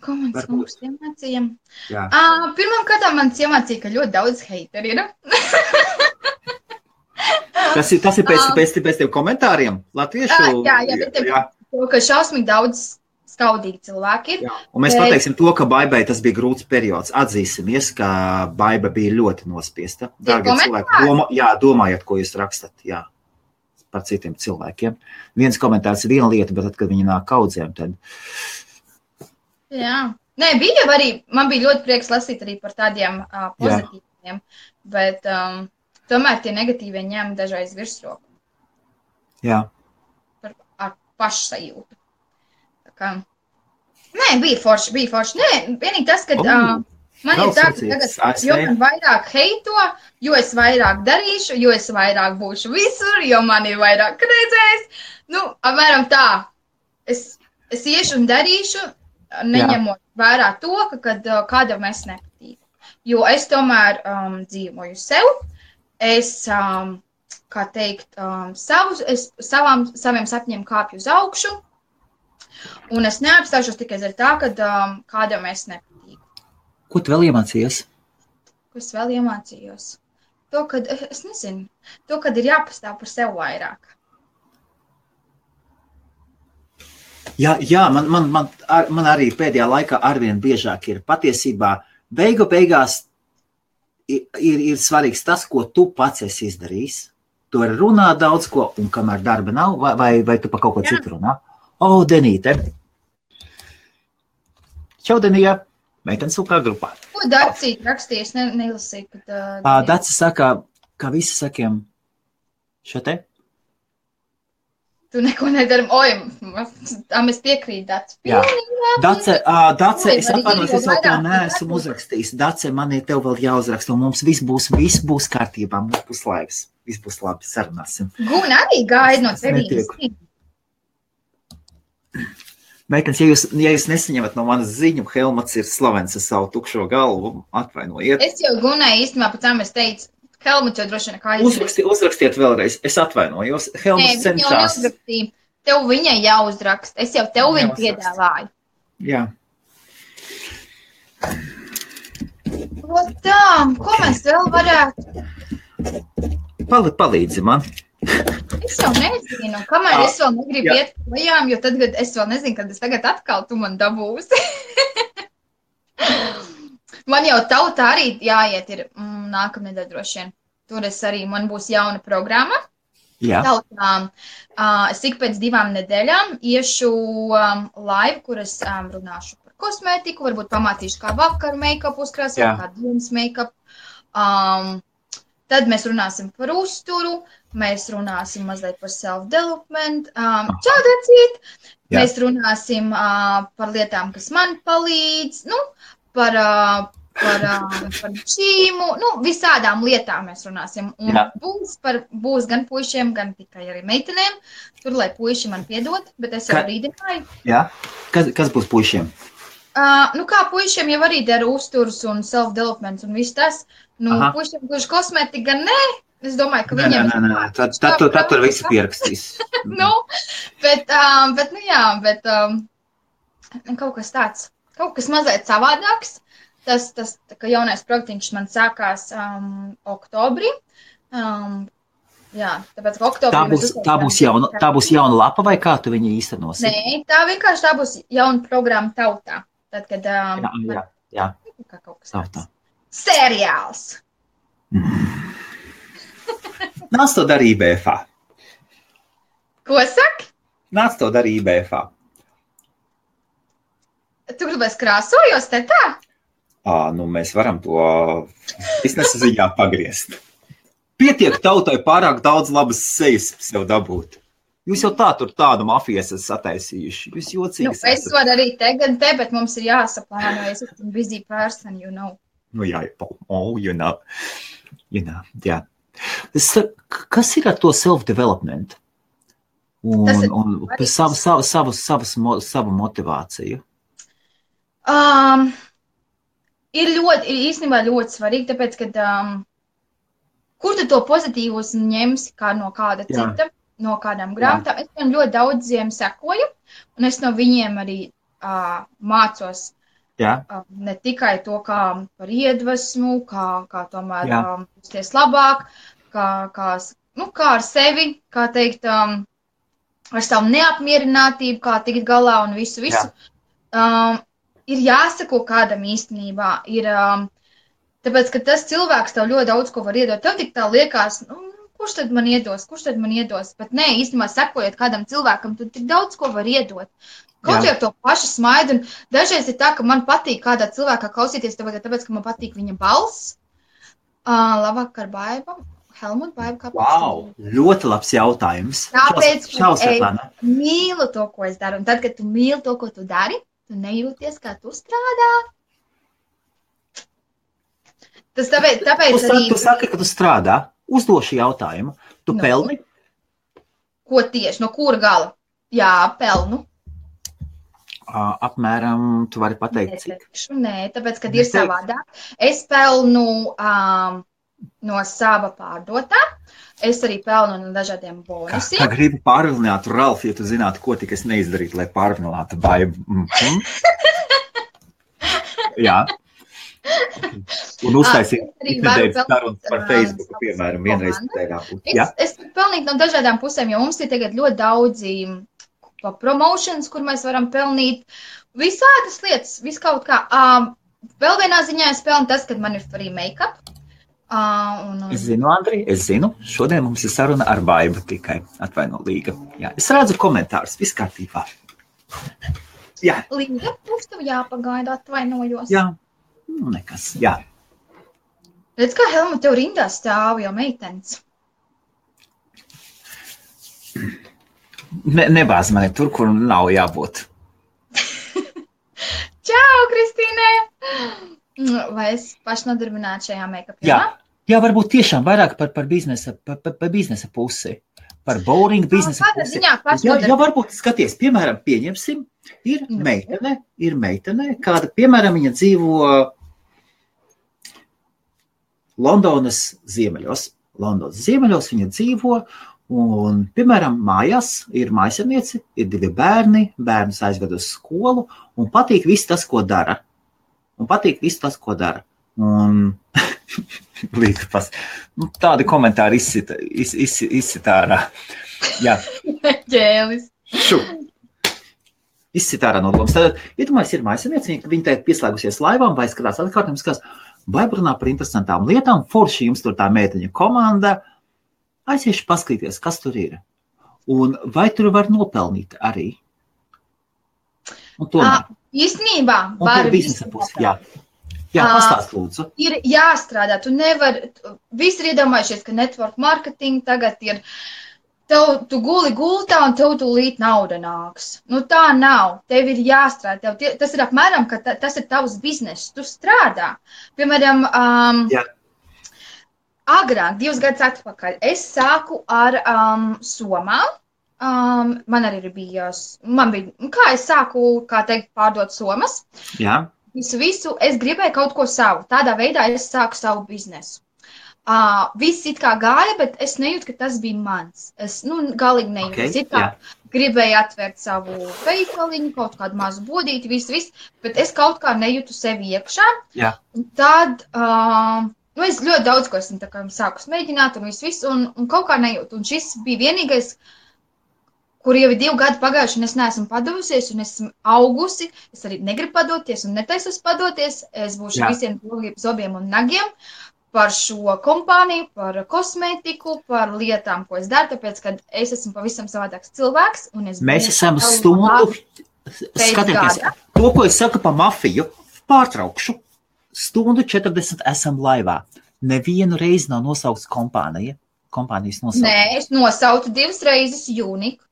Ko man tas konkurss iemācīja? Pirmām kārtām man iemācīja, ka ļoti daudz heiteri ir. Tas ir pēc tiem komentāriem latviešu? Jā, ka šausmīgi daudz skaudīgi cilvēki ir. Jā. Un mēs pateiksim to, ka Baibai tas bija grūts periods. Atzīsimies, ka Baiba bija ļoti nospiesta. Dārgie cilvēki, domājiet, ko jūs rakstat, par citiem cilvēkiem. Viens komentārs ir viena lieta, bet tad, kad viņi nāk kaudzēm, tad... Jā. Nē, bija arī, man bija ļoti prieks lasīt arī par tādiem pozitīviem, bet tomēr tie negatīvie ņēma dažreiz virsroku. Jā. Ar pašsajūtu. Nē, bija forši. Nē, vienīgi tas, ka man ir tā, ka tagad, jo man vairāk heito, jo es vairāk darīšu, jo es vairāk būšu visur, jo man ir vairāk redzējis. Apmēram tā. Es iešu un darīšu, neņemot vērā to, ka kādam es nepatīku. Jo es tomēr dzīvoju sev. Es, kā teikt, saviem sapņiem kāpju uz augšu. Un es neapstāšos tikai ar tā, ka kādam es nepatīku. Ko tu vēl iemācījies? Ko es vēl iemācījos? To, kad, es nezinu, to, kad ir jāpastāv par sev vairāk. Jā, man arī pēdējā laikā arvien biežāk ir patiesībā beigās ir svarīgs tas, ko tu pats esi izdarījis. Tu vari runāt daudz ko, un kamēr darba nav, vai tu pa kaut ko citu runā? Denīte. Čau, Denija. Meitenes UK grupā. Ko Dacīt rakstījies? Nelasīju, kad... Daci saka, ka visi sakiem šo te? Tu neko nedaram. Mēs piekrīt, Daci. Jā. Dace, es atvainojos, es vēl tev neesmu uzrakstījis. Dace, man ir tev vēl jāuzraksta, un mums viss būs kārtībā, mums būs laiks. Viss būs labi, sarunāsim. Guna arī gaida no tevīs. Meitenes, ja jūs nesaņemat no manas ziņu, Helmuts ir slavens ar savu tukšo galvu, atvainojiet. Es jau Gunai īstenībā pēc tam es teicu, Helmuts jau droši vien kā izrakst. Uzrakstiet vēlreiz, es atvainojos. Helmuts cenšās. Tev viņai jāuzrakst, es jau tev viņu piedāvāju. Jā. Tā, ko mēs vēl varētu? Palīdzi man. Es jau nezinu, kamēr es vēl negribu iet projām, jo tad, kad es vēl nezinu, kad es tagad atkal tu man dabūsi. Man jau tautā arī jāiet ir nākamnedēļ droši vien. Tur man būs jauna programma. Jā. Tautā. Es ik pēc 2 nedēļām iešu live, kur es runāšu par kosmētiku, varbūt pamācīšu kā vakaru make-up uzkrāsot, kā dienas make-up. Tad mēs runāsim par uzturu, mēs runāsim mazliet par self-development. Čau, Dacīt! Mēs runāsim par lietām, kas man palīdz, par šīmu, visādām lietām mēs runāsim. Un būs gan puišiem, gan tikai arī meitenēm. Tur, lai puiši man piedod, bet es jau brīdināju. Jā, kas būs puišiem? Kā puišiem jau arī dara uzturs un self-developments un viss tas. Puišiem, kurš kosmētika gan nē, es domāju, ka viņiem... Nē, tad tur visi pierakstīs. Bet kaut kas tāds, kaut kas mazliet savādāks. Tas ka jaunais projektiņš man sākās oktobrī. Jā, tāpēc, ka oktobrī... Tā būs jauna lapa vai kā tu viņu īstenosi? Nē, tā vienkārši tā būs jauna programma tautā. Tad, kad... Jā. Kā kaut kas tāds. Seriāls! Nāc to darīja BFA. Ko saki? Nāc to darīja BFA. Tu gribēs krāsojos te tā? Mēs varam to biznesa ziņā pagriezt. Pietiek tautai pārāk daudz labas sejas sev dabūt. Jūs jau tādu mafijas esat sataisījuši. Jūs jocīgi esat. Es varu arī tagad bet mums ir jāsaplāno. Es esmu busy person, you know. Jā, you know, jā. Kas ir ar to self-development? un savu motivāciju? Ir īstenībā ļoti svarīgi, tāpēc, ka kur tu to pozitīvus ņemsi kā no kāda cita, no kādām grāmatām. Es viņam ļoti daudziem sekoju, un es no viņiem arī mācos ne tikai to, kā par iedvesmu, kā tomēr justies labāk, kā ar sevi, kā teikt, ar savu neapmierinātību, kā tikt galā un visu. Ir jāsako kādam īstenībā. Tāpēc, ka tas cilvēks tev ļoti daudz ko var iedot. Tev tik tā liekas, kurš tad man iedos? Bet nē, īstenībā sekojot kādam cilvēkam, tu tik daudz ko var iedot. Kaut jau to pašu smaidu. Un dažreiz ir tā, ka man patīk kādā cilvēkā klausīties, tāpēc, ka man patīk viņa balss. Labvakar, Baiba. Helmut, Baiba, kāpēc? Wow, ļoti labs jautājums. Tāpēc, ka es mīlu to, ko es daru. Un tad, kad tu mīli to, ko tu dari, tu nejūties, kā tu strādā. Tas tāpēc arī... Tu saki, ka tu strādā. Uzdošu jautājumu. Tu pelni? Ko tieši? No kura gala? Jā, pelnu. Apmēram, tu vari pateikt, cik? Nē, tāpēc, kad ir savādāk. Es pelnu no sava pārdotā. Es arī pelnu no dažādiem bonusiem. Kā gribu pārvilināt, Ralf, ja tu zinātu, ko tik es neizdarītu, lai pārvilinātu Baibu. Jā. Un uztaisīt iknedēļas sarunas par Facebooku, piemēram, vienreiz nedēļā. Es pelnītu no dažādām pusēm, jo mums ir tagad ļoti daudzi promotions, kur mēs varam pelnīt visādas lietas, viskaut kā. Vēl vienā ziņā es pelnu tas, kad man ir free make-up. Es zinu, Andri, šodien mums ir saruna ar Baibu tikai atvaino Līga. Jā, es redzu komentārus, viss kārtībā. Jā. Līga, mums tev jāpagaida, atvainojos. Jā, nekas, jā. Redz, kā Helmut tev rindā stāv jau meitenes. Nebāz mani tur, kur nav jābūt. Čau, Kristīne! Vai es pašnodarbinātu šajā make-upā? Jā, varbūt tiešām vairāk par biznesa pusi. Par bowling biznesa pusi. Jā, varbūt skaties, piemēram, pieņemsim, ir meitene, kāda, piemēram, viņa dzīvo Londonas ziemeļos. Viņa dzīvo, un, piemēram, mājās ir mājasarniece, ir 2 bērni, bērnus aizved uz skolu, un patīk viss tas, ko dara. Un tādi komentāri izsita ārā. Jā. Ģēlis. Izsita ārā no domas. Tad, iedomājies, ir mājasarniece, viņa te pieslēgusies laivām, vai skatās atkārtiem, vai runā par interesantām lietām, forši jums tur tā meiteņa komanda, aiziešu paskatīties, kas tur ir. Un vai tur var nopelnīt arī? Un tomēr. Īstenībā var biznesa pusi, jā, pastāst lūdzu. Ir jāstrādā, tu nevari, visi ir iedomājušies, ka network marketing tagad ir, tu guli gultā un tev tūlīt nauda nāks. Tā nav, tev ir jāstrādā, tas ir apmēram, ka tas ir tavs bizness, tu strādā. Piemēram, agrāk, 2 gadus atpakaļ, es sāku ar somām. Man arī bija, kā es sāku, kā teikt, pārdot somas. Jā. Visu, es gribēju kaut ko savu. Tādā veidā es sāku savu biznesu. Viss it kā gāja, bet es nejūtu, ka tas bija mans. Es, galīgi nejūtu. Es it kā gribēju atvērt savu veikaliņu, kaut kādu mazu bodīti, visu, bet es kaut kā nejūtu sevi iekšā. Jā. Un tad, es ļoti daudz ko esmu sākus mēģināt un visu, un kaut kā nejūtu. Un šis bija vienīgais, kur jau ir 2 gadi pagājuši, un es neesmu padevusies, un esmu augusi. Es arī negribu padoties, un netaisos padoties. Es būšu visiem zobiem un nagiem par šo kompāniju, par kosmētiku, par lietām, ko es daru, tāpēc, ka es esmu pavisam savādāks cilvēks. Mēs esam stundu, skatieties, to, ko es saku pa mafiju, pārtraukšu. 1:40 esam laivā. Nevienu reizi nav nosaukts kompānijas nosaukts. Nē, es nosautu 2 reizes Unique.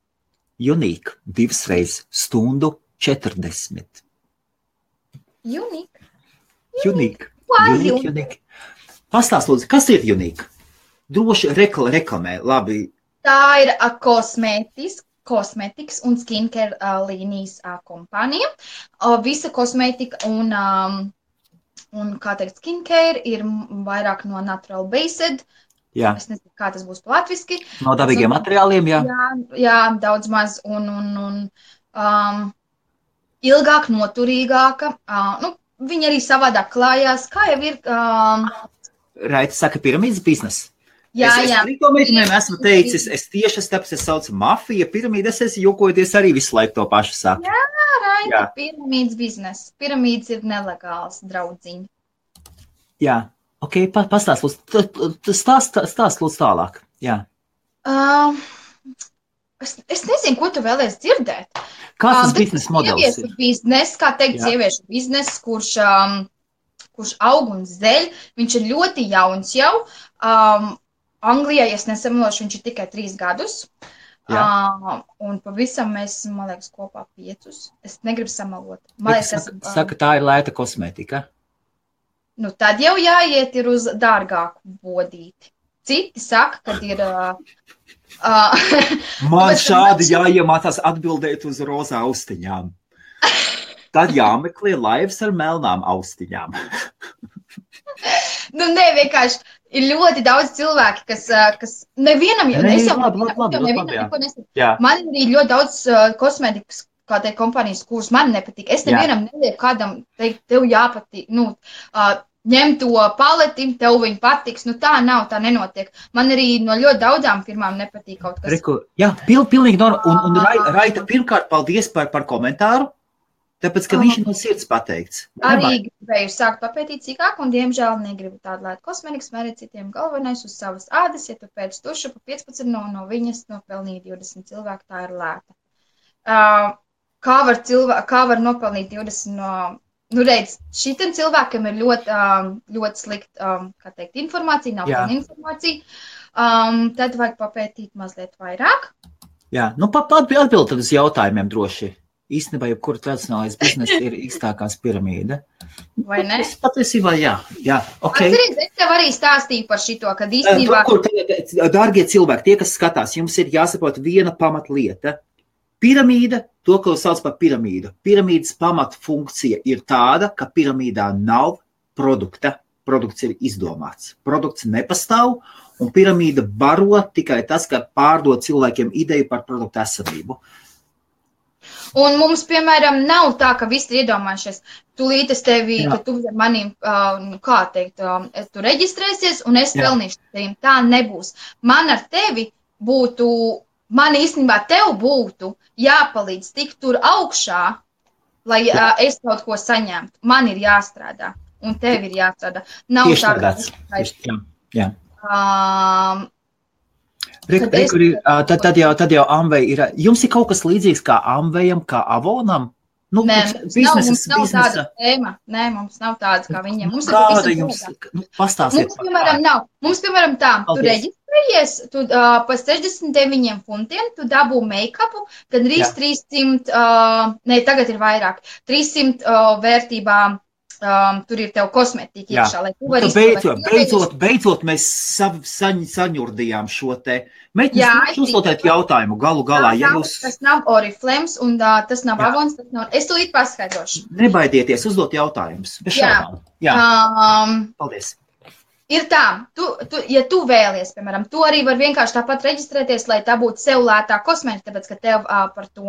Unique, 2 reizes 1:40. Unique. Pastāst, lūdzu, kas ir Unique? Droši reklamē, labi. Tā ir kosmētiska kosmetikas un skincare līnijas kompānija. Visa kosmetika un kā teikt, skincare ir vairāk no natural based. Jā. Es nezinu, kā tas būs latviski. No dabīgiem materiāliem, jā. Jā, daudz maz un ilgāk, noturīgāka. Viņi arī savādāk klājās. Kā jau ir... Raita saka, piramīdas biznesa. Jā. Es to meitenēm esmu teicis, es tieši tāpēc es saucu mafija, piramīda, es jokojoties arī visu laiku to pašu saku. Jā, Raita, piramīdas biznesa. Piramīdas ir nelegāls, draudziņi. Jā, ok, pastāst lūdzu tālāk. Jā. Es nezinu, ko tu vēlies dzirdēt. Kāds tas biznesa modelis ir? Biznes, kā teikt, sieviešu biznes, kurš aug un zeļ. Viņš ir ļoti jauns jau. Anglijā, ja es nesamalošu, viņš ir tikai 3 gadus. Un pavisam mēs, man liekas, kopā 5. Es negribu samalot. Saka, tā ir lēta kosmetika. Nu, tad jau jāiet ir uz dārgāku bodīti. Citi saka, kad ir... Man šādi jāiemācās atbildēt uz rozā austiņām. Tad jāmeklē laivas ar melnām austiņām. Vienkārši ir ļoti daudz cilvēki, kas nevienam jau neko nesaku. Man ir arī ļoti daudz kosmētikas, kā teikt, kompānijas, kuras man nepatīk. Es nevienam nelieku kādam teikt, tev jāpatīk, ņem to paleti, tev viņi patiks. Tā nav, tā nenotiek. Man arī no ļoti daudzām firmām nepatīk kaut kas. Jā, pilnīgi norma. Un Raita, pirmkārt, paldies par komentāru. Tāpēc, ka viņš ir no sirds pateikts. Arī gribēju sākt papētīt cīkāk, un, diemžēl, negribu tādu lētu kosmetikas, mērīt citiem galvenais uz savas ādas. Ja tu pēc tuša pa 15 no viņas nopelnīja 20 cilvēku, tā ir lēta. Kā var nopelnīt 20 no... redz, šitam cilvēkam ir ļoti slikta, kā teikt, informācija, nav pilna informācija. Tad vajag papētīt mazliet vairāk. Jā, atbild tad uz jautājumiem droši. Īstenībā, jebkura tradicionālais biznesa ir īstākās piramīda. Vai ne? Patiesībā, jā. Okay. Atceries, es tev arī stāstīju par šito, kad īstenībā... Dārgie cilvēki, tie, kas skatās, jums ir jāsaprot viena pamatlieta. Piramīda, to, ko sauc par piramīdu. Piramīdas pamatfunkcija ir tāda, ka piramīdā nav produkta. Produkts ir izdomāts. Produkts nepastāv, un piramīda baro tikai tas, ka pārdod cilvēkiem ideju par produktu esamību. Un mums, piemēram, nav tā, ka visi ir iedomājušies. Tūlīt es tevi, ka tu manīm, kā teikt, tu reģistrēsies un es pelnīšu tevim. Tā nebūs. Man ar tevi būtu, man īstenībā tev būtu jāpalīdz tikt tur augšā, lai es kaut ko saņemtu. Man ir jāstrādā un tev ir jāstrādā. Nav tieši tā, jā. Tad jau Amvei ir. Jums ir kaut kas līdzīgs kā Amvejam, kā Avonam? Nē, mums nav tāda tēma. Nē, mums nav tādas kā viņiem. Mums kāda jums? Pastāstiet. Mums, piemēram, tā. Tu reģistrējies, tu pa 69 funtiem, tu dabū make-upu, tad arī 300, tagad ir vairāk, 300 vērtībā. Tur ir tev kosmetika iekšā, lai tu vari izpildīt. Beidzot mēs saņurdījām šo te. Mēģināt uzdot jautājumu galu galā. Tas nav Oriflames un tas nav Avons. Es tūlīt paskaidrošu. Nebaidieties uzdot jautājumus. Bez šaubām. Jā. Paldies. Ir tā, ja tu vēlies, piemēram, tu arī var vienkārši tāpat reģistrēties, lai tā būtu sev lētā kosmetika, tāpēc, ka tev par to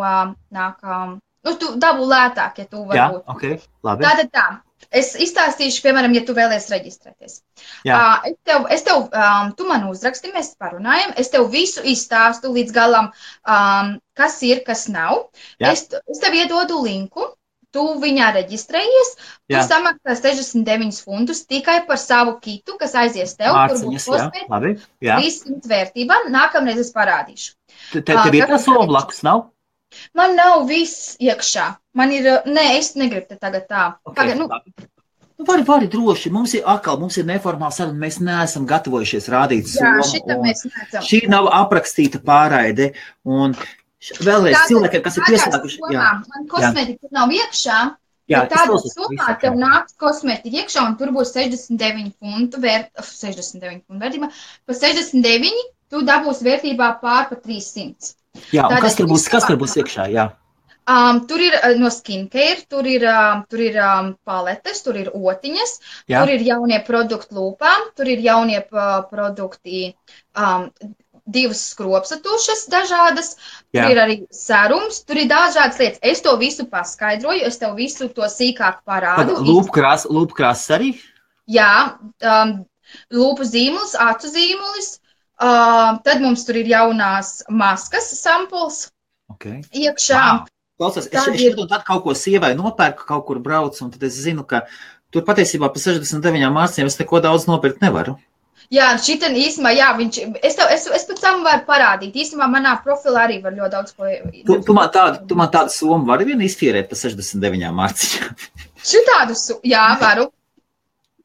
nāk, tu dabū lētāk, ja tu var būt. Okay, labi. Tātad tā. Es izstāstīšu, piemēram, ja tu vēlies reģistrēties. Es tev, tu man uzraksti, mēs parunājam, es tev visu izstāstu līdz galam, kas ir, kas nav. Es tev iedodu linku, tu viņā reģistrējies, tu samaksā 69 funtus tikai par savu kitu, kas aizies tev, kur būs kosmētika, 300 vērtībā, nākamreiz es parādīšu. Tev ir tā sova blakus, nav? Man nav viss iekšā. Man ir, es negribu te tagad tā. Vari droši. Mums ir neformāla saruna. Mēs neesam gatavojušies rādīt somu. Jā, šita mēs neesam. Šī nav aprakstīta pārraide. Un vēlreiz cilvēkiem, kas ir pieslēguši. Man kosmetika nav iekšā. Tādā summā tev nāks kosmetika iekšā un tur būs 69 funtu vērtībā. Pa 69 tu dabūs vērtībā pār pa 300. Jā, un Tātad kas tur būs iekšā, jā? Tur ir no skincare, tur ir paletes, tur ir otiņas, Jā. tur ir jaunie produkti lūpām, tur ir jaunie produkti, 2 skropsatušas dažādas, tur ir arī serums, tur ir dažādas lietas. Es to visu paskaidroju, es tev visu to sīkāk parādu. Lūpkrāsas arī? Jā, lūpu zīmulis, acu zīmulis, tad mums tur ir jaunās maskas sampuls iekšā. Wow. Klausās, es tad kaut ko sievai nopērku, kaut kur braucu, un tad es zinu, ka tur patiesībā pa 69 mārciņām es neko daudz nopirkt nevaru. Jā, šitan īsumā, jā, es pēc tam varu parādīt. Īsumā manā profilā arī var ļoti daudz ko. Tu man tādu somu vari vien iztīrēt pa 69 mārciņām? Šitādu, jā, varu.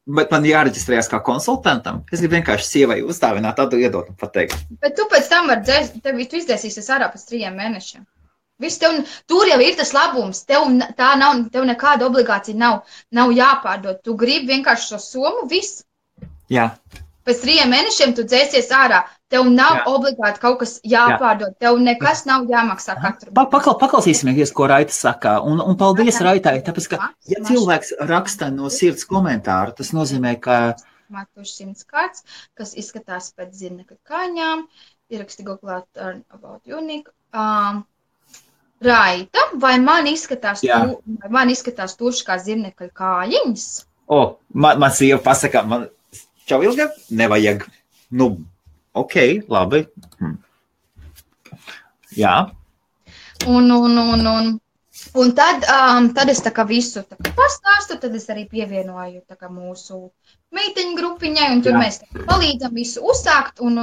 Bet man jāreģistrējas kā konsultantam. Es gribu vienkārši sievai uzdāvināt, tādu iedot un pateikt. Bet tu pēc tam tu izdzēsīsies ārā pēc 3 mēnešiem. Tur jau ir tas labums, tev nekāda obligācija nav jāpārdod. Tu gribi vienkārši šo somu, viss. Jā. Pēc 3 mēnešiem tu dzēsies ārā. Tev nav obligāti kaut kas jāpārdod. Tev nekas nav jāmaksā katru. Paklausīsimies, ko Raita saka. Un paldies Raitai, tāpēc, ka ja cilvēks raksta no sirds komentāru, tas nozīmē, ka... Matuši 100 kārts, kas izskatās pēc zirnekļa kāņām. Ieraksti Google about unique. Raita, vai man izskatās tuši kā zirnekļa kājiņas? Man sieva pasaka, man čau ilga, nevajag. Nu, ok, labi. Jā. Un tad es tā kā visu pastāstu, tad es arī pievienoju tā kā mūsu meiteņu grupiņai, un tur mēs palīdzam visu uzsākt un.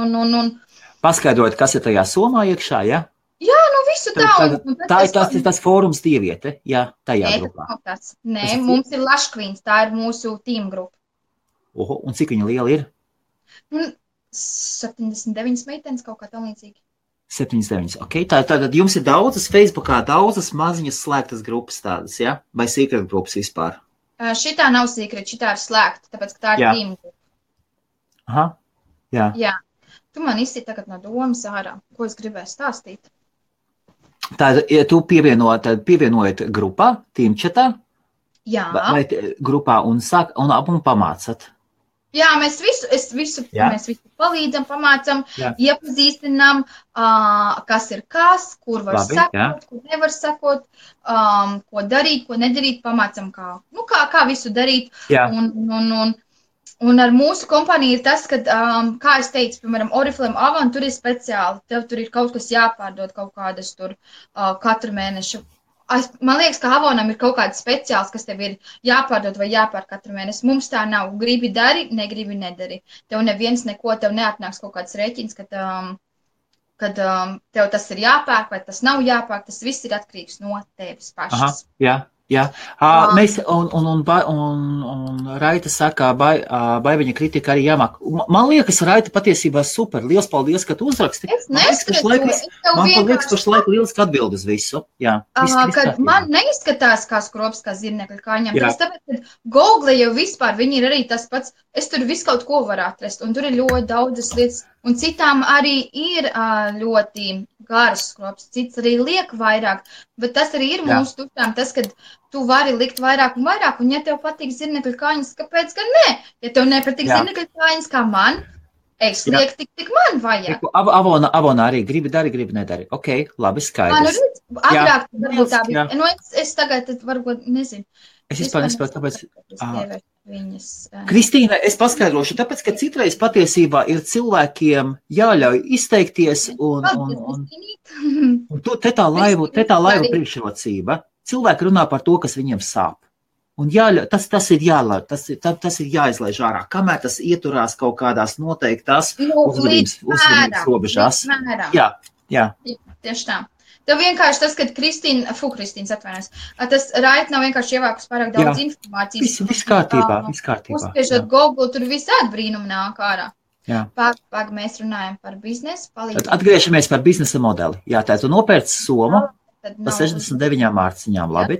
Paskaidrot, kas ir tajā somā iekšā, ja? Jā, nu visu tā. Tā ir tas fórums dieviete, jā, tajā grupā. Nē, mums ir Laškvīns, tā ir mūsu tīm grupa. Un cik viņa liela ir? 79 meitenes, kaut kā tam līdzīgi. 79, ok. Tātad jums ir daudzas Facebookā, daudzas maziņas slēgtas grupas tādas, ja? Vai secret grupas vispār? Šitā nav secret, šitā ir slēgta, tāpēc, ka tā ir tīm grupa. Aha, jā. Jā. Tu man izsit tagad no domas ārā, ko es gribēju stāstīt. Tātad, ja tu pievienojat grupā, tīmčatā? Jā. Vai grupā un pamācat? Jā, mēs visu palīdzam, pamācam, iepazīstinām, kas ir kas, kur var sekot, kur nevar sekot, ko darīt, ko nedarīt, pamācam, kā visu darīt. Un ar mūsu kompāniju ir tas, ka, kā es teicu, piemēram, Oriflame Avon, tur ir speciāli, tev tur ir kaut kas jāpārdod, kaut kādas tur katru mēnešu. Man liekas, ka Avonam ir kaut kāds speciāls, kas tev ir jāpārdod vai jāpār katru mēnesi. Mums tā nav. Gribi dari, negribi nedari. Tev neviens neko, tev neatnāks kaut kāds rēķins, kad tev tas ir jāpērk vai tas nav jāpērk. Tas viss ir atkarīgs no tevis pašas. Aha, jā. Mēs, un Raita saka, Baiviņa kritika arī jāmāk. Man liekas, Raita patiesībā super. Liels paldies, ka tu uzraksti. Es neskatu. Man liekas, pašlaik lieliski atbild uz visu. Jā. Kad man neizskatās kā skrops, kā zirnekļa kāņām. Tāpēc, kad Google jau vispār, viņi ir arī tas pats. Es tur visu kaut ko varu atrast. Un tur ir ļoti daudzas lietas. Un citām arī ir ļoti garas skrops. Cits arī liek vairāk. Bet tas arī ir mūsu tuštām. Tas, kad tu vari likt vairāk un vairāk. Un ja tev patīk zirnekļa kāņas, kāpēc gan ne? Ja tev nepatīk zirnekļa kāņas kā man, es lieku tik man vajag. Avona arī gribi dari, gribi nedari. Ok, labi, skaidrs. Agrāk varbūt tā bija. Nu, es tagad varbūt nezinu. Es vispār nesaprotu, tāpēc... Kristīna, es paskaidrošu, tāpēc, ka citreiz patiesībā ir cilvēkiem jāļauj izteikties un te tā laivu priekšrocība. Cilvēki runā par to, kas viņiem sāp. Un tas ir jāizlaiž ārā, kamēr tas ieturās kaut kādās noteiktās uzvedības robežās. Jā. Tieši tā. Tev vienkārši tas, kad Kristīns atvainojas, tas Raita nav vienkārši ievākus pārāk daudz informācijas. Viss kārtībā. Uzspiežot Google, tur visādi brīnumi nāk ārā. Pag, mēs runājam par biznesu. Atgriežamies par biznesa modeli. Jā, tā tu nopērci somu pa 69 mārciņām, labi?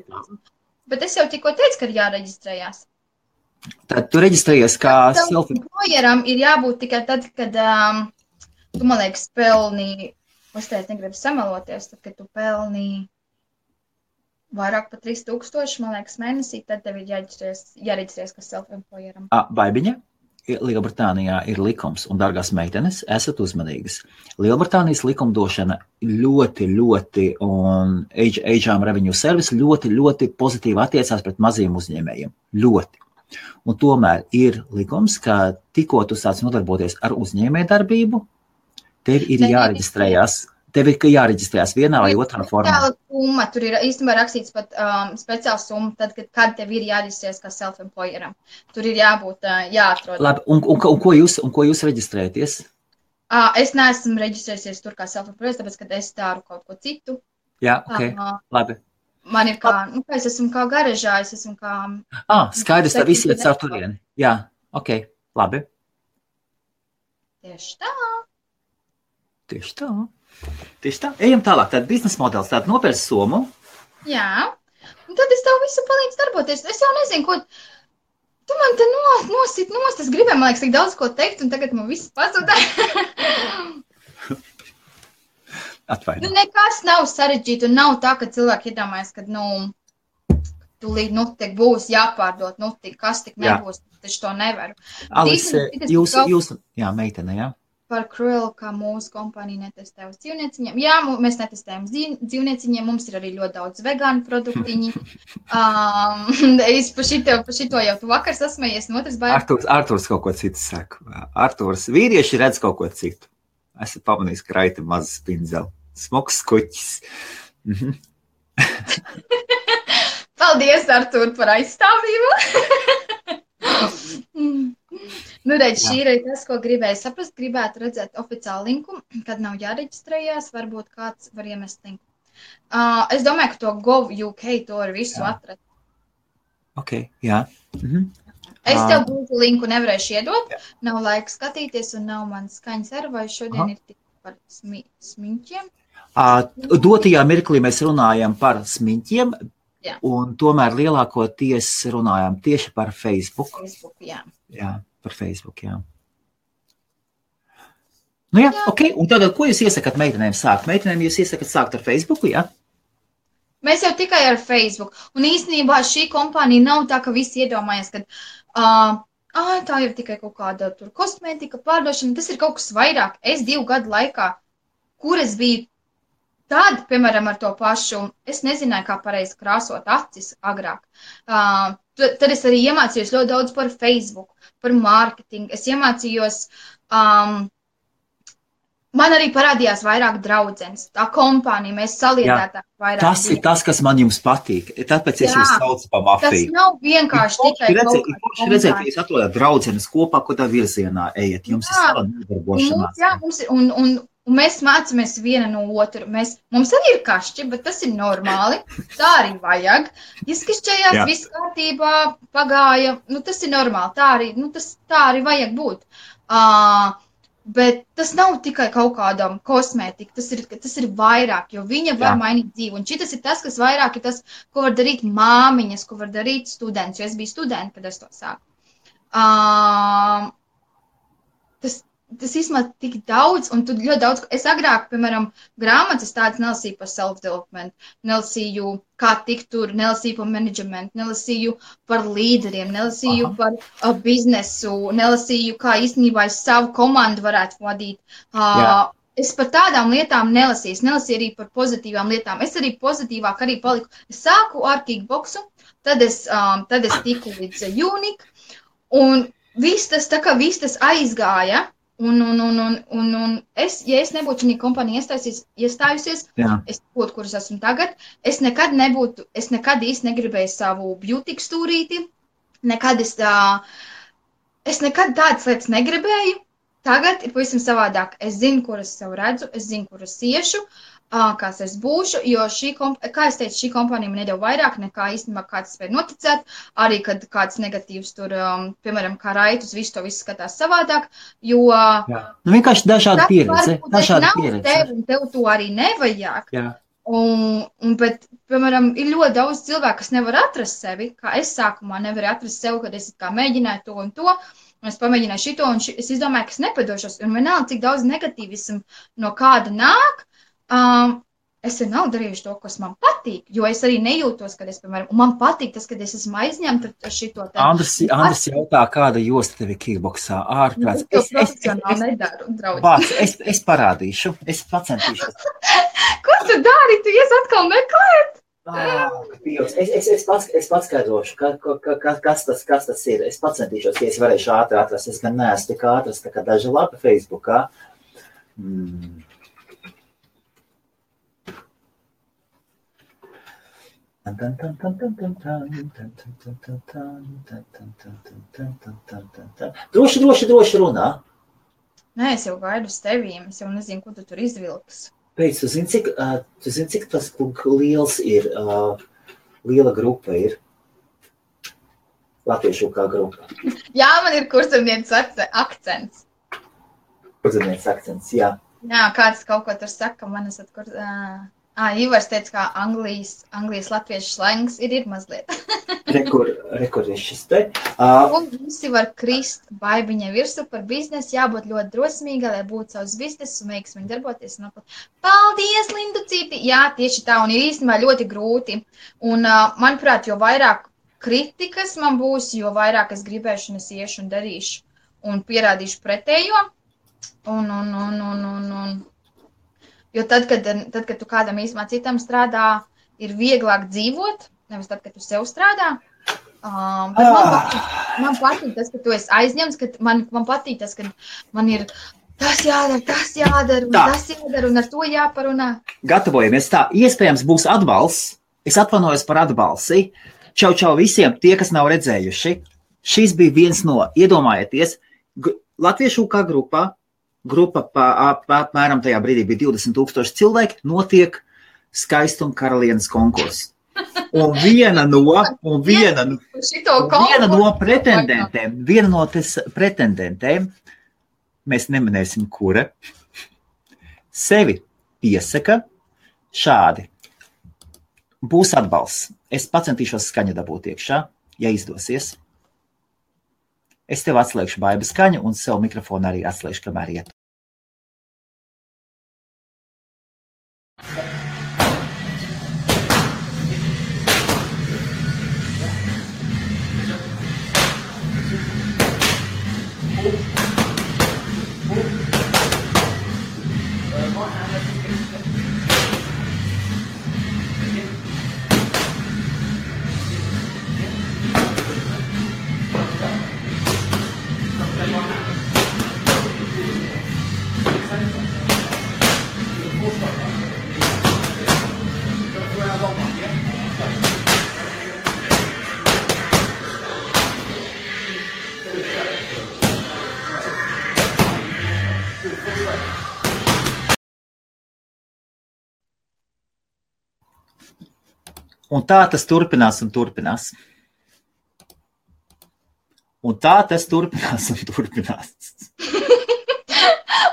Bet es jau tikko teicu, ka ir jāreģistrējās. Tad tu reģistrējies kā selfie. Employeram ir jābūt tikai tad, kad tu, man liekas, pelni uzteikt, negribu samaloties, tad, kad tu pelnī vairāk par 3000, man liekas, mēnesī, tad tev ir jāreģistrēs kā self-employeram. Baibiņa, Lielbritānijā ir likums, un, dārgās meitenes, esat uzmanīgas. Lielbritānijas likumdošana ļoti, un HM Revenue Service ļoti pozitīvi attiecās pret maziem uzņēmējiem. Ļoti. Un tomēr ir likums, ka tikko tu sāc nodarboties ar uzņēmējdarbību, tev ir jāreģistrējās. Tev ir jāreģistrējas vienā vai otrā formā. Summa, tur ir īstenībā rakstīts pat speciāla summa, tad, kad tev ir jāreģistrējas kā self-employeram. Tur ir jābūt jāatrod. Labi, un ko jūs reģistrējaties? Es neesmu reģistrējusies tur kā self-employeris, tāpēc, ka es daru kaut ko citu. Jā, ok, labi. Man ir kā, es esmu kā garažā, es esmu kā... Skaidrs, tā visi iet caur turieni. Jā, ok, labi. Tieši tā. Tieši tā. Ejam tālāk. Tāda biznesa modelis, tāda nopērts summu. Jā. Un tad es tev visu palīdzu darboties. Es jau nezinu, ko... Tu man te nosit nost. Es gribēju, man liekas, tik daudz ko teikt, un tagad man viss pazuda. Atvaino. Nekas nav sarežģīti, un nav tā, ka cilvēki iedomājas, ka, tūlīt, tik būs jāpārdot, kas tik nebūs, taču to nevaru. Alise, jūs, jā, meitene, jā. Par Cruel, kā mūsu kompānija netestē uz dzīvnieciņiem. Jā, mēs netestējam dzīvnieciņiem, mums ir arī ļoti daudz vegānu produktiņi. Es pa šito jau tu vakar sasmējies, un otrs baigi. Arturs kaut ko citu saka. Arturs, vīrieši redz kaut ko citu. Esat pamanījis, ka raita mazas pindzeli. Smoks kuķis. Paldies, Artur, par aizstāvību. Redz, šī ir tas, ko gribēju saprast. Gribētu redzēt oficiālu linku, kad nav jāreģistrējās. Varbūt kāds var iemest linku. Es domāju, ka to Gov.uk to ar visu atrast. Ok, jā. Es tev būtu linku nevarēšu iedot. Nav laika skatīties un nav man skaņas ar, vai šodien ir tik par smiņķiem. Dotajā mirklī mēs runājam par smiņķiem, un tomēr lielākoties runājam tieši par Facebook. Jā. Jā, par Facebook, jā. Nu jā, ok. Un tagad, ko jūs iesakat meitenēm sākt? Meitenēm jūs iesakat sākt ar Facebooku, jā? Mēs jau tikai ar Facebook. Un īstenībā šī kompānija nav tā, ka visi iedomājas, ka tā ir tikai kaut kāda tur kosmētika pārdošana. Tas ir kaut kas vairāk. Es 2 gadu laikā, kur es biju tad, piemēram, ar to pašu, es nezināju, kā pareizi krāsot acis agrāk. Tad es arī iemācījos ļoti daudz par Facebook, par mārketingu. Es iemācījos, man arī parādījās vairāk draudzenes. Tā kompānija, mēs saliedētām vairāk. Tas ir tas, kas man jums patīk. Tāpēc es jūs saucu pa mafiju. Tas nav vienkārši tikai kaut kāda kompānija. Redzēt, ka jūs atrodat draudzenes kopā, ko tā virzienā ejat. Jums ir sava nodarbošanās. Jā, un mēs mācāmies viena no otru. Mums arī ir kašķi, bet tas ir normāli. Tā arī vajag. Izkašķējās, viss kārtībā, pagāja. Tas ir normāli. Tā arī vajag būt. Bet tas nav tikai kaut kādam kosmētika. Tas ir vairāk, jo viņa var mainīt dzīvi. Un šitas ir tas, kas vairāk ir tas, ko var darīt māmiņas, ko var darīt students. Jo es biju studenti, kad es to sāku. Tas īstenībā tik daudz, un tu ļoti daudz, es agrāk, piemēram, grāmatas tādas nelasīju par self-development, nelasīju, kā tikt tur, nelasīju par managementu, nelasīju par līderiem, nelasīju par biznesu, nelasīju, kā īstenībā es savu komandu varētu vadīt. Es par tādām lietām nelasīju arī par pozitīvām lietām. Es arī pozitīvāk arī paliku. Es sāku ar kickboksu, tad es tiku līdz Unique, un viss tas aizgāja. Un es, ja es nebūtu šī kompānija iestājusies, es būtu, kur es esmu tagad, es nekad īsti negribēju savu beauty stūrīti, es nekad tādas lietas negribēju. Tagad ir pavisam savādāk. Es zinu, kur es sev redzu, es zinu, kur es iešu, kāds es būšu, jo kā es teicu, šī kompānija man nedēļ vairāk nekā īstenībā kāds spēja noticēt, arī kad kāds negatīvs tur, piemēram, kā raitus, visu skatās savādāk, jo... Vienkārši dažāda pieredze. Tev to arī nevajag. Bet, piemēram, ir ļoti daudz cilvēku, kas nevar atrast sevi, kā es sākumā nevaru atrast sevi, kad es kā mēģināju to un to, un es pamēģināju šito, un es izdomāju, ka es nepadošos, un vienalga, cik daudz negatīvismu no kāda nāk, es vienalga darījuši to, kas man patīk, jo es arī nejūtos, kad es, piemēram, un man patīk tas, kad es esmu aizņemta ar šito. Andris jautā, kāda josta tev ir kickboksā ārprāts. Es profesionāli nedaru, draugi. Vārds, es parādīšu, es pacentīšos. Ko tu dari? Tu ies atkal meklēt? Es paskaidrošu, kas tas ir. Es pacentīšos, ja es varēšu ātri atrast. Es gan neesmu tik ātras, tā kā daži lapi Facebookā. Droši runā. Nē, es jau gaidu uz tevīm. Es jau nezinu, ko tu tur izvilks. Pēc, tu zini, cik tas liels ir, liela grupa ir? Latviešu kā grupa. Jā, man ir kurzemnieces akcents. Kurzemnieces akcents, jā. Jā, kāds kaut ko tur saka, man esat Ivars teica, kā Anglijas latviešu slangs ir mazliet. Rekur ir šis te. Un visi var krist baibiņai virsu par biznesu, jābūt ļoti drosmīgai, lai būtu savs biznesu un veiksmīgi darboties. Paldies, Linducīti! Jā, tieši tā, un ir īstenībā ļoti grūti. Un, manuprāt, jo vairāk kritikas man būs, jo vairāk es gribēšu un es iešu un darīšu un pierādīšu pretējo. Jo tad, kad tu kādam īstenībā citam strādā, ir vieglāk dzīvot, nevis tad, kad tu sev strādā. Man patīk tas, ka tu esi aizņemts, ka man patīk tas, ka man ir tas jādara, un ar to jāparunā. Gatavojamies tā. Iespējams būs atbalsts. Es atvainojos par atbalsi. Čau visiem tie, kas nav redzējuši. Šis bija viens no, iedomājieties, Latviešu kā grupa apmēram tajā brīdī bija 20,000 cilvēki, notiek skaistuma karalienes konkurss. Un viena no pretendentēm, mēs neminēsim, kura, sevi piesaka šādi. Būs atbalsts. Es pacentīšos skaņu dabūt iekšā, ja izdosies. Es tev atslēgšu baiba skaņu un sev mikrofonu arī atslēgšu, kamēr iet. Un tā tas turpinās un turpinās.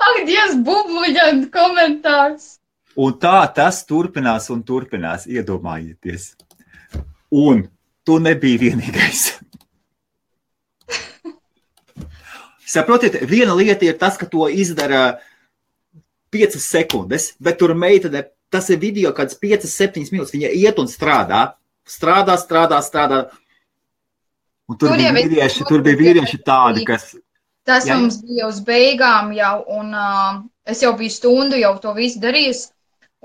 Ak, Dievs, bubluļant komentārs. Un tā tas turpinās un turpinās, iedomājieties. Un tu nebija vienīgais. Saprotiet, viena lieta ir tas, ka to izdara 5 sekundes, bet tur meitene, tas ir video kāds 5-7 minūtes, viņa iet un strādā. Un tur bija vīrieši tādi, kas... Tas mums bija uz beigām jau, un es jau biju stundu jau to visu darījis,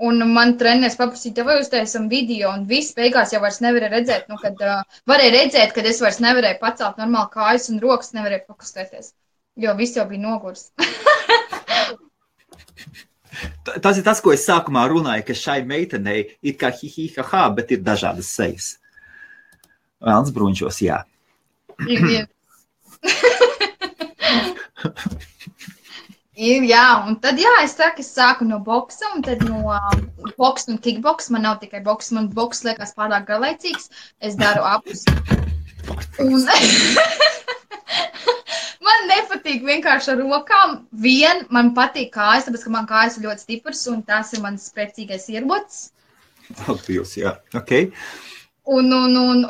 un man treneris paprasīja, vai uztaisam video, un viss beigās jau vairs nevarēja redzēt, varēja redzēt, kad es vairs nevarēju pacelt normāli kājas un rokas nevarēju pakustēties, jo viss jau bija nogurs. Tas ir tas, ko es sākumā runāju, ka šai meitenei ir kā hi-hi-ha-ha, bet ir dažādas sejas. Velns bruņšos, jā. Jā, un tad, es sāku no boksa, un tad no boksa un kickboksa. Man nav tikai boksa, man boksa liekas pārāk garlaicīgs. Es daru abus. Un man nepatīk vienkārši ar rokām. Man patīk kājas, tāpēc, ka man kājas ir ļoti stipras, un tās ir mans spēcīgais ierocis. Paldies, jā, ok. Un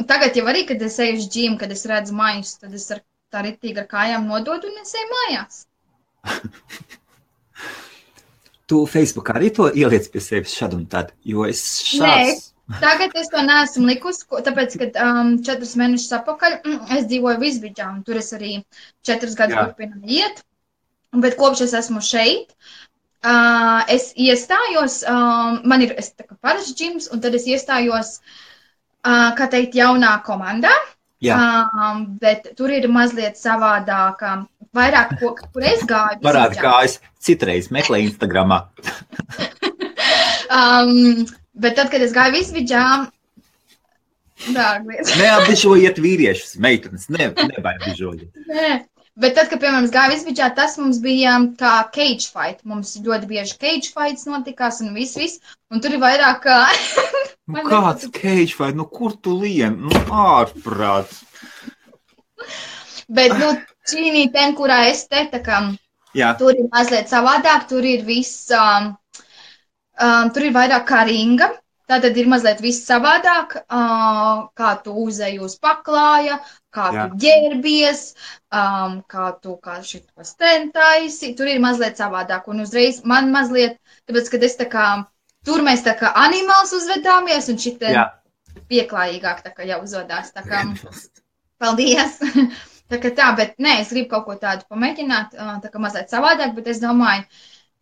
tagad jau arī, kad es eju uz džimu, kad es redzu maiņus, tad es ar tā ritīgi ar kājām nodod un es eju mājās. Tu Facebookā arī to ieliec pie sevis šad un tad, jo es šāds... Nē, tagad es to neesmu likusi, tāpēc, kad 4 mēnešus atpakaļ es dzīvoju Visbidžā, un tur es arī 4 gadus turpinu iet, bet kopš es esmu šeit, es iestājos, man ir tā kā parasts džims, un tad es iestājos, kā teikt, jaunā komandā, bet tur ir mazliet savādāk, vairāk, kur es gāju. Parādi kājas, citreiz meklē Instagramā. Bet tad, kad es gāju Visbidžā, neapbižojiet vīriešus, meitenes, nebaidbižojiet. Nē. Bet tad, kad, piemēram, es gāju Visbidžā, tas mums bija kā cage fight. Mums ļoti bieži cage fights notikās un viss. Un tur ir vairāk... Kāds cage fight? Kur tu lien? Ārprāt. Bet, čīnī ten, kurā es te, tā kā, tur ir mazliet savādāk, tur ir viss... tur ir vairāk kā ringa. Tātad ir mazliet viss savādāk, kā tu uzej uz paklāja, kā tu ģērbies, kā tu šitos taisi. Tur ir mazliet savādāk. Un uzreiz man mazliet, tāpēc, kad es tā kā, tur mēs tā kā animāls uzvedāmies, un šitien pieklājīgāk tā kā jau uzvedās. Tā kā, paldies! Tā kā tā, bet nē, es gribu kaut ko tādu pamēģināt, tā kā mazliet savādāk, bet es domāju,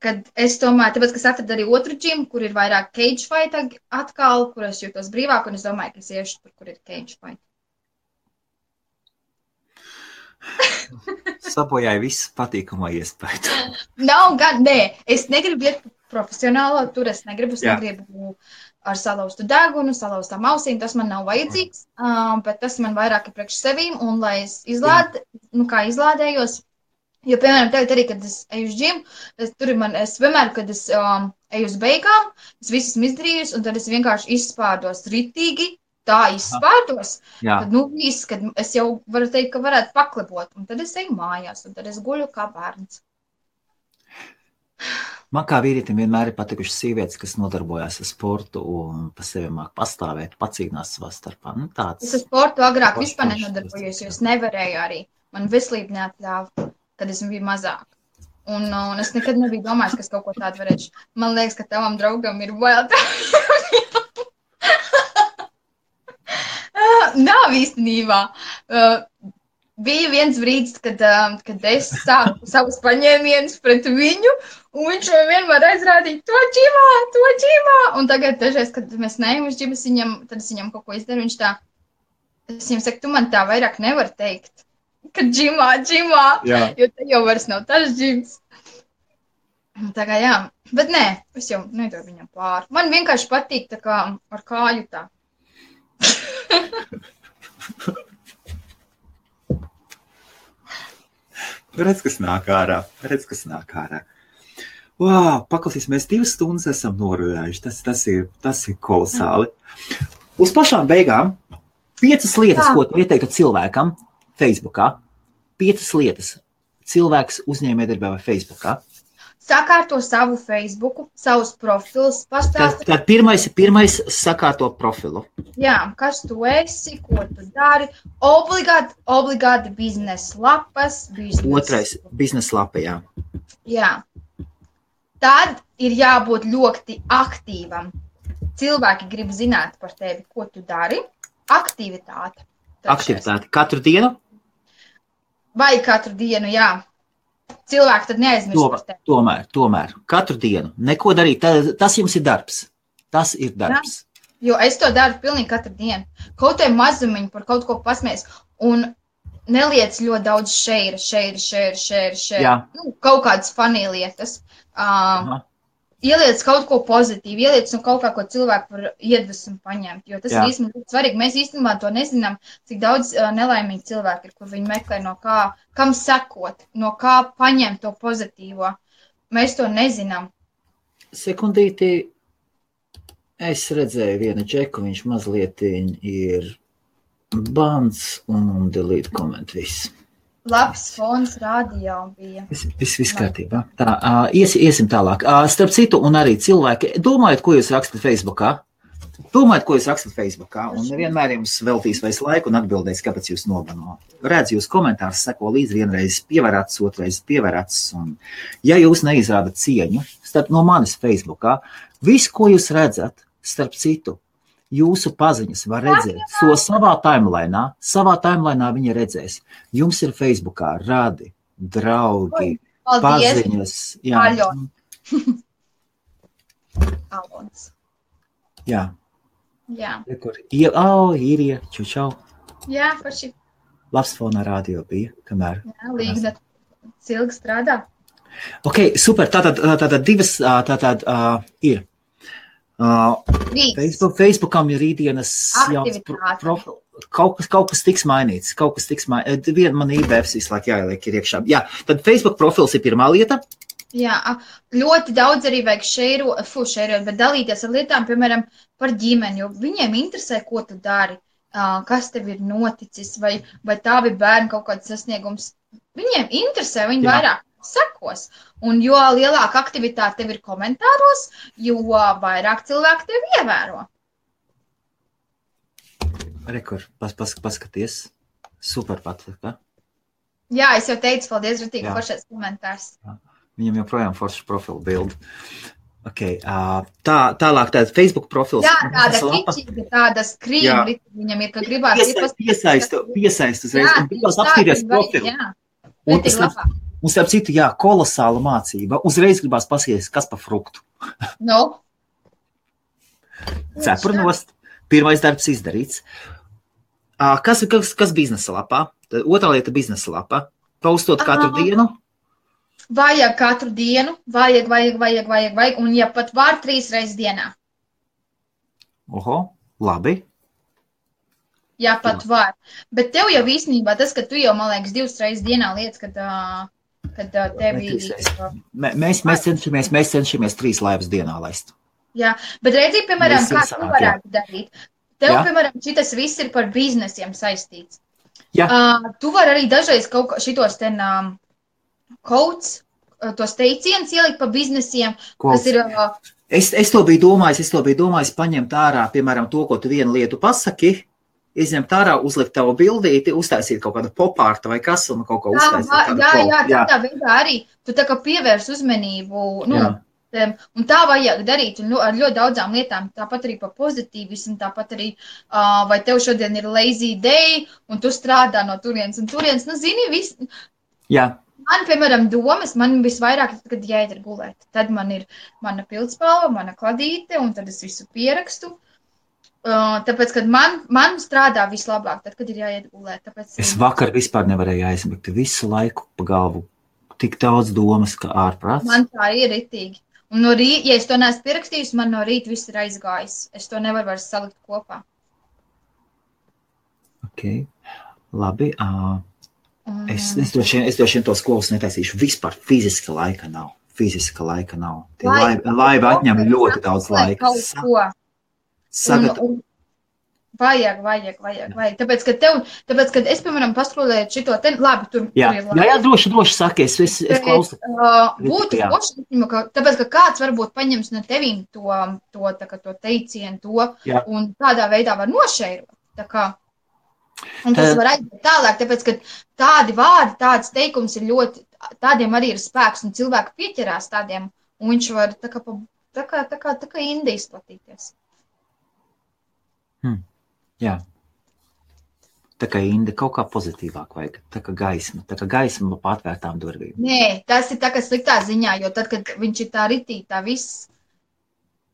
kad es tomēr, tāpēc, ka es atradu arī otru džimu, kur ir vairāk cage fight atkal, kur es jūtos brīvāk, un es domāju, ka es iešu tur, kur ir cage fight. Sabojāja visu patīkamo iespēju. Nav gan, nē, es negribu iet profesionālo, tur es negribu ar salauztu degunu, salauztām ausīm, tas man nav vajadzīgs, bet tas man vairāk ir priekš sevīm, un lai es izlādējos, jo, piemēram, tagad arī, kad es eju uz džimu, es vienmēr, kad es eju uz beigām, es visu esmu izdarījusi, un tad es vienkārši izspārdos ritīgi, tā izspārdos, tad, viss, kad es jau varu teikt, ka varētu paklebot, un tad es eju mājās, un tad es guļu kā bērns. Man kā vīrietim vienmēr ir patikušas sievietes, kas nodarbojās ar sportu un pa sevi māk pastāvēt, pacīnās savā starpā. Es ar sportu agrāk vispār nenodarbojos, jo es nevarēju arī. Man veselība neatļāva. Kad es biju mazāk. Un es nekad nebiju domājis, ka es kaut ko tādu varēšu. Man liekas, ka tavam draugam ir bail. Nav īstenībā. Bija viens brīdis, kad es sāku savus paņēmienus pret viņu, un viņš vienmēr aizrādīja to džimā. Un tagad dažreiz, kad mēs neejam uz džimu, tad es viņam kaut ko izdaru, viņš tā, es viņam saku, tu man tā vairāk nevar teikt. Kad džimā, jo te jau vairs nav tas džims. Tā kā jā, bet nē, es jau nedodu viņam pāri. Man vienkārši patīk tā kā ar kāju tā. Redz, kas nāk ārā. Wow, paklausīs, mēs 2 stundas esam norunājuši. Tas ir kolosāli. Uz pašām beigām 5 lietas, ko tu ieteiktu cilvēkam, Facebookā. 5 lietas. Cilvēks uzņēmējdarbībā vai Facebookā. Sakārto savu Facebooku, savus profilus, pastāst. Tad pirmais sakārto profilu. Jā, kas tu esi, ko tu dari. Obligāti biznesa lapas. Otrais, biznesa lapa, jā. Jā. Tad ir jābūt ļoti aktīvam. Cilvēki grib zināt par tevi, ko tu dari. Aktivitāte. Katru dienu? Vai katru dienu, jā. Cilvēki tad neaizmirst par tevi. Tomēr. Katru dienu. Neko darīt. Tas jums ir darbs. Tas ir darbs. Jā. Jo es to daru pilnīgi katru dienu. Kaut vai mazumiņu par kaut ko pasmies. Un neliec ļoti daudz share. Kaut kādas funny lietas. Ieliec kaut ko pozitīvu, ieliec kaut kā, ko cilvēku var iedvesmu paņemt, jo tas ir īstenībā ļoti svarīgi. Mēs īstenībā to nezinām, cik daudz nelaimīgi cilvēki ir, kur viņi meklē no kā, kam sekot, no kā paņemt to pozitīvo. Mēs to nezinām. Sekundīti, es redzēju vienu džeku, viņš mazliet ir bans un delete comment viss. Labs fons radio bija. Viss kārtībā. Tā, iesim tālāk. Starp citu, un arī cilvēki, domājat, ko jūs rakstat Facebookā? Domājiet, ko jūs rakstat Facebookā, un nevienmēr jums veltīs vairs laiku un atbildēs, kāpēc jūs nobano. Redz jūs komentārus, seko līdz vienreiz pievarats, otrais pievarats, un ja jūs neizrādat cieņu, starp no manis Facebookā, visu, ko jūs redzat, starp citu, jūsu paziņas var redzēt to savā timelainā viņa redzēs. Jums ir Facebookā radi, draugi, paziņas. Jā. Alons. Jā. Jā. Īrija, čau. Jā, paši. Labs fonā radio bija, kamēr. Jā, Līgda cilgi strādā. Ok, super, tātad divas, ir. Facebookam ir rītdienas jauns profils. Kaut kas tiks mainīts. Viena man IBFs visu laiku jāieliek ir iekšā. Jā, tad Facebook profils ir pirmā lieta. Jā, ļoti daudz arī vajag šeirot, bet dalīties ar lietām, piemēram, par ģimeni, jo viņiem interesē, ko tu dari, kas tev ir noticis, vai tavi bērni kaut kāds sasniegums. Viņiem interesē, viņi vairāk sekos. Un jo lielāka aktivitāte tev ir komentāros, jo vairāk cilvēku tev ievēro. Rekur, paskaties. Super patika. Jā, es jau teicu, paldies, Rutīgi, foršais komentārs. Viņam joprojām foršs profilu bildi. Okay, tālāk tāda Facebook profils. Jā, tāda kičīga, tāda skrīma, viņam ir, ka gribās. Piesaistu uzreiz, un gribās apstīties profilu. Un starp citu, kolosāla mācība. Uzreiz gribās pasies, kas pa fruktu. No. Cepurnost. Pirmais darbs izdarīts. Kas biznesa lapā? Otrā lieta biznesa lapā. Postot katru dienu. Vajag katru dienu. Vajag. Un ja pat var 3 reizes dienā. Oho, labi. Ja pat var. Bet tev jau īstenībā tas, ka tu jau, man liekas, 2 reizes dienā lietas, kad tevi... Mēs cenšamies 3 laivas dienā laist. Jā, bet redzi, piemēram, kā tu varētu darīt. Tev, piemēram, šitas viss ir par biznesiem saistīts. Jā. Tu vari arī dažreiz kaut šitos ten codes, tos teicienus ielikt pa biznesiem, kas ir... Es to biju domājis paņemt ārā, piemēram, to, ko tu vienu lietu pasaki, izņemt ārā, uzlikt tavu bildīti, uztaisīt kaut kādu popārtu vai kas, un kaut ko uztaisīt. Jā, tādā veidā arī. Tu tā kā pievērs uzmanību, un tā vajag darīt ar ļoti daudzām lietām, tāpat arī par pozitīvismu, tāpat arī, vai tev šodien ir lazy day, un tu strādā no turienes un turienes, zini, viss. Jā. Man, piemēram, domas, man visvairāk, kad jāiet ir gulēt. Tad man ir mana pildspalva, mana kladīte, un tad es visu pierakstu. Tāpēc, kad man strādā vislabāk, tad, kad ir jāiet gulēt. Tāpēc, es vakar vispār nevarēju aizmigt visu laiku pa galvu. Tik daudz domas, ka ārprāts. Man tā ir ritīgi. Un no rīta, ja es to neesmu pierakstījusi, man no rīta viss ir aizgājis. Es to nevaru vairs salikt kopā. Ok, labi. Es droši vien tos klovus netaisīšu. Vispār fiziska laika nav. Laiva atņem ļoti daudz laika. Vajag. Tāpēc, kad es, piemēram, paskrolēju šito te, labi, tur jā, droši saki, es klausu. Būtu poši, tāpēc, ka kāds varbūt paņems no tevīm to teicienu, un tādā veidā var nošeirot. Tā kā. Un tas var aiziet tālāk, tāpēc, ka tādi vārdi, tāds teikums ir ļoti, tādiem arī ir spēks, un cilvēki pieķerās tādiem, un viņš var tā kā indi izplatīties. Jā. Tā kā indi kaut kā pozitīvāk vajag, tā kā gaisma pa atvērtām durvīm. Nē, tas ir tā kā sliktā ziņā, jo tad, kad viņš ir tā ritīgi, tā viss.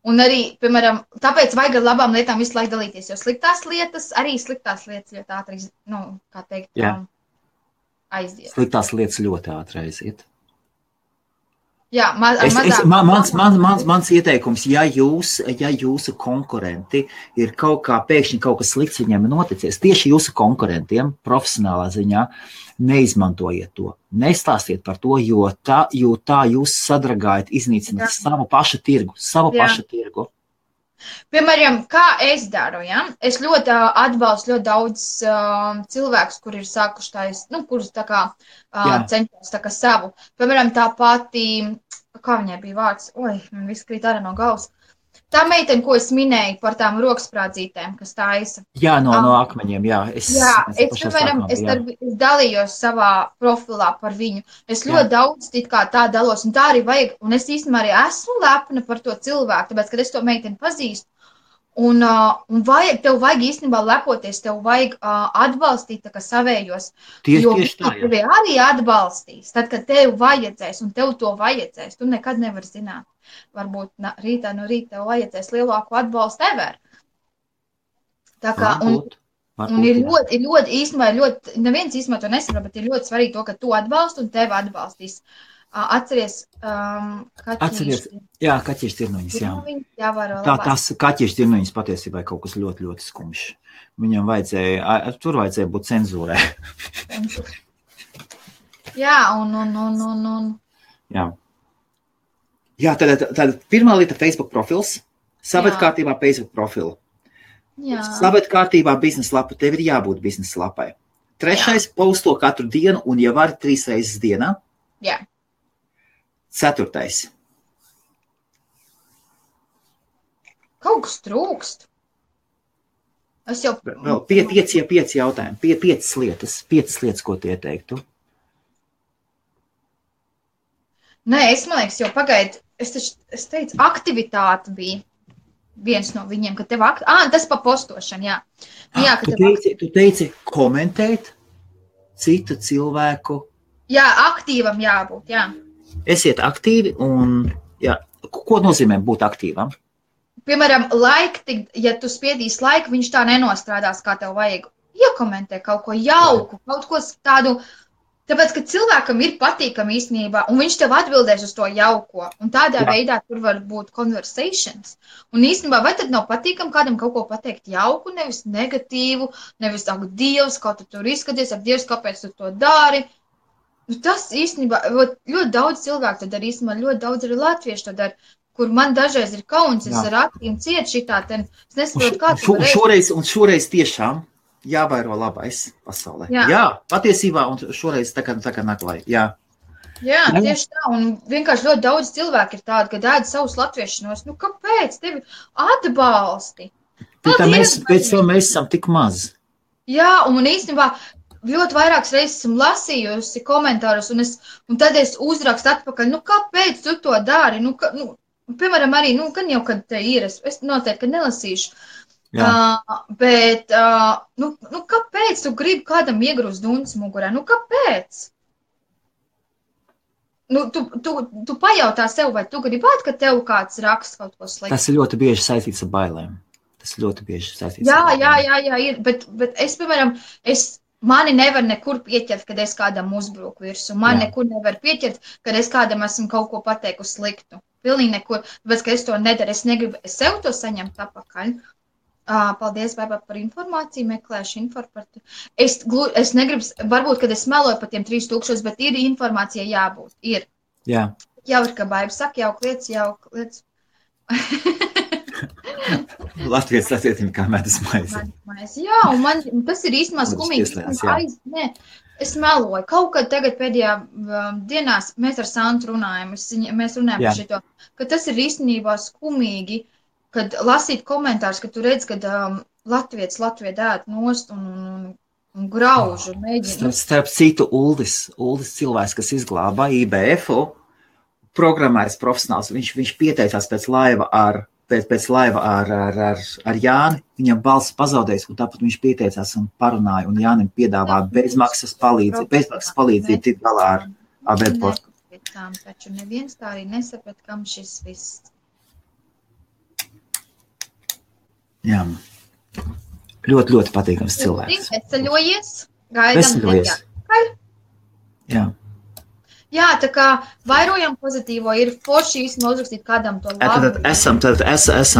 Un arī, piemēram, tāpēc vajag ar labām lietām visu laiku dalīties, jo sliktās lietas ļoti ātri, kā teikt, aiziet. Sliktās lietas ļoti ātri aiziet. Jā, mans ieteikums, ja jūsu konkurenti ir pēkšņi kaut kas slikts viņiem noticies, tieši jūsu konkurentiem profesionālā ziņā, neizmantojiet to, nestāstiet par to, jo tā jūs sadragājat, iznīcināt savu pašu tirgu. Piemēram, kā es daru, es ļoti atbalstu ļoti daudz cilvēkus, kur ir sākuši kurus tā kā cenšos tā kā savu. Piemēram, tā pati, kā viņai bija vārds, man viss krīt ārā no galvas. Tā meitene, ko es minēju par tām roksprādzītēm, kas taisa. Jā, no akmeņiem, jā. Es dalījos savā profilā par viņu. Es ļoti daudz tā dalos, un tā arī vajag. Un es īstenībā arī esmu lepna par to cilvēku, tāpēc, kad es to meiteni pazīstu. Un tev vajag īstenībā lepoties, tev vajag atbalstīt tā kā savējos. Jo tevi arī atbalstīs, tad, kad tev vajadzēs, un tev to vajadzēs. Tu nekad nevari zināt. Varbūt rītā no rīta tev vajadzēs lielāku atbalstu ever. Tā kā, un ir ļoti īstenībā, neviens īstenībā to nesaprot, bet ir ļoti svarīgi to, ka tu atbalsti un tevi atbalstīs. Atceries, kaķiešu tirnoņas, jā. Tās kaķiešu tirnoņas patiesībā ir kaut kas ļoti, ļoti skumjš. Viņam vajadzēja būt cenzūrē. Jā, un. Jā, tad pirmā lieta Facebook profils, saved kārtībā Facebook profilu. Saved kārtībā biznesa lapa, tev ir jābūt biznesa lapai. Trešais, posto katru dienu un ja var 3 reizes dienā. Jā. Ceturtais. Kaut kas trūkst. Es jau... Vēl 5 jautājumi, 5 lietas, ko tu ieteiktu. Nē, man liekas, jau pagaid, es teicu, aktivitāte bija viens no viņiem, ka tev tas pa postošanu, jā. Jā, tu teici komentēt citu cilvēku. Jā, aktīvam jābūt, jā. Esiet aktīvi un, jā, ko nozīmē būt aktīvam? Piemēram, ja tu spiedīsi laiku, viņš tā nenostrādās, kā tev vajag. Iekomentē kaut ko jauku, kaut ko tādu, tāpēc, ka cilvēkam ir patīkami īstenībā, un viņš tev atbildēs uz to jauko, un tādā veidā tur var būt conversations. Un īstenībā, vai tad nav patīkami kādam kaut ko pateikt jauku, nevis negatīvu, nevis ak, Dievs, kā tu tur izskaties, ak, Dievs, kāpēc tu to dari? Tas īstenībā, ļoti daudz cilvēku to dara, īstenībā ļoti daudz arī latviešu to dara, kur man dažreiz ir kauns, es ar acīm ciet šitā, es nesaprotu, kā tu varēsi. Un šoreiz tiešām jāvairo labais pasaulē. Jā, patiesībā, un šoreiz tā kā naklai, jā. Jā, tieši tā, un vienkārši ļoti daudz cilvēku ir tādi, ka ēd savus latviešanos, kāpēc tevi atbalsti? Pēc tam mēs esam tik maz. Jā, un īstenībā ļoti vairākas reizes esmu lasījusi komentārus, un tad es uzrakstu atpakaļ, kāpēc tu to dari? Piemēram, arī, gan jau, kad te ir, es noteikti nelasīšu. Bet, kāpēc tu gribi kādam iegrūst dundas mugurā? Kāpēc? Tu pajautā sev, vai tu gribētu, ka tev kāds raksta kaut ko sliktu? Tas ir ļoti bieži saistīts ar bailēm. Jā, ir, bet es, piemēram, mani nevar nekur pieķert, kad es kādam uzbruku virsū. Man nekur nevar pieķert, kad es kādam esmu kaut ko pateikusi sliktu. Pilnīgi nekur, tāpēc, ka es to nedaru, es negribu sev to saņemt apakaļ. Paldies, Baiba, par informāciju, meklēšu informāciju. Es negribu, varbūt, kad es meloju par tiem 3000, bet ir informācija jābūt. Ir. Jā. Jau ir, ka Baiba saka, jauk lietas. Latvijas latietim kā medus maize. Jā, un tas ir īstenībā skumīgi. Es meloju. Kaut kad tagad pēdējā dienās mēs ar Santu runājam, mēs runājam par šito, ka tas ir īstenībā skumīgi, kad lasīt komentārus, ka tu redz, kad Latvijas ēd nost un grauž un mēģina. Starp citu, Uldis cilvēks, kas izglāba IBF-u, programmējas profesionāls, viņš pieteicās pēc laiva ar Jāni, viņam balss pazaudējis, un tāpat viņš pieteicās un parunāja, un Jānim piedāvā bezmaksas palīdzību tikt galā ar webportu. Taču neviens tā arī nesaprat, kam šis viss. Jā, ļoti patīkams cilvēks. Veseļojies, gaidām nedēļ. Jā. Jā, tā kā vairojam pozitīvo, ir forši īstenībā uzrakstīt kādam to labu. Tad esam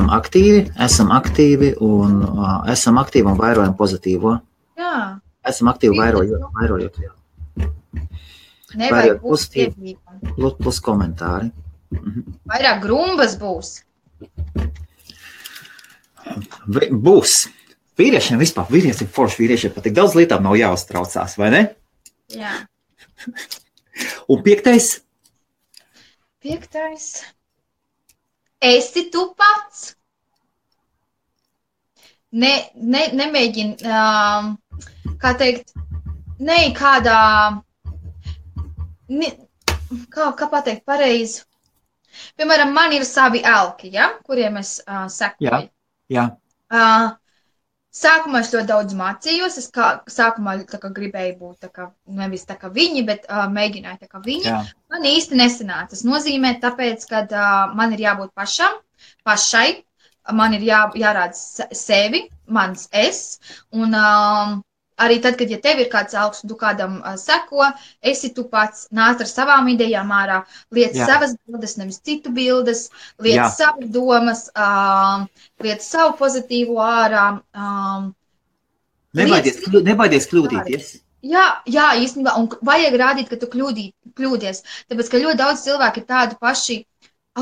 aktīvi un vairojam pozitīvo. Jā. Esam aktīvi vairojot. Nevajag pozitīvi. Plus komentāri. Vairāk grumbas būs. Būs. Vīriešiem vispār, vīriešiem pat tik daudz lietām nav jāuztraucās, vai ne? Jā. Un 5. esi tu pats. Nemēģini, kā teikt, kādā, kā pateikt pareizi. Piemēram, man ir savi elki, ja, kuriem es sekoju. Jā. Sākumā es ļoti daudz mācījos. Es sākumā gribēju būt nevis tā kā viņi, bet mēģināju tā kā viņi. Jā. Man īsti nesanāca. Tas nozīmē, tāpēc, ka man ir jābūt pašai. Man ir jārāda sevi, mans es. Un arī tad, kad tev ir kāds elks, un tu kādam seko, esi tu pats, nāc ar savām idejām ārā, liec savas bildes, nevis citu bildes, liec savas domas, liec savu pozitīvu ārā. Nebaidies kļūdīties. Jā, īstenībā, un vajag rādīt, ka tu kļūdies, tāpēc, ka ļoti daudz cilvēku ir tādi paši,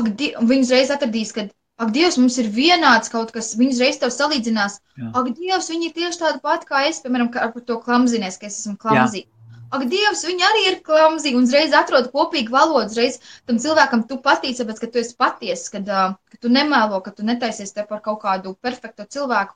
viņi uzreiz atradīs, ka ak, Dievs, mums ir vienāds kaut kas, viņi uzreiz tev salīdzinās. Jā. Ak, Dievs, viņi ir tieši tādi pati kā es, piemēram, ar to klamzinies, ka es esmu klamzī. Ak, Dievs, viņi arī ir klamzī, un uzreiz atrod kopīgu valodu, uzreiz tam cilvēkam tu patīc, tāpēc, ka tu esi patiess, ka tu nemēlo, ka tu netaisies te par kaut kādu perfektu cilvēku.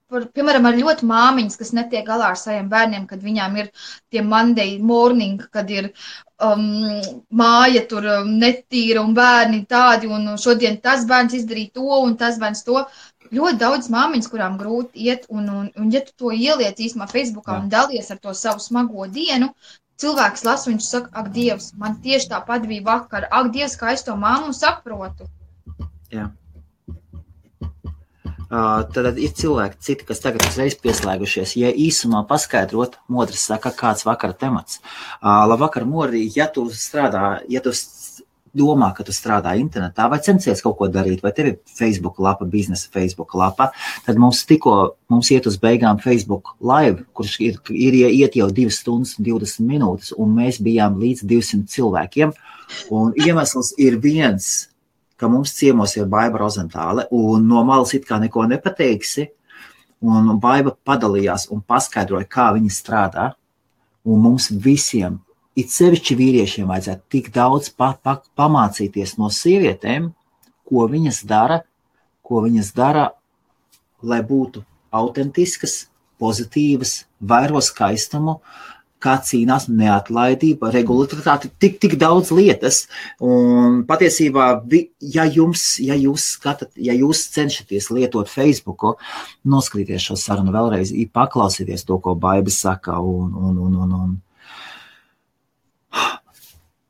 Piemēram, ar ļoti māmiņas, kas netiek galā ar saviem bērniem, kad viņām ir tie Monday morning, kad ir māja tur netīra un bērni tādi, un šodien tas bērns izdarīja to, un tas bērns to. Ļoti daudz māmiņas, kurām grūti iet, un ja tu to ieliec īstenībā Facebookā un dalies ar to savu smago dienu, cilvēks lasa, viņš saka, ak, Dievs, man tieši tāpat bija vakar, ak, Dievs, kā es to mammu saprotu. Jā. Tad ir cilvēki citi, kas tagad uzreiz pieslēgušies. Ja īsumā paskaidrot, Modris saka, kāds vakara temats. Labvakar, Mori, ja tu domā, ka tu strādā internetā vai censies kaut ko darīt, vai tev ir Facebook lapa, biznesa Facebook lapa, tad mums iet uz beigām Facebook live, kurš iet jau 2 stundas un 20 minūtes, un mēs bijām līdz 200 cilvēkiem. Un iemesls ir viens, ka mums ciemos ir Baiba Rozentāle, un no malas it kā neko nepateiksi, un Baiba padalījās un paskaidroja, kā viņa strādā, un mums visiem, it sevišķi vīriešiem, vajadzētu tik daudz pamācīties no sievietēm, ko viņas dara, lai būtu autentiskas, pozitīvas, vairo skaistumu, kā cīnās neatlaidība, regularitāte, tik daudz lietas. Un patiesībā, ja jūs cenšaties lietot Facebooku, noskatīties šo sarunu vēlreiz, paklausieties to, ko Baiba saka.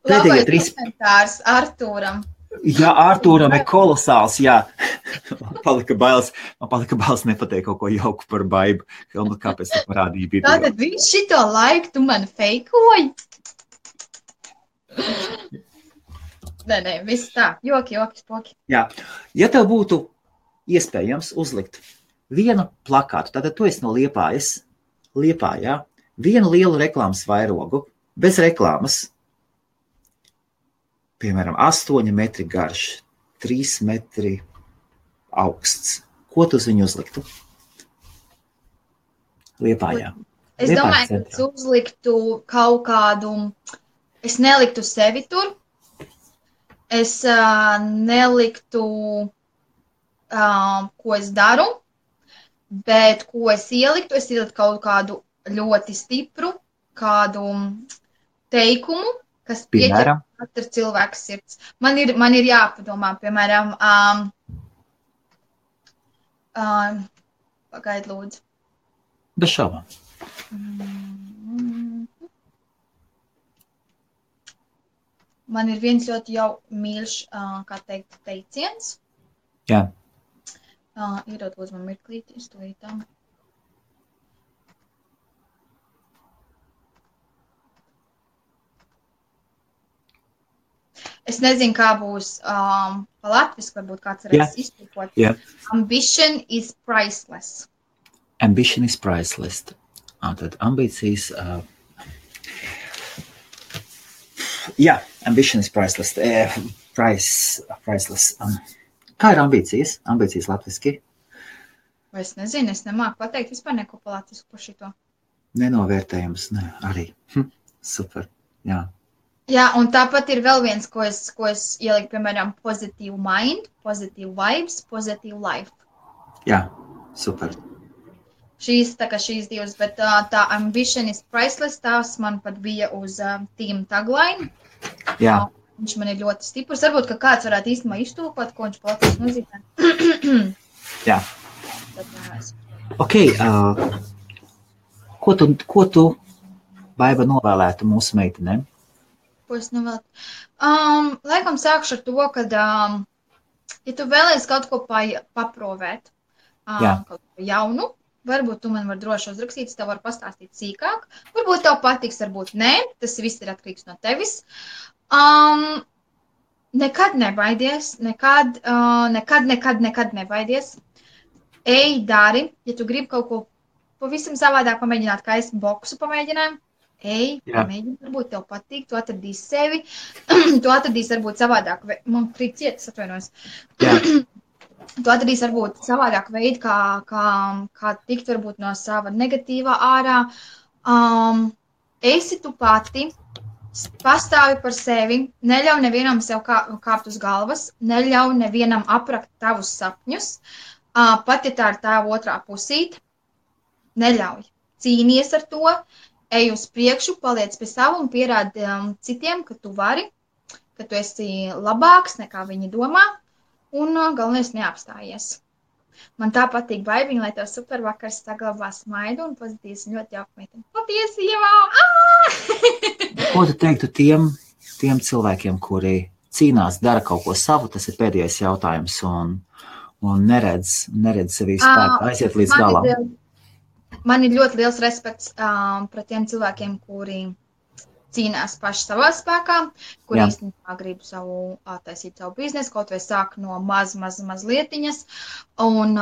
Labais komentārs Artūram. Jā, Artūram ir kolosāls, jā. Man palika bailes nepateikt kaut ko jauku par Baibu. Kāpēc tu parādīji video? Tātad viņš šito laiku tu mani feikoji? Nē, viss tā. Joki, spoki. Jā. Ja tev būtu iespējams uzlikt vienu plakātu, tātad tu esi no Liepājā, vienu lielu reklāmas vairogu, bez reklāmas, piemēram, 8 metri garš, 3 metri augsts. Ko tu uz viņu uzliktu? Liepājā. Es domāju, ka tu uzliktu kaut kādu, es neliktu sevi tur, es neliktu, ko es daru, bet ko es ieliktu kaut kādu ļoti stipru, kādu teikumu, kas pieķer katru cilvēku sirds. Man ir jāpadomā, piemēram, pagaid lūdzu. Bez šaubām. Man ir viens ļoti jau mīļš, kā teikt, teiciens. Jā. Iedod lūdzu man mirklīti, es to ītām. Es nezinu, kā būs pa latviski, varbūt kāds varēs iztūkot. Yeah. Ambition is priceless. Ambition is priceless. Tad ambīcijas... ambition is priceless. Priceless. Kā ir ambīcijas? Ambīcijas latviski? Vai es nezinu, es nemāku pateikt vispār neko pa latvisku par šito. Nenovērtējums, ne, arī. Super, jā. Jā, un tāpat ir vēl viens, ko es ieliku, piemēram, positive mind, positive vibes, positive life. Jā, super. Šīs divas, bet tā ambition is priceless, tās man pat bija uz team tagline. Jā. Viņš man ir ļoti stiprs. Varbūt, ka kāds varētu īstenībā iztulkot, ko viņš platīs nozīmē. Jā. Ok, ko tu Baiba novēlētu mūsu meitenēm? Ko es novēlētu? Laikam sākšu ar to, ka, ja tu vēlies kaut ko paprovēt, kaut ko jaunu, varbūt tu man var droši uzrakstīt, es tev varu pastāstīt sīkāk. Varbūt tev patiks, varbūt nē, tas viss ir atkarīgs no tevis. Nekad nebaidies, nekad nebaidies. Ej, dari, ja tu gribi kaut ko pavisam savādāk pamēģināt, kā es boksu pamēģināju. Ej, pamēģini, varbūt tev patīk, tu atradīsi sevi, tu atradīsi varbūt savādāk, man krīt cietas, atvainojos. Tu atradīsi varbūt savādāk veidu, kā tikt varbūt no sava negatīvā ārā. Esi tu pati, pastāvi par sevi, neļauj nevienam sev kāpt uz galvas, neļauj nevienam aprakt tavus sapņus, pat ja tā ir tā otrā pusīte, neļauj. Cīnies ar to. Ej uz priekšu, paliec pie sava un pierādi citiem, ka tu vari, ka tu esi labāks nekā viņi domā, un galvenais neapstājies. Man tā patīk Baibiņa, lai tev super vakars saglabā smaidu un pozitīvs un ļoti jauka meitene. Patiesībā! Ko tu teiktu tiem cilvēkiem, kuri cīnās, dara kaut ko savu, tas ir pēdējais jautājums, un neredz sevī spēku, aiziet līdz galam? Man ir ļoti liels respekts pret tiem cilvēkiem, kuri cīnās paši savā spēkā, kuri īstenībā grib taisīt savu biznesu, kaut vai sāk no maz lietiņas. Un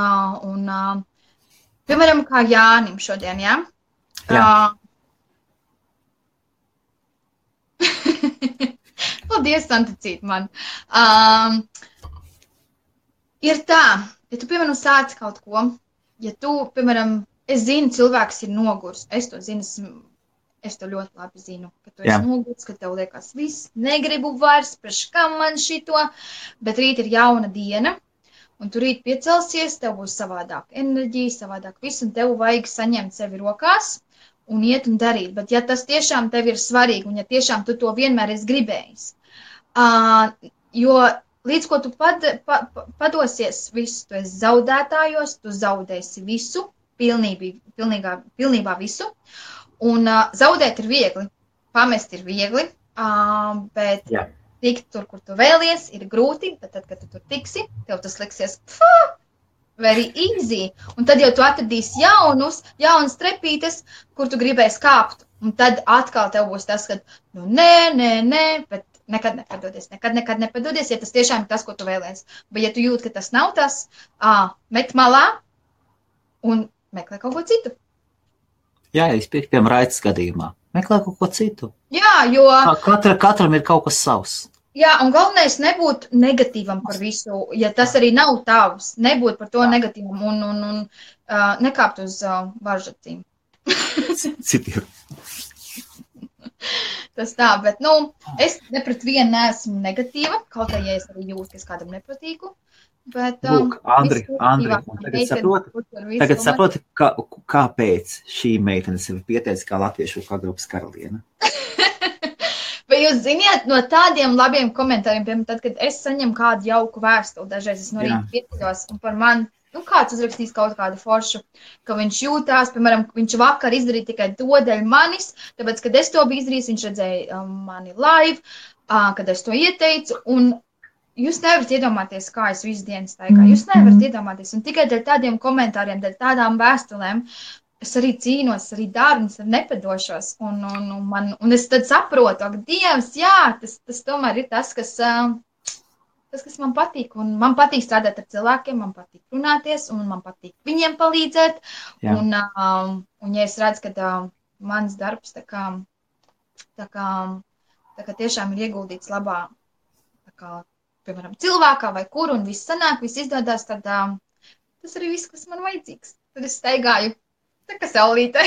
piemēram, kā Jānim šodien, jā? Paldies, Santicīt man. Ir tā, ja tu, piemēram, sāc kaut ko, ja tu, piemēram, es zinu, cilvēks ir nogurs. Es to zinu, es to ļoti labi zinu, ka tu esi nogurs, ka tev liekas viss, negribu vairs, priekš kam man šito, bet rīt ir jauna diena, un tu rīt piecelsies, tev būs savādāk enerģija, savādāk viss, un tev vajag saņemt sevi rokās un iet un darīt. Bet ja tas tiešām tev ir svarīgi, un ja tiešām tu to vienmēr esi gribējis, jo līdz ko tu padosies visu, tu esi zaudētājos, tu zaudēsi visu, pilnībā visu, un zaudēt ir viegli, pamest ir viegli, bet tikt tur, kur tu vēlies, ir grūti, bet tad, kad tu tur tiksi, tev tas liksies very easy, un tad jau tu atradīsi jaunas trepītes, kur tu gribēsi kāpt, un tad atkal tev būs tas, ka, nē, bet nekad nepadodies, ja tas tiešām ir tas, ko tu vēlies, bet ja tu jūti, ka tas nav tas, met malā un meklē kaut ko citu. Jā, es piekrītu, piemēram, Raitas gadījumā. Meklē kaut ko citu. Jā, jo... Katram ir kaut kas savs. Jā, un galvenais nebūt negatīvam par visu, ja tas arī nav tavs. Nebūt par to negatīvam un nekāpt uz varžacīm. Citiem. Tas tā, bet, es ne pret vienu neesmu negatīva, kaut kā, ja es arī jūtu, ka es kādam nepatīku. Bet, Lūk, Andri, tagad saproti, kāpēc šī meitene sevi pieteica kā latviešu grupas karaliene. Bet jūs ziniet, no tādiem labiem komentāriem, piemēram, tad, kad es saņemu kādu jauku vēstuli, dažreiz es no rīta pieceļos, un par mani, kāds uzrakstīs kaut kādu foršu, ka viņš jūtās, piemēram, viņš vakar izdarīja tikai to dēļ manis, tāpēc, kad es to biju izdarījis, viņš redzēja mani live, kad es to ieteicu, un jūs nevarat iedomāties, kā es visu dienu staigāju. Jūs nevarat iedomāties. Un tikai dēļ tādiem komentāriem, dēļ tādām vēstulēm, es arī cīnos, arī daru, un es nepadošos. Un es tad saprotu, ak, Dievs, jā, tas tomēr ir tas, kas man patīk. Un man patīk strādāt ar cilvēkiem, man patīk runāties, un man patīk viņiem palīdzēt. Un ja es redzu, ka mans darbs tā kā tiešām ir ieguldīts labā, tā kā, piemēram, cilvēkā vai kur, un viss sanāk, viss izdodās, tad tas arī viss, kas man vajadzīgs. Tad es staigāju, tā kā saulīte.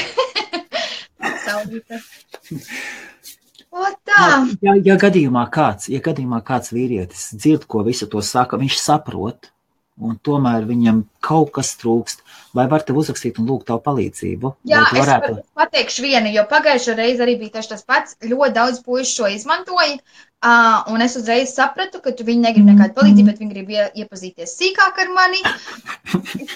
O tā! Ja gadījumā kāds vīrietis dzird, ko visu to saka, viņš saprot, un tomēr viņam kaut kas trūkst, vai var tev uzrakstīt un lūgt tavu palīdzību? Jā, es pateikšu vienu, jo pagājušo reizi arī bija tieši tas pats. Ļoti daudz puišu šo izmantoja, un es uzreiz sapratu, ka viņi negrib nekādu palīdzību, bet viņi grib iepazīties sīkāk ar mani,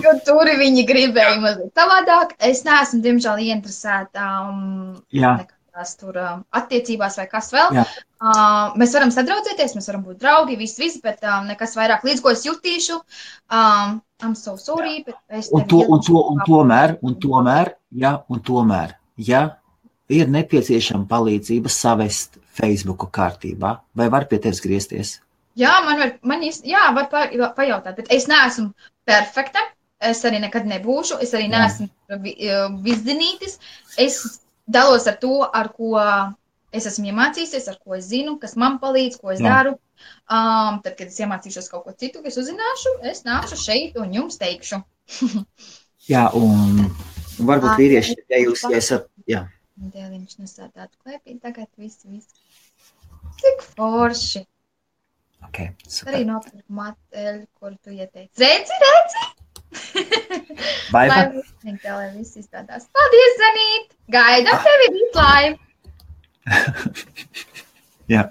jo tur viņi gribēja mazliet savādāk. Es neesmu, diemžēl, ieinteresēta nekādās tur attiecībās vai kas vēl. Mēs varam sadraudzēties, mēs varam būt draugi, visi, bet nekas vairāk, līdz ko es jutīšu. I'm so sorry, bet es tomēr, ja ir nepieciešama palīdzība savest Facebooku kārtībā, vai var pie tevis griezties? Jā, var pajautāt, bet es neesmu perfekta, es arī nekad nebūšu, es arī neesmu viszinītis, es dalos ar to, ar ko es esmu iemācījusies, ar ko es zinu, kas man palīdz, ko es daru. Tad, kad es iemācīšos kaut ko citu, kas uzzināšu, es nākšu šeit un jums teikšu. Jā, un varbūt vīrieši, ja jūs esat, jā. Dēliņš nesādātu klēpī, tagad viss. Cik forši. Ok, super. Arī nopirku mateļu, kuru tu ieteici. Redzi? Baiba? Lai viss izstādās. Paldies, Zanīt! Gaidam tevi rītlaivu! Jā.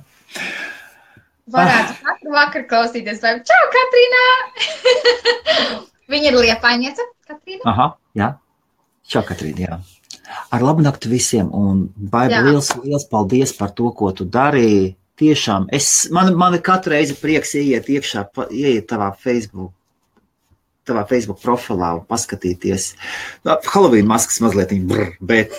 Varētu katru vakaru klausīties, vai čau, Katrīnā! Viņa ir Liepājniece, Katrīna. Aha, jā. Čau, Katrīna, jā. Ar labu nakti visiem, un Baiba, liels paldies par to, ko tu darīji. Tiešām, man katru reizi prieks ieiet tavā Facebook profilā un paskatīties. Halloween maskas mazliet, bet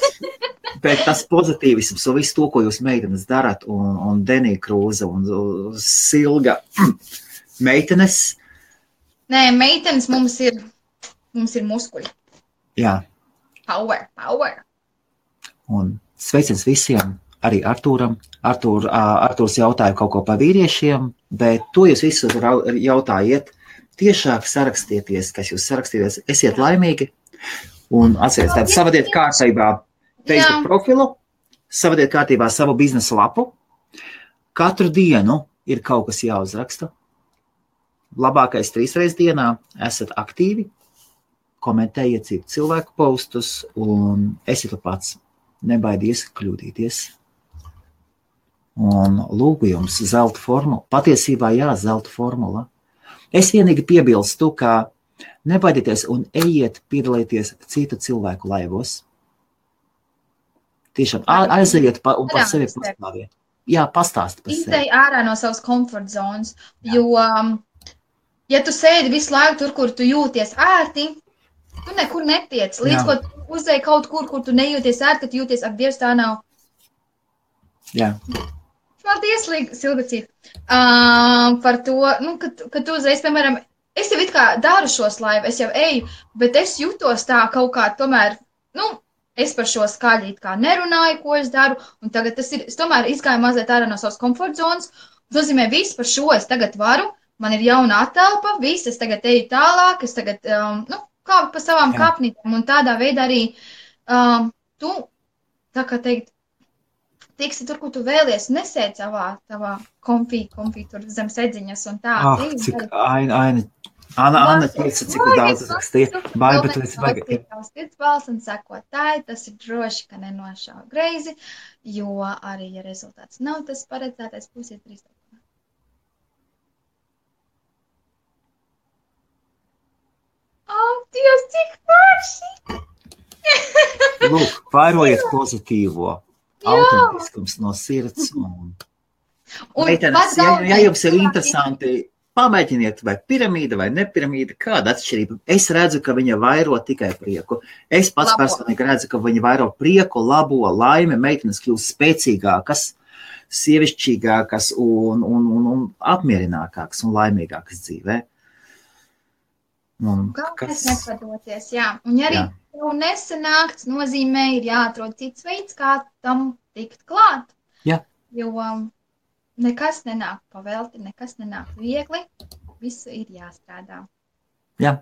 tas pozitīvisms un visu to, ko jūs meitenes darat, un Denija Krūze un Silga meitenes. Nē, meitenes mums ir muskuļi. Jā. Power. Un sveiciens visiem, arī Artūram. Artūrs jautāja kaut ko par vīriešiem, bet to jūs visu jautājiet. Tiešāk sarakstieties, kas jūs sarakstieties, esiet laimīgi un atcerieties, tātad savadiet kārtībā Facebook profilu, savadiet kārtībā savu biznesa lapu. Katru dienu ir kaut kas jāuzraksta. Labākais 3 reizes dienā esat aktīvi, komentējiet citu cilvēku postus un esiet pats. Nebaidies kļūdīties. Un lūgu jums zelta formula. Patiesībā zelta formula. Es vienīgi piebilstu, ka nebaidieties un ejiet piedalīties citu cilvēku laivos. Tiešām aiziet un par sevi pastāviet. Jā, pastāst par sevi. Izej ārā no savas comfort zonas, jo, ja tu sēdi visu laiku tur, kur tu jūties ērti, tu nekur netiec. Līdz ko tu uzdei kaut kur tu nejūties ērti, tu jūties, ak, Dievs, tā nav. Jā. Paldies, Silvicīt, par to, ka tu uzreiz, piemēram, es jau it kā daru šos laivu, es jau eju, bet es jūtos tā kaut kā tomēr, es par šo skaļi it kā nerunāju, ko es daru, un tagad es tomēr izgāju mazliet ārā no savas komfort zonas, un nozīmē visu par šo es tagad varu, man ir jauna atelpa, viss, es tagad eju tālāk, es tagad, kāpu pa savām kāpnītēm, un tādā veidā arī tu, tā kā teikt, tiksi tur, kur tu vēlies, nesēd tavā konfī tur zem sedziņas un tā. Cik Anna teica, cik daudz rakstīja. Baiba, tu esi baigi. Sirds balss un sekotāji, tas ir droši, ka nenošāva greizi, jo arī, ja rezultāts nav tas paredzētais, pusiet 3. Dievs, cik forši! Lūk, vairojiet pozitīvo. Autentiskums no sirds. Meitenes, ja jums ir interesanti, pamēģiniet, vai piramīda vai nepiramīda, kāda atšķirība. Es redzu, ka viņa vairo tikai prieku. Es pats personīgi redzu, ka viņa vairo prieku, labo, laimi, meitenes kļūst spēcīgākas, sievišķīgākas un apmierinākākas un laimīgākas dzīvē. Galvenais nepadoties, jā. Un ja arī tev nesanākts, nozīmē ir jāatrod cits veids, kā tam tikt klāt. Jā. Jo nekas nenāk pavelti, nekas nenāk viegli, visu ir jāstrādā. Jā,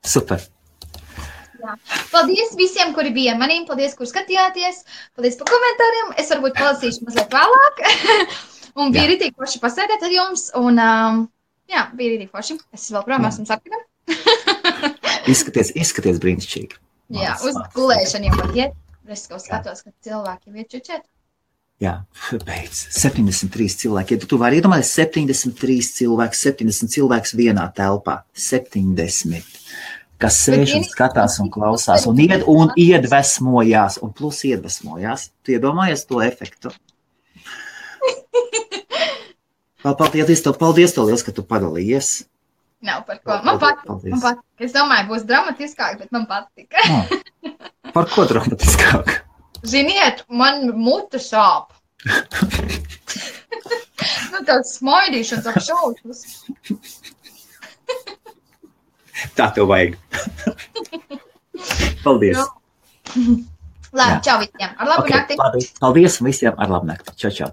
super. Jā. Paldies visiem, kuri bija ar maniem. Paldies, kur skatījāties. Paldies par komentāriem. Es varbūt palasīšu mazliet vēlāk. Un bija ritīgi forši pasēdēt ar jums. Un, jā, bija ritīgi forši. Es vēl projām esmu sarkana. Izskaties brīnišķīgi. Jā, uz gulēšanu jau var iet. Es kaut skatos, ka cilvēki jau iet čučēt. Jā, beidz. 73 cilvēki. Ja tu vari iedomāties 70 cilvēks vienā telpā. 70. Kas sēž un skatās un klausās un iedvesmojās. Un plus iedvesmojās. Tu iedomājies to efektu? Paldies tev liels, ka tu padalījies. Nav par ko. Man patika. Es domāju, būs dramatiskāk, bet man patika. Par ko dramatiskāk? Ziniet, man mute sāp. Tāds smaidīšanas ap šausmas. Tā tev vajag. Paldies. Labi, čau visiem. Ar labu nakti. Paldies visiem. Ar labu nakti. Čau.